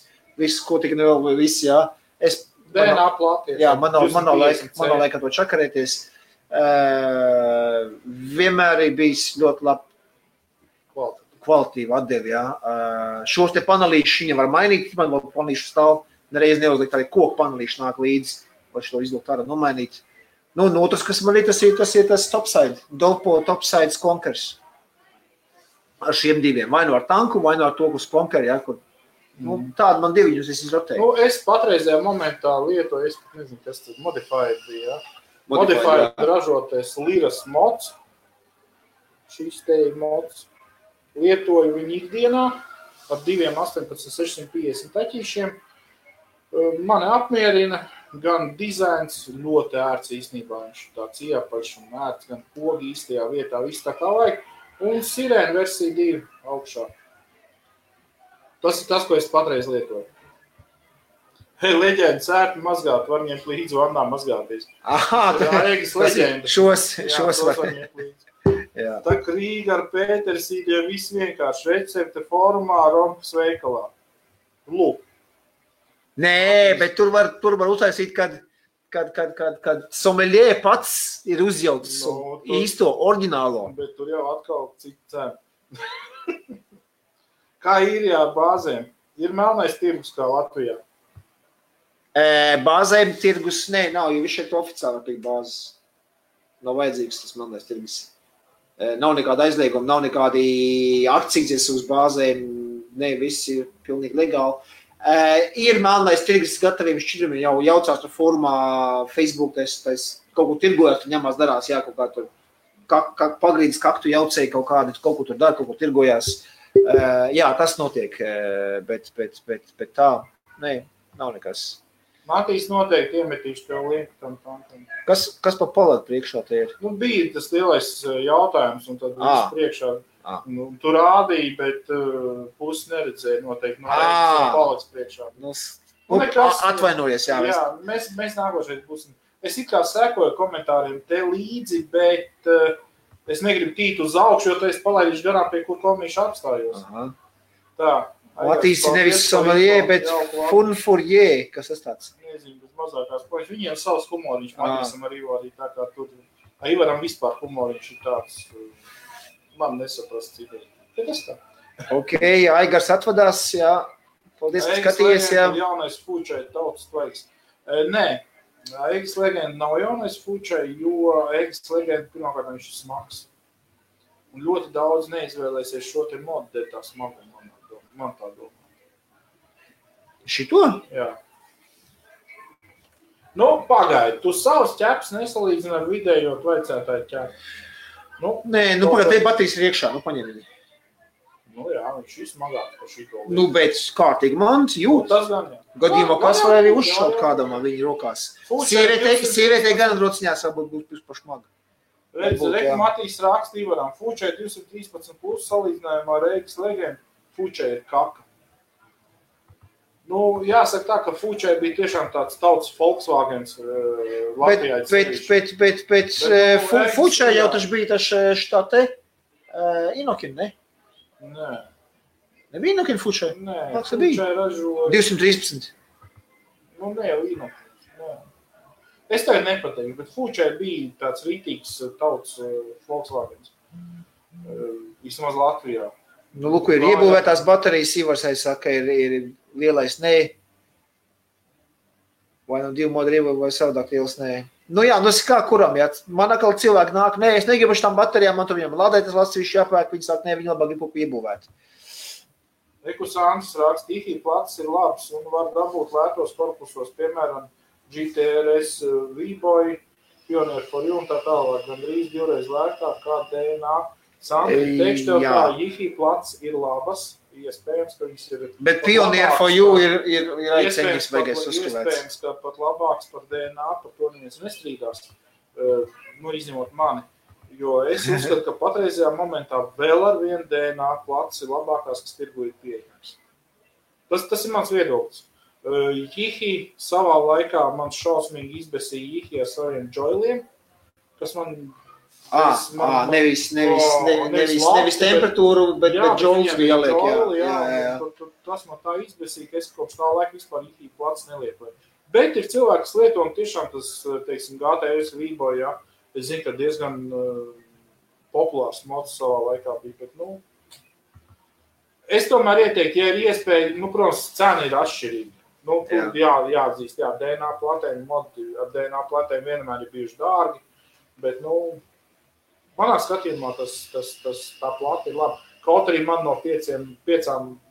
ko tik nevēl, viss, jā. DNA plāties. Jā, man nav laika to čakarēties. Vienmēr ir bijis ļoti labi kvalitīvi atdevi, jā. Šos te panelīšus viņa var mainīt, man vēl panelīšu stāv, nereiz neuzlikt arī koku panelīšu nāk līdzi, vai šo izlikt ārā nomainīt. Nu, un otrs, kas man ir, tas ir tas topside, Dolpo topside Skonkers. Ar šiem 2, vai nu ar tanku, vai nu ar to, kas Skonkeri, jā, kur. Nu, tādi man 2 viņus es izrotēju. Nu, es patreizajā momentā lietoju, es nezinu, kas tas Modified bija, jā. Modified ražoties Liras mods. Šis te ir mods. Lietoju viņu ikdienā ar 2 18650 taķīšiem. Mani apmierina gan dizains, ļoti ērts īstenībā. Viņš tāds iepaļš un ērts, gan pogi īstajā vietā, viss tā kā vajag. Un sirēna versija 2 augšā. Tas ir tas, ko es patreiz lietoju. Hei, leģenda, sērti mazgāt, var ņemt līdzi vannā mazgāties. Aha, Ēgas leģenda. Šos var ņemt līdzi. Tā Krīga ar Pētersīdiem viss vienkārši recepte formā Rompas veikalā. Lūk. Nē, bet tur var uztaisīt, kad sommelier pats ir uzjauts īsto, oriģinālo. Bet tur jau atkal cik cena. Kā īrijā ar bāzēm? Ir melnais tirgus kā Latvijā? Bāzēm tirgus, nav, jo viņš šeit oficiāli pie bāzes. Nav vajadzīgs tas melnais tirgus. Nav nekāda aizlieguma, nav nekādi akcijas uz bāzēm, viss ir pilnīgi legāli. Ir melnais tirgus gataviem šķidrumiem, jau jaucās tur formā Facebook, tas kaut ko tirgojās, tur ņemās darās, jā, kaut kā tur pagrīdis kaktu jaucēja kaut kādi, kaut ko tur dara, kaut ko tirgojās. Jā, tas notiek, bet tā, nav nekas. Matīs noteikti iemetīšu tev linku tam tankam. Kas pa paladu priekšā te ir? Nu, bija tas lielais jautājums, un tad viss priekšā. Nu, tu rādīji, bet pusi neredzēja noteikti. Palads priekšā. Atvainojies, jā. Jā, mēs nākošais būsim. Es it kā sekoju komentāriem te līdzi, bet es negribu tīt uz augšu, jo tu esi palaidīšu garām, pie kur komīšu apstājos. Aha. Tā. Matīsi nevis sommelier, bet fun fourier, kas tas tāds? Nezinu, bet mazākās poļas. Viņiem savs humoriņš, Matīsam ar Ivarī, tā kā tur. Ivaram vispār humoriņš ir tāds, man nesaprast citādi. Tas tā. Ok, Aigars atvadās, jā. Paldies, ka skatījies, jā. Jaunais Fūčai tautas tvaiks. Nē, Egis Legenda nav jaunais Fūčai, jo Egis Legenda pirmkārt viņš ir smags. Un ļoti daudz neizvēlēsies šo te modu, dēļ tā smagu, man tā domā. Šito? Jā. Nu, pagaidi, tu savus ķeps nesalīdzini ar vidējo tvaicētāju ķepu. Nē, pagaidi, te batīs ir iekšā, paņem viņu. Nu jā, viņš ir smagāks par šito. Nu, bet kārtīgi mans jūt. Tas gan, jā. Gadījumā kas var arī uzšaut kādam ar viņu rokās. Sievietē gan rociņās varbūt būs pašmaga. Redz, Matīs raksta Ivaram, Fūčai 213 plus salīdzinājumā ar Egis Legendu, Fūčai ir kaka. Nu, jāsaka tā, ka Fūčai bija tiešām tāds tautas Volkswagens Latvijā. Bet Fūčai jau taču bija tā te Inokin, ne? Nē. Nebija Inokin Fūčai? Nē, Fūčai ražoja... 213. Nu, ne jau Inokin. Es tagad nepateiktu, bet Fūčai bija tāds rītīgs tautas Volkswagens. Vismaz Latvijā. Nu, lūk, ir iebūvētās baterijas, Ivarsai saka, ir lielais nē. Vai nu 2 modu iebūvē, vai savādāk liels nē. Nu jā, nu es kā kuram, jā. Man atkal cilvēki nāk, nē, es negribu šitām baterijām, man tur viņam lādētas lasīši jāpērk, viņi sāk, nē, viņi labāk gribu iebūvēt. Ekus Andris raksta, IHI plats ir labs un var dabūt lētos korpusos, piemēram, GTRS V-Boy, Pioneer for You un tā tālāk, gan drīz 2 reiz lētāk kā DNA. Sandri, teikšu tev tā, IHI plats ir labas, iespējams, ka viņas ir... Bet Pioneer for You ir aiceņas vajagais uzskavēts. Iespējams, ka pat labāks par DNA, par to neviens nestrīdās, nu, izņemot mani. Jo es uzskatu, ka patreizajā momentā vēl ar vienu DNA plats ir labākās, kas tirgu ir pieejams. Tas ir mans viedoklis. Jihi savā laikā man šausmīgi izbesīja Jihi ar saviem joiliem, kas man... Nevis temperatūru, bet joils bija jāliek, jā. Tas man tā izbesīja, ka es kopš tā laika vispār Jihi plats nelietoju. Bet ir cilvēki, kas lieto, un tiešām tas, teiksim, GTRS V-Boy, jā, es zinu, ka diezgan populārs mods savā laikā bija, bet, nu, es tomēr ieteiktu, ja ir iespēja, nu, protams, cena ir atšķirīga. Nu, jāatzīst, jā, DNA platēm, modi ar DNA platēm vienmēr ir bijuši dārgi, bet, nu, manā skatījumā tā plata ir laba. Kaut arī man no 5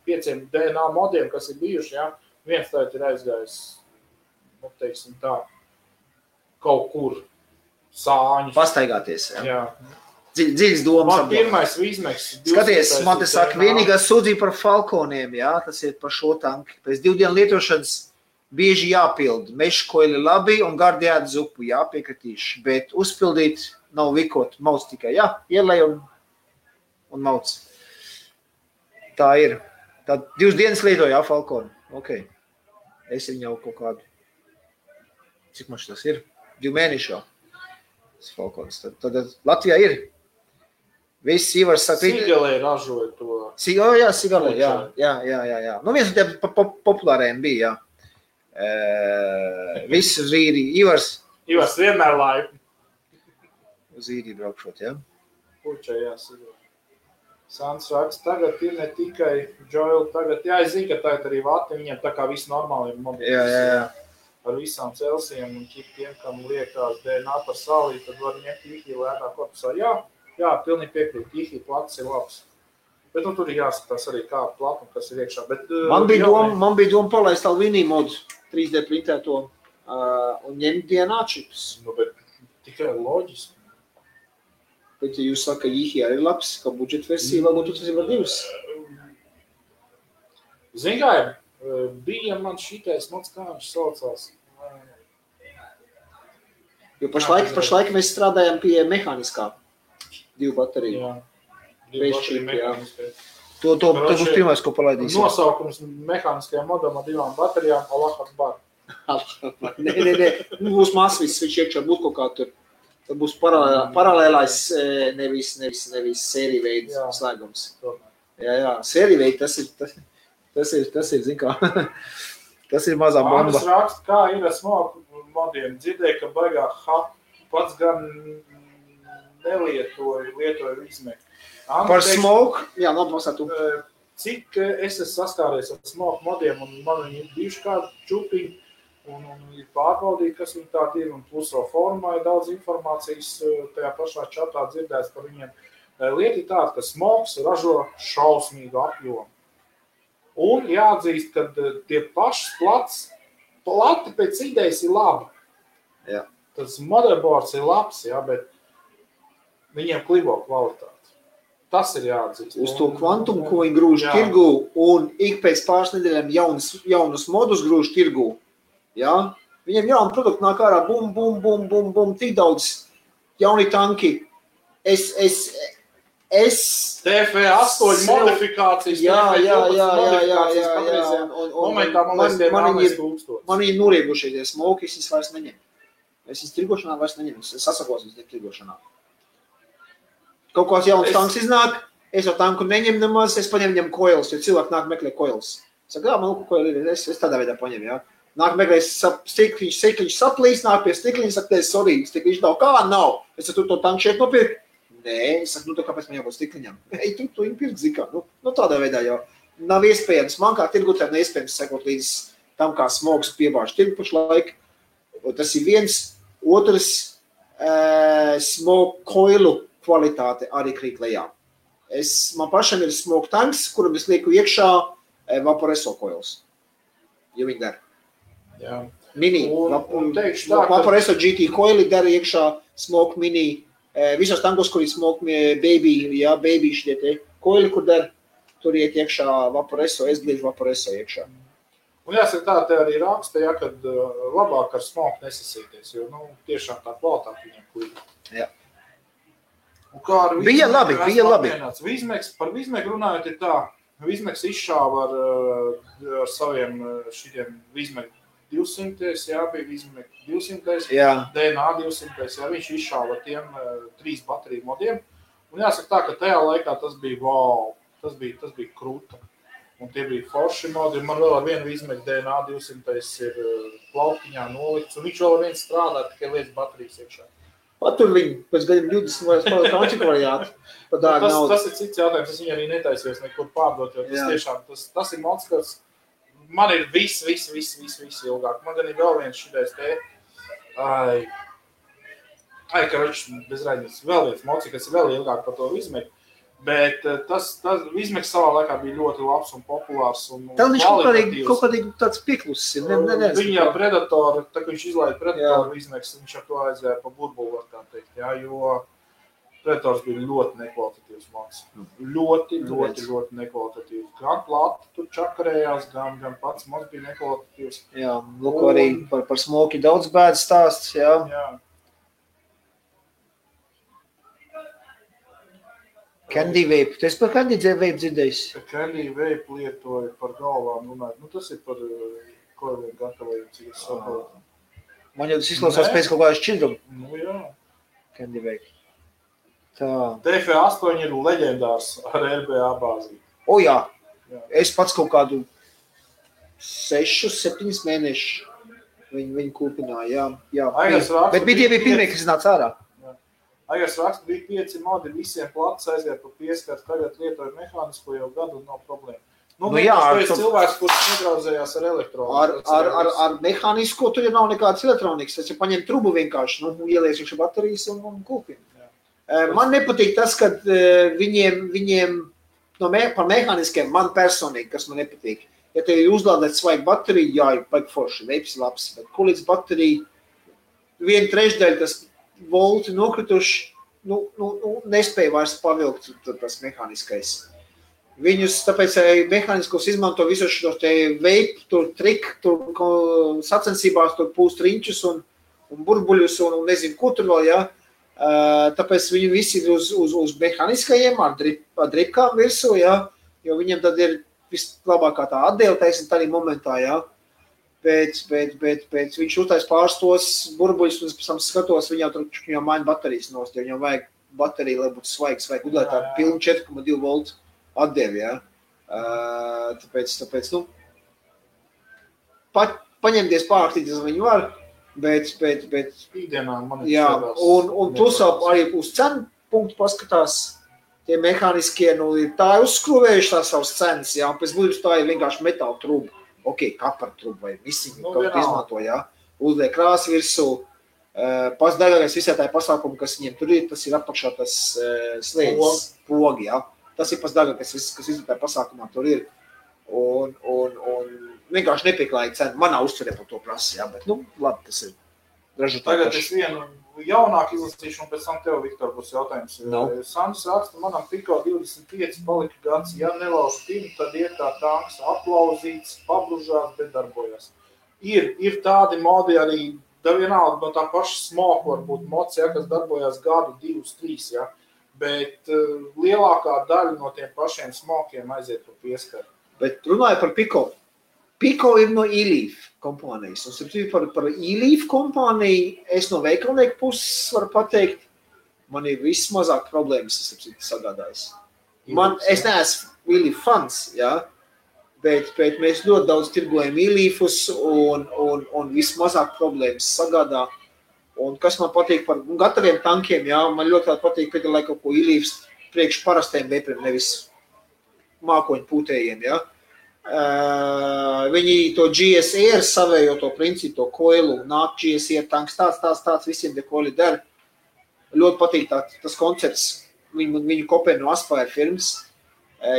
DNA modiem, kas ir bijuši, jā, viens tagad ir aizgājis, nu, teiksim tā, kaut kur sāņus. Pastaigāties, jā. Dziļas domas. Man pirmais Vīzmeks. Skaties, man te saka, vienīgā sūdzība par Falconiem, jā, tas ir par šo tanki. Pēc 2 dienu lietošanas bieži jāpild. Meškoļi labi un gardi ēd zupu, jāpiekritīši, bet uzpildīt nav vikot, mauc tikai, jā, ielej un mauc. Tā ir. Tā 2 dienas lietoja, jā, Falconi. Ok. Es viņu jau kaut kādu. Cik maš tas ir? 2 mēneši jau. Tas Falcons. Tad Latvijā ir. Viss Ivars saka... Sigalē ražoja to. Jā, Sigalē, jā. Nu, viens no tiem populāriem bija, jā. Viss uz īri. Ivars vienmēr laipni. Uz īri braukšot, jā. Puča, jā, Sigalē. Sants raksta, tagad ir ne tikai Joel, tagad, jā, es zinu, ka tagad arī vati, viņiem tā kā visi normāli ir mobili. Jā. Ar visām Celsijiem un tiem, kam liekās DNA par sālī, tad var ņemt IHI lētā korpusā. Jā, pilnīgi piekrīt, IHI plats ir labs. Bet nu, tur ir jāskatās arī kā platuma, kas ir iekšā. Bet, man bija doma palaist Alvinī modu 3D printēto un ņemt DNA čips. Nu, bet tikai loģiski. Bet ja jūs saka, ka IHI arī labs, ka budžeta versija, varbūt tas ir var 2. Zin kā ir? Bija man šitais mods, kā viņš saucās. Jo pašlaik mēs strādājam pie mehāniskā 2 bateriju. Jā, 2 bateriju mehāniskā. To būs pirmais, ko palaidīsim. Nosaukums mehāniskajām modam ar 2 baterijām, Allah Akbar. Nē. Būs masvis, viņš iekšā būt kaut kā tur. Tad būs paralēlais, nevis sērija veids slēgums. Jā, sērija tas ir, zin kā, tas ir mazā bomba. Andris raksta, kā ir ar smoku modiem. Dzirdēju, ka baigā pats gan lietoju izmēku. Par smoku? Jā, nopasā tu. Cik es esmu saskāries ar smoku modiem, un man viņi ir bijuši kādi čupiņi, un ir pārbaudīti, kas viņi tādi ir, un pluso formā ir daudz informācijas tajā pašā čatā dzirdēts par viņiem. Lieta ir tāda, ka smoks ražo šausmīgu apjomu. Un jāatzīst, ka tie paši plati pēc idejas ir labi. Jā. Tas motherboards ir labs, jā, bet viņiem klibo kvalitāti. Tas ir jāatzīst. Uz to kvantumu, ko viņi grūž tirgū, un ik pēc pāris nedēļām jaunus modus grūž tirgū. Jā? Viņiem jauni produkti nāk ārā, bum, tik daudz jauni tanki. TF8 modifikācijas. Jā. Momentā, man liekas, man ir noriegušies, ja smoki, es vairs neņem. Es tirgošanā vairs neņem, es sasakos tirgošanā. Kaut kāds jauns tanks iznāk, es ar tanku neņem nemaz, es paņem viņam coils, jo cilvēki nāk meklē coils. Saka, man coil ir, es tādā veidā paņem, jā. Nāk meklē, stikliņš saplīs, nāk pie stikliņa, saka, sorry, stikliņš nav, kā nav? Es saku, tu to tanku šeit nopirkt? Nē, es saku, kāpēc man jābūt stikliņam? Ei, tu viņu pirkt, zikā, tādā veidā jau. Nav iespējams, man kā tirgotājiem neiespējams sekot līdz tam, kā smogs piebāž tirgu pašlaik. Tas ir viens, otrs smog coilu kvalitāte arī krīt lejā. Man pašam ir smoke tanks, kuram es lieku iekšā Vaporeso coils. Ja viņi der. Jā. Mini. Vaporeso GT coili der iekšā smoke mini. Visos tankos, kur ir smoke baby, jā, baby šitie te coili, kur der, tur iet iekšā Vaporeso, es gliežu Vaporeso iekšā. Un jāsaka tā, te arī raksta, ja, kad labāk ar smoke nesasīties, jo, tiešām tā kvalitāte viņam klīda. Jā. Bija labi. Par Vizmeku runājot ir tā, Vizmeks izšāva ar saviem šitiem Vizmeku 200, jā, bija Vizmeku 200, jā. DNA 200, jā, viņš izšāva ar tiem 3 bateriju modiem. Un jāsaka tā, ka tajā laikā tas bija wow, tas bija krūta. Un tie bija forši modi, man vēl ar vienu Vizmeku DNA 200 ir plauktiņā nolikts, un viņš vēl ar viens strādā, tikai lietas baterijas iekšā. Patur viņu, pēc gadiem 20 vai spēlēt kaunčiku variātu. Tas ir cits jautājums, es viņu arī netaisies nekur pārdot, jo tas tiešām, tas ir mods, kas man ir viss ilgāk. Man gan ir vēl viens šitais te, karoč, bez raidības, vēl viens mods, kas ir vēl ilgāk par to Vizmeku. Bet tas Vizmeks savā laikā bija ļoti labs un populārs. Tā viņš kaut kādīgi tāds pieklusis ir. Viņa Predator, tā kā viņš izlaida Predator Vizmeks, viņš ar to aizvēja pa burbulu, var tā teikt, jā, jo Predators bija ļoti nekvalitatīvs mods. Ļoti nekvalitatīvs. Gan plati tur čakarējās, gan pats mods bija nekvalitatīvs. Jā, lūk, arī par smoki daudz bēdas stāsts, jā. Candy Vape. Tu esi par Candy Vape dzirdējis? Candy Vape lietoju par galvām runāt. Tas ir par koiliem gatavojumu, cik es saprotu. Man jau tas izklausās pēc kaut kādā šķidruma. Jā. Candy Vape. Tā. TF8 ir leģendārs ar RBA bāzi. Jā. Es pats kaut kādu 6-7 mēnešu viņu kūpināju. Jā. Bet bija pirmie, kas nāca ārā. Agars raksta, bija 5 modi, visiem plats aizgāja pa pieskatu, tagad lietoju mehānisko jau gadu un nav problēma. Tas cilvēks, kurš nedraudzējās ar elektroniku. Ar mehānisko tur jau nav nekādas elektronikas. Tas ir paņemt trubu vienkārši, ielies iekšā baterijas un kūpina. Man nepatīk tas, ka viņiem par mehāniskiem man personīgi, kas man nepatīk. Ja tev ir uzlādēt svaigu bateriju, jā, ir baigi forši, veips labs, bet ko līdz bateriju 1/3 tas volti nokrituši, nespēja vairs pavilkt tas mehāniskais. Viņus, tāpēc mehāniskos izmanto visus šos te vape, tur trik, tur sacensībās, tur pūst riņķus un burbuļus un nezinu, ko tur vēl, jā. Tāpēc viņi visi ir uz mehāniskajiem ar dripkām virsū, jā, jo viņiem tad ir vislabākā tā atdēle, teiksim, tādā momentā, jā. Bet viņš uztais pāris tos burbuļus, un es pēc tam skatos, viņam maina baterijas nost, jo viņam vajag bateriju, lai būtu svaigs, vajag udēt tā pilnu 4,2 voltu atdevi, ja. Tāpēc, paņemties pāraktīties viņu var, bet ikdienā man jā, un plus arī uz cenu punktu paskatās, tie mehāniskie, tā ir uzskruvējuši tās savas cenas, jā, un pēc būtības tā ir vienkārši metāla truba, kapara truba vai misiņu, kaut kā izmanto, jā, uzliek krāsu virsū, pats dārgākais visā tā pasākumu, kas viņiem tur ir, tas ir apakšā tas slēdzis, pogi, jā. Tas ir pats dārgākais, kas visā tā pasākumā tur ir. Un vienkārši nepieklājīgi cena. Manā uztverē par to prasa, jā, bet, labi, tas ir ražotāji. Tagad es vienu jaunāku izlasīšu, un pēc tam tev, Viktor, būs jautājums. Sandrs raksta, manam Piko 25 palika gads, ja nelauž pinu, tad ir tā tanks aplauzīts, pabružās, bet darbojas. Ir tādi modi arī, vienalga no tā paša smoku, varbūt mods, ja, kas darbojas gadu, 2, 3, ja, bet lielākā daļa no tiem pašiem smokiem aiziet pa pieskaru. Bet runāju par Piko. Piko ir no E-Leaf kompānijas. Un par E-Leaf kompāniju es no veikalnieku puses varu pateikt, man ir vismazāk problēmas, es sagādājis. Es neesmu E-Leaf fans, jā, bet mēs ļoti daudz tirgojam E-Leafus un vismazāk problēmas sagādā. Un kas man patīk par gataviem tankiem, jā, man ļoti patīk piedalīt kaut ko E-Leafs priekš parastiem vepriem, nevis mākoņu pūtējiem, jā. Viņi to GSR savējo to principu, to koilu, nāk GSR tanks, tāds visiem te koili der. Ļoti patīk tas koncepts, viņu kopē no Aspire firmas,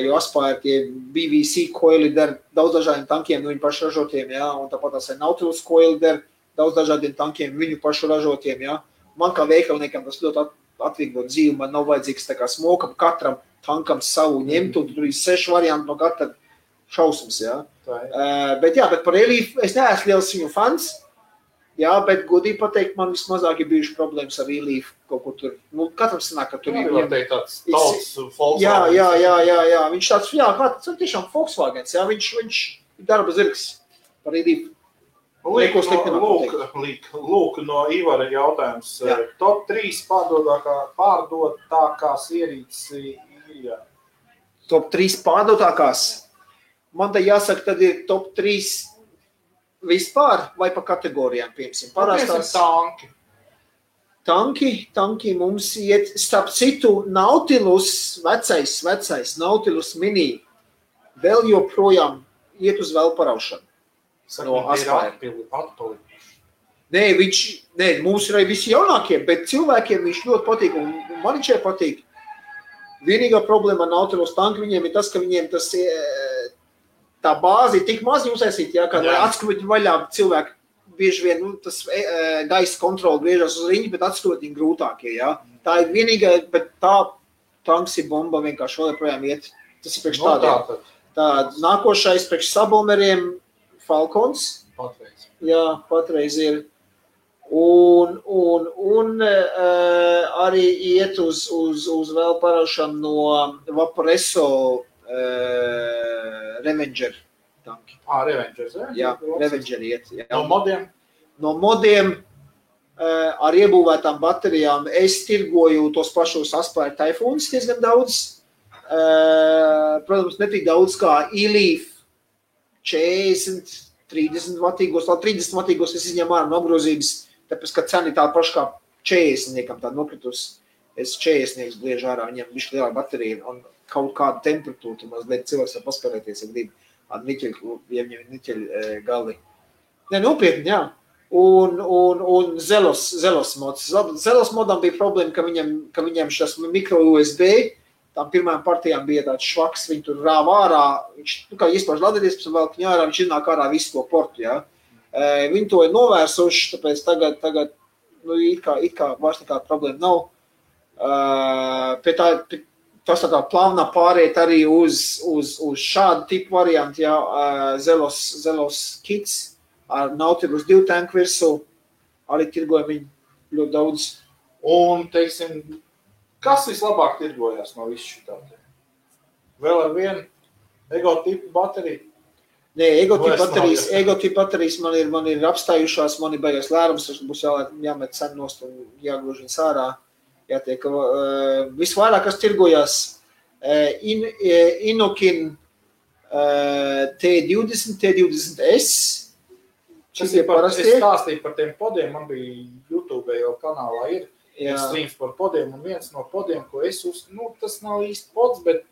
jo Aspire tie BBC koili der daudz dažādiem tankiem, no viņu pašu ražotiem, jā, un tāpat tās Nautilus koili der daudz dažādiem tankiem, viņu pašu ražotiem, jā. Man kā veikalniekam tas ļoti atvieglo dzīvi, man nav vajadzīgs tā kā smokam, katram tankam savu ņemt, un tur ir 6 varianti no katra šausmas, jā. Bet par E-Leaf es neesmu liels viņu fans, jā, bet godīgi pateikt, man vismazāk ir bijuši problēmas ar E-Leaf kaut kur tur. Katram sanāk, ka tur ir. Var teikt tāds tauts Volkswagen. Jā, viņš tāds, tas tiešām Volkswagens, jā, viņš ir darba zirgs par E-Leaf. Lūk, no Ivara jautājums. Top 3 pārdotākās ierīces īrijā. Top 3 pārdotākās? Man te jāsaka, tad ir top 3 vispār vai pa kategorijām, piemēram. Parastās Tanki mums iet, starp citu, Nautilus, vecais Nautilus mini, vēl joprojām iet uz vēl paraušanu. No Aspire. Nē, mums ir arī visi jaunākie, bet cilvēkiem viņš ļoti patīk, un man viņš patīk. Vienīgā problēma ar Nautilus tanku viņiem ir tas, ka viņiem tas tā bāzi ir tik maz uztaisīt, jā, kad atskrūt vaļā cilvēki bieži vien, tas gaisa kontroli griežas uz riņu, bet atskrūt viņi grūtākie, jā. Tā ir vienīgā, bet tā tanks ir bomba vienkārši vēl projām iet. Tas ir priekš tādiem. Tā nākošais priekš sabomberiem Falcons. Patreiz. Jā, patreiz ir. Un arī iet uz vēl paraušanu no Vaporesso Revenger tanki. Revengers, jā? Revenger iet. Jā. No modiem? No modiem ar iebūvētām baterijām es tirgoju tos pašos Aspire Typhoons diezgan daudz. Protams, ne tik daudz kā E-Leaf 40, 30 vatīgos, 30 vatīgos es izņemu ārā no apgrozības, tāpēc, ka cena ir tā paša kā 40-niekam tā nokritus. Es 40-nieks bliežu ārā, viņam bišķi lielā baterija un kaut kādu temperatūru, mazliet cilvēks var paspēlēties, ja grib ar niķeļu gali. Ne, nopietni, jā. Un Zelos mods. Zelos modam bija problēma, ka viņam šis mikro USB, tām pirmajām partijām bija tāds švaks, viņi tur rāva ārā, viņš, kā iespāž ladēties, pēc vēl viņa ārā, viņš iznāk ārā visu to portu, jā. Viņi to ir novērsuši, tāpēc tagad it kā vairs nekāda problēma nav. Tas tā plānā pāriet arī uz šādu tipu variantu, jā, Zelos kits ar Nautilus 2 tanku virsū, arī tirgoja viņu ļoti daudz. Un, teiksim, kas vislabāk tirgojās no visu šitādi? Vēl ar vienu ego-tipu bateriju? Nē, ego-tipu baterijas man ir apstājušās, man ir beigas lērums, tas būs jāmet sen nost un jāgrož viņas ārā. Jātiek, visvairāk, kas tirgojās Inokin T20, T20S. Es stāstīju par tiem podiem, man bija YouTube jau kanālā ir streams par podiem, un viens no podiem, ko es tas nav īsti pods, bet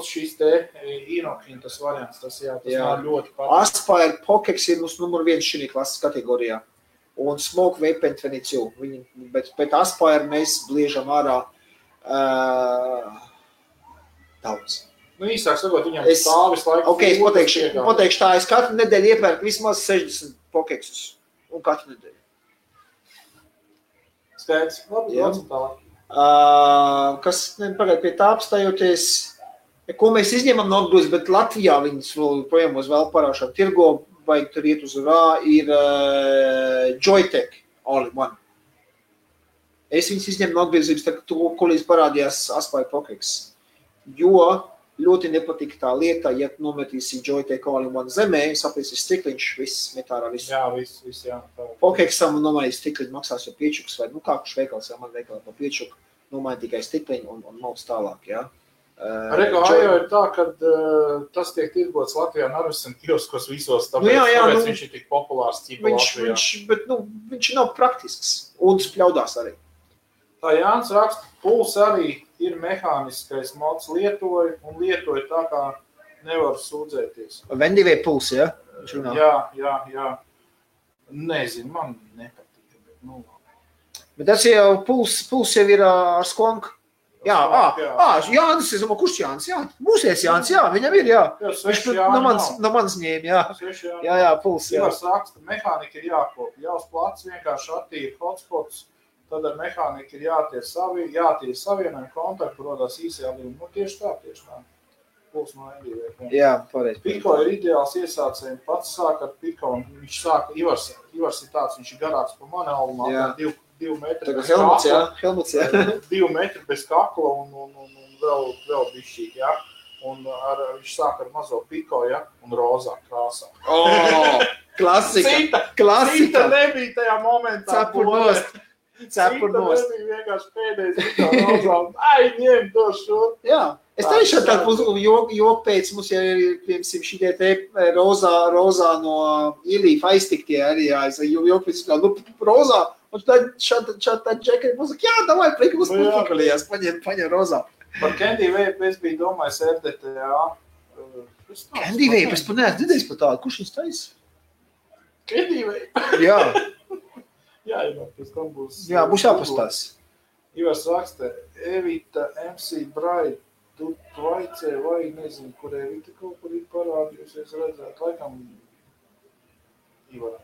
šīs te Inokin tas variants, tas man ļoti patīk. Aspire Pokex ir mums numur 1 šī klases kategorijā, un Smoke Vape 22, bet Aspire mēs bliežam ārā daudz. Īsāk sakot, viņam stāvis laiku. Ok, es pateikšu tā, es katru nedēļu iepērku vismaz 60 Pokexus, un katru nedēļu. Skaidrs, labi, tālāk. Kas, pagaid pie tā apstājoties, ko mēs izņemam no apgrūs, bet Latvijā viņas projām uz vēl parāšām tirgo, vai tur iet uz rā, ir Joytech All-in-One. Es viņas izņemu no apgrūzības, tā, ko līdz parādījās Aspire Pokex, jo ļoti nepatika tā lieta, ja nometīsi Joytech All-in-One zemē, saprīsi stikliņš, viss met ārā visu. Jā, viss, jā. Pokexam nomaiņas stikliņu maksās jau 5, vai kā kurš veikals, man veikalā pa 5, nomaiņa tikai stikliņu un mauc tālāk, jā. Rego, jau ir tā, ka tas tiek tirgots Latvijā Narvesen kioskos visos, tāpēc viņš ir tik populārs ķipa Latvijā. Bet viņš nav praktisks un spļaudās arī. Tā Jānis raksta, puls arī ir mehāniskais mods lietoja tā, kā nevar sūdzēties. Vendivē puls, ja? Jā. Nezinu, man nepatīk. Bet tas jau puls jau ir ar skonku. Jānis, es domāju, kurš Jānis? Jā, mūsies Jānis, jā, viņam ir, jā. Viņš no manis ņēma, jā. Jā, puls, jā. Ivars raksta, mehānika ir jākop, jāuz plats vienkārši attīra hotspots, tad ar mehāniku ir jātier savienojumi, kontaktu rodās īsajā līmenī. Tieši tā. Puls no NDV. Jā, pareizi. Piko ir ideāls iesācējiem, pats sāk ar Piko, un viņš sāka, Ivars ir tāds, viņš ir garāks pa mani albumā, 2 metri bez Helmuts, jā. 2 metri bez kakla un vēl bišķīgi, jā. Un viņš sāk ar mazo Piko, jā, un rozā krāsā. Klasika. Cita nebija tajā momentā. Cepur nost. Cita nebija vienkārši pēdējais Piko rozā. Ņem to šo. Jā. Es teikšu, ka joku pēc mums jau ir, piemēram, šitie te rozā no Ilīfa aiztiktie arī, joku pēc, rozā, un tad šāda džekari mums saka, jā, davai, prika, mums pakalījās, paņem rozā. Par Candy Vape es biju domājis RDTA. Candy Vape, es neesmu dzirdējis par tādu, kurš viņas taisa? Candy Vape? Jā. Jā, pēc tam būs. Jā, būs jāpastās. Ivars raksta, Evita MC Bright. Tu vaicē vai nezinu, kur Evita kaut kur ir parādījusies redzēt, laikam Ivarā.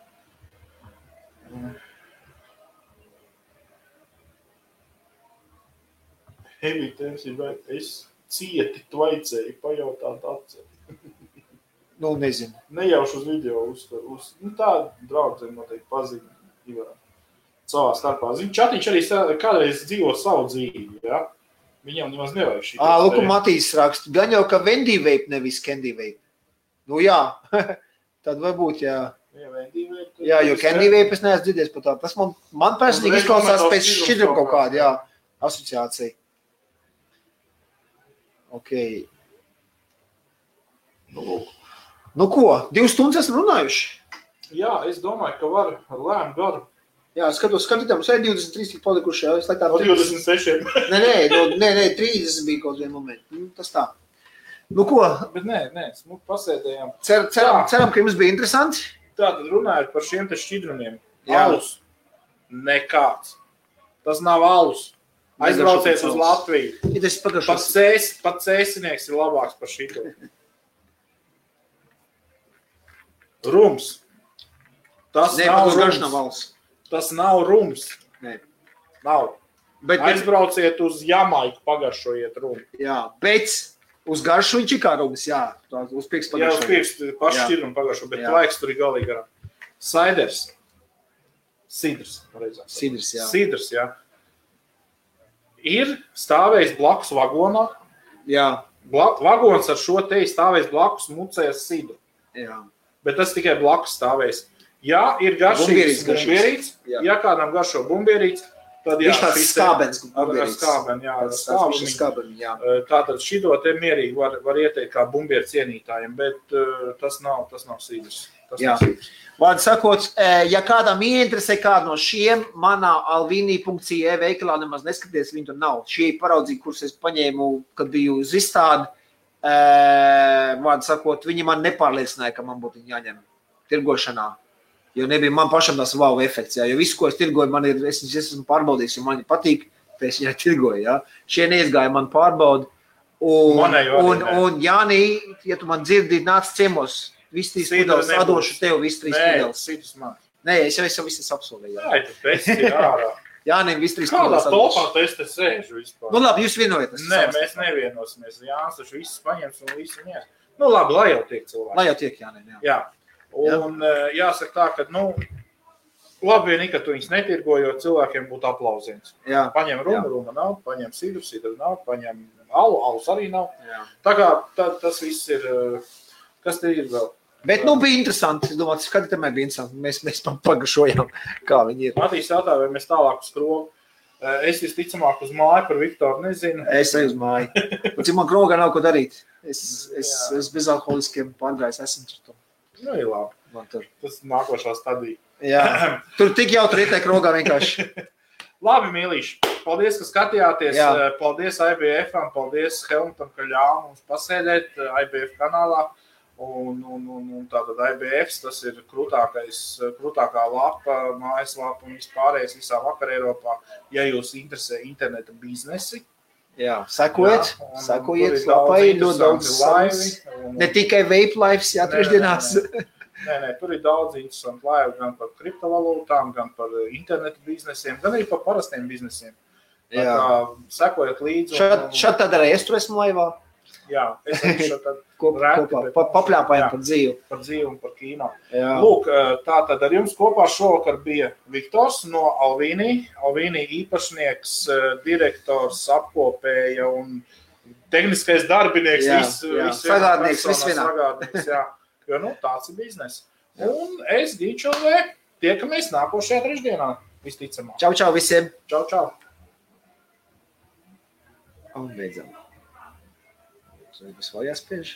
Evita MC Bright, es cieti tvaicēju, pajautāt atceri. Nezinu. Nejauši uz video tā draudzē noteikti pazīme Ivarā. Savā starpā. Čatiņš arī kādreiz dzīvo savu dzīvi, jā? Viņam nemaz nevajag šī. Lūk, Matīs raksta, gan jau, ka Vendy Vape nevis Candy Vape. Jā, tad varbūt, jā. Jā, jo Candy Vape es neesmu dzirdējis par tādu. Tas man personīgi izklausās pēc šķidrum kaut kāda, jā, asociācija. Ok. Nu ko, 2 stundas esam runājuši? Jā, es domāju, ka var ar lēmu garu. Jā, skatītām, mums ir 23 tik palikuši, jā, es laikā... No 26. Nē, 30 bija kaut vien momenti. Tas tā. Nu ko? Bet nē, smuki pasēdējām. Ceram, ka jums bija interesanti. Tātad runājot par šiem te šķidrumiem. Alus. Nekāds. Tas nav alus. Aizbraucies uz Latviju. Pat cēsinieks ir labāks par šito. Rums. Tas nav rums. Tas nav rums. Nē. Nav. Aizbrauciet uz Jamaiku, pagaršojiet rumu. Jā, bet uz garšu viņš ir kā rums, jā. Uz pirks pagaršo. Jā, uz pirks paši šķidrumu pagaršo, bet laiks tur ir galīgi garām. Saiders. Sidrs, pareizāk. Sidrs, jā. Ir stāvējis blakus vagonā. Jā. Vagons ar šo te stāvējis blakus mucējas sidru. Jā. Bet tas tikai blakus stāvējis. Ja ir garšīgs bumbierīts, ja kādam garšo bumbierīts, Tad, viņš tāds skābens. Ar skābeni, jā. Tātad šito te mierīgi var ieteikt kā bumbieru cienītājiem, bet tas nav sīdrs. Vārdu sakot, ja kādam ieinteresē kādu no šiem, manā alvini.ie veikalā nemaz neskaties, viņi tur nav. Šie paraudzīgi, kurus es paņēmu, kad biju uz izstādi, vārdu sakot, viņi man nepārliecināja, ka man būtu jāņem tirgošanā. Jo nebija man pašam tas wow efekts, jo visu, ko es tirgoju, es esmu pārbaudījis, jo man patīk, tad es viņai tirgoju, jā. Šie neizgāja man pārbaudu. Un Jānī, ja tu man dzirdi, nāc ciemos, visi trīs pudeles, atdošu tev visi trīs pudeles. Nē, es jau visi apsolēju. Jā, tu pēc ir ārā. Jānim visi trīs pudeles atdošu. Kādā topā es te sēžu vispār? Nu labi, jūs vienojaties. Nē, mēs nevienosimies. Jānis taču visus paņems un visu mies. Nu labi, lai jau tiek cilvēki. Lai jau tiek, Jānim, jā. Un jāsaka tā, ka, labi vienīgi, ka tu viņus netirgoji, jo cilvēkiem būtu aplausiens. Paņem ruma nav, paņem sidru nav, paņem alus arī nav. Jā. Tā kā tas viss ir, kas te ir vēl? Bet, bija interesanti. Es domāju, skatītājumai bija interesanti. Mēs pagašojām, kā viņi ir. Matīs jautā, vai mēs tālāk uz krogu. Es visticamāk uz māju par Viktoru nezinu. Es eju uz māju. Cik man krogā nav ko darīt. Es bezalkoholiskiem pārgājis esmu tur. Nu, ir labi. Tas nākošā stadija. Jā. Tur tik jautri ietiek rogā vienkārši. Labi, mīlīši. Paldies, ka skatījāties. Jā. Paldies IBF-am, paldies Helmutam, ka ļāva mums pasēdēt IBF kanālā. Un tātad IBFs, tas ir krūtākā lapa, mājaslapa un vispārējais visā vakar Eiropā. Ja jūs interesē interneta biznesi, jā, sekojiet lapai, ļoti daudz laivi. Ne tikai vape lives, jā, trešdienās. Nē, tur ir daudz interesanti laivi, gan par kriptovalūtām, gan par internetu biznesiem, gan arī par parastiem biznesiem. Jā. Sekojiet līdzi. Šad tad arī es tur esmu laivā. Jā, es arī šad tad papļāpājam par dzīvi. Par dzīvi un par kīno. Jā. Lūk, tātad ar jums kopā šovakar bija Viktors no Alvini. Alvini īpašnieks, direktors, apkopēja un tehniskais darbinieks. Sagādnieks, viss vienā. Jo, tāds ir biznes. Un es, Gīčovē, tiekamies nākošajā trešdienā, visticamāk. Čau visiem. Čau. Un beidzam. Vai vēl jāspiež?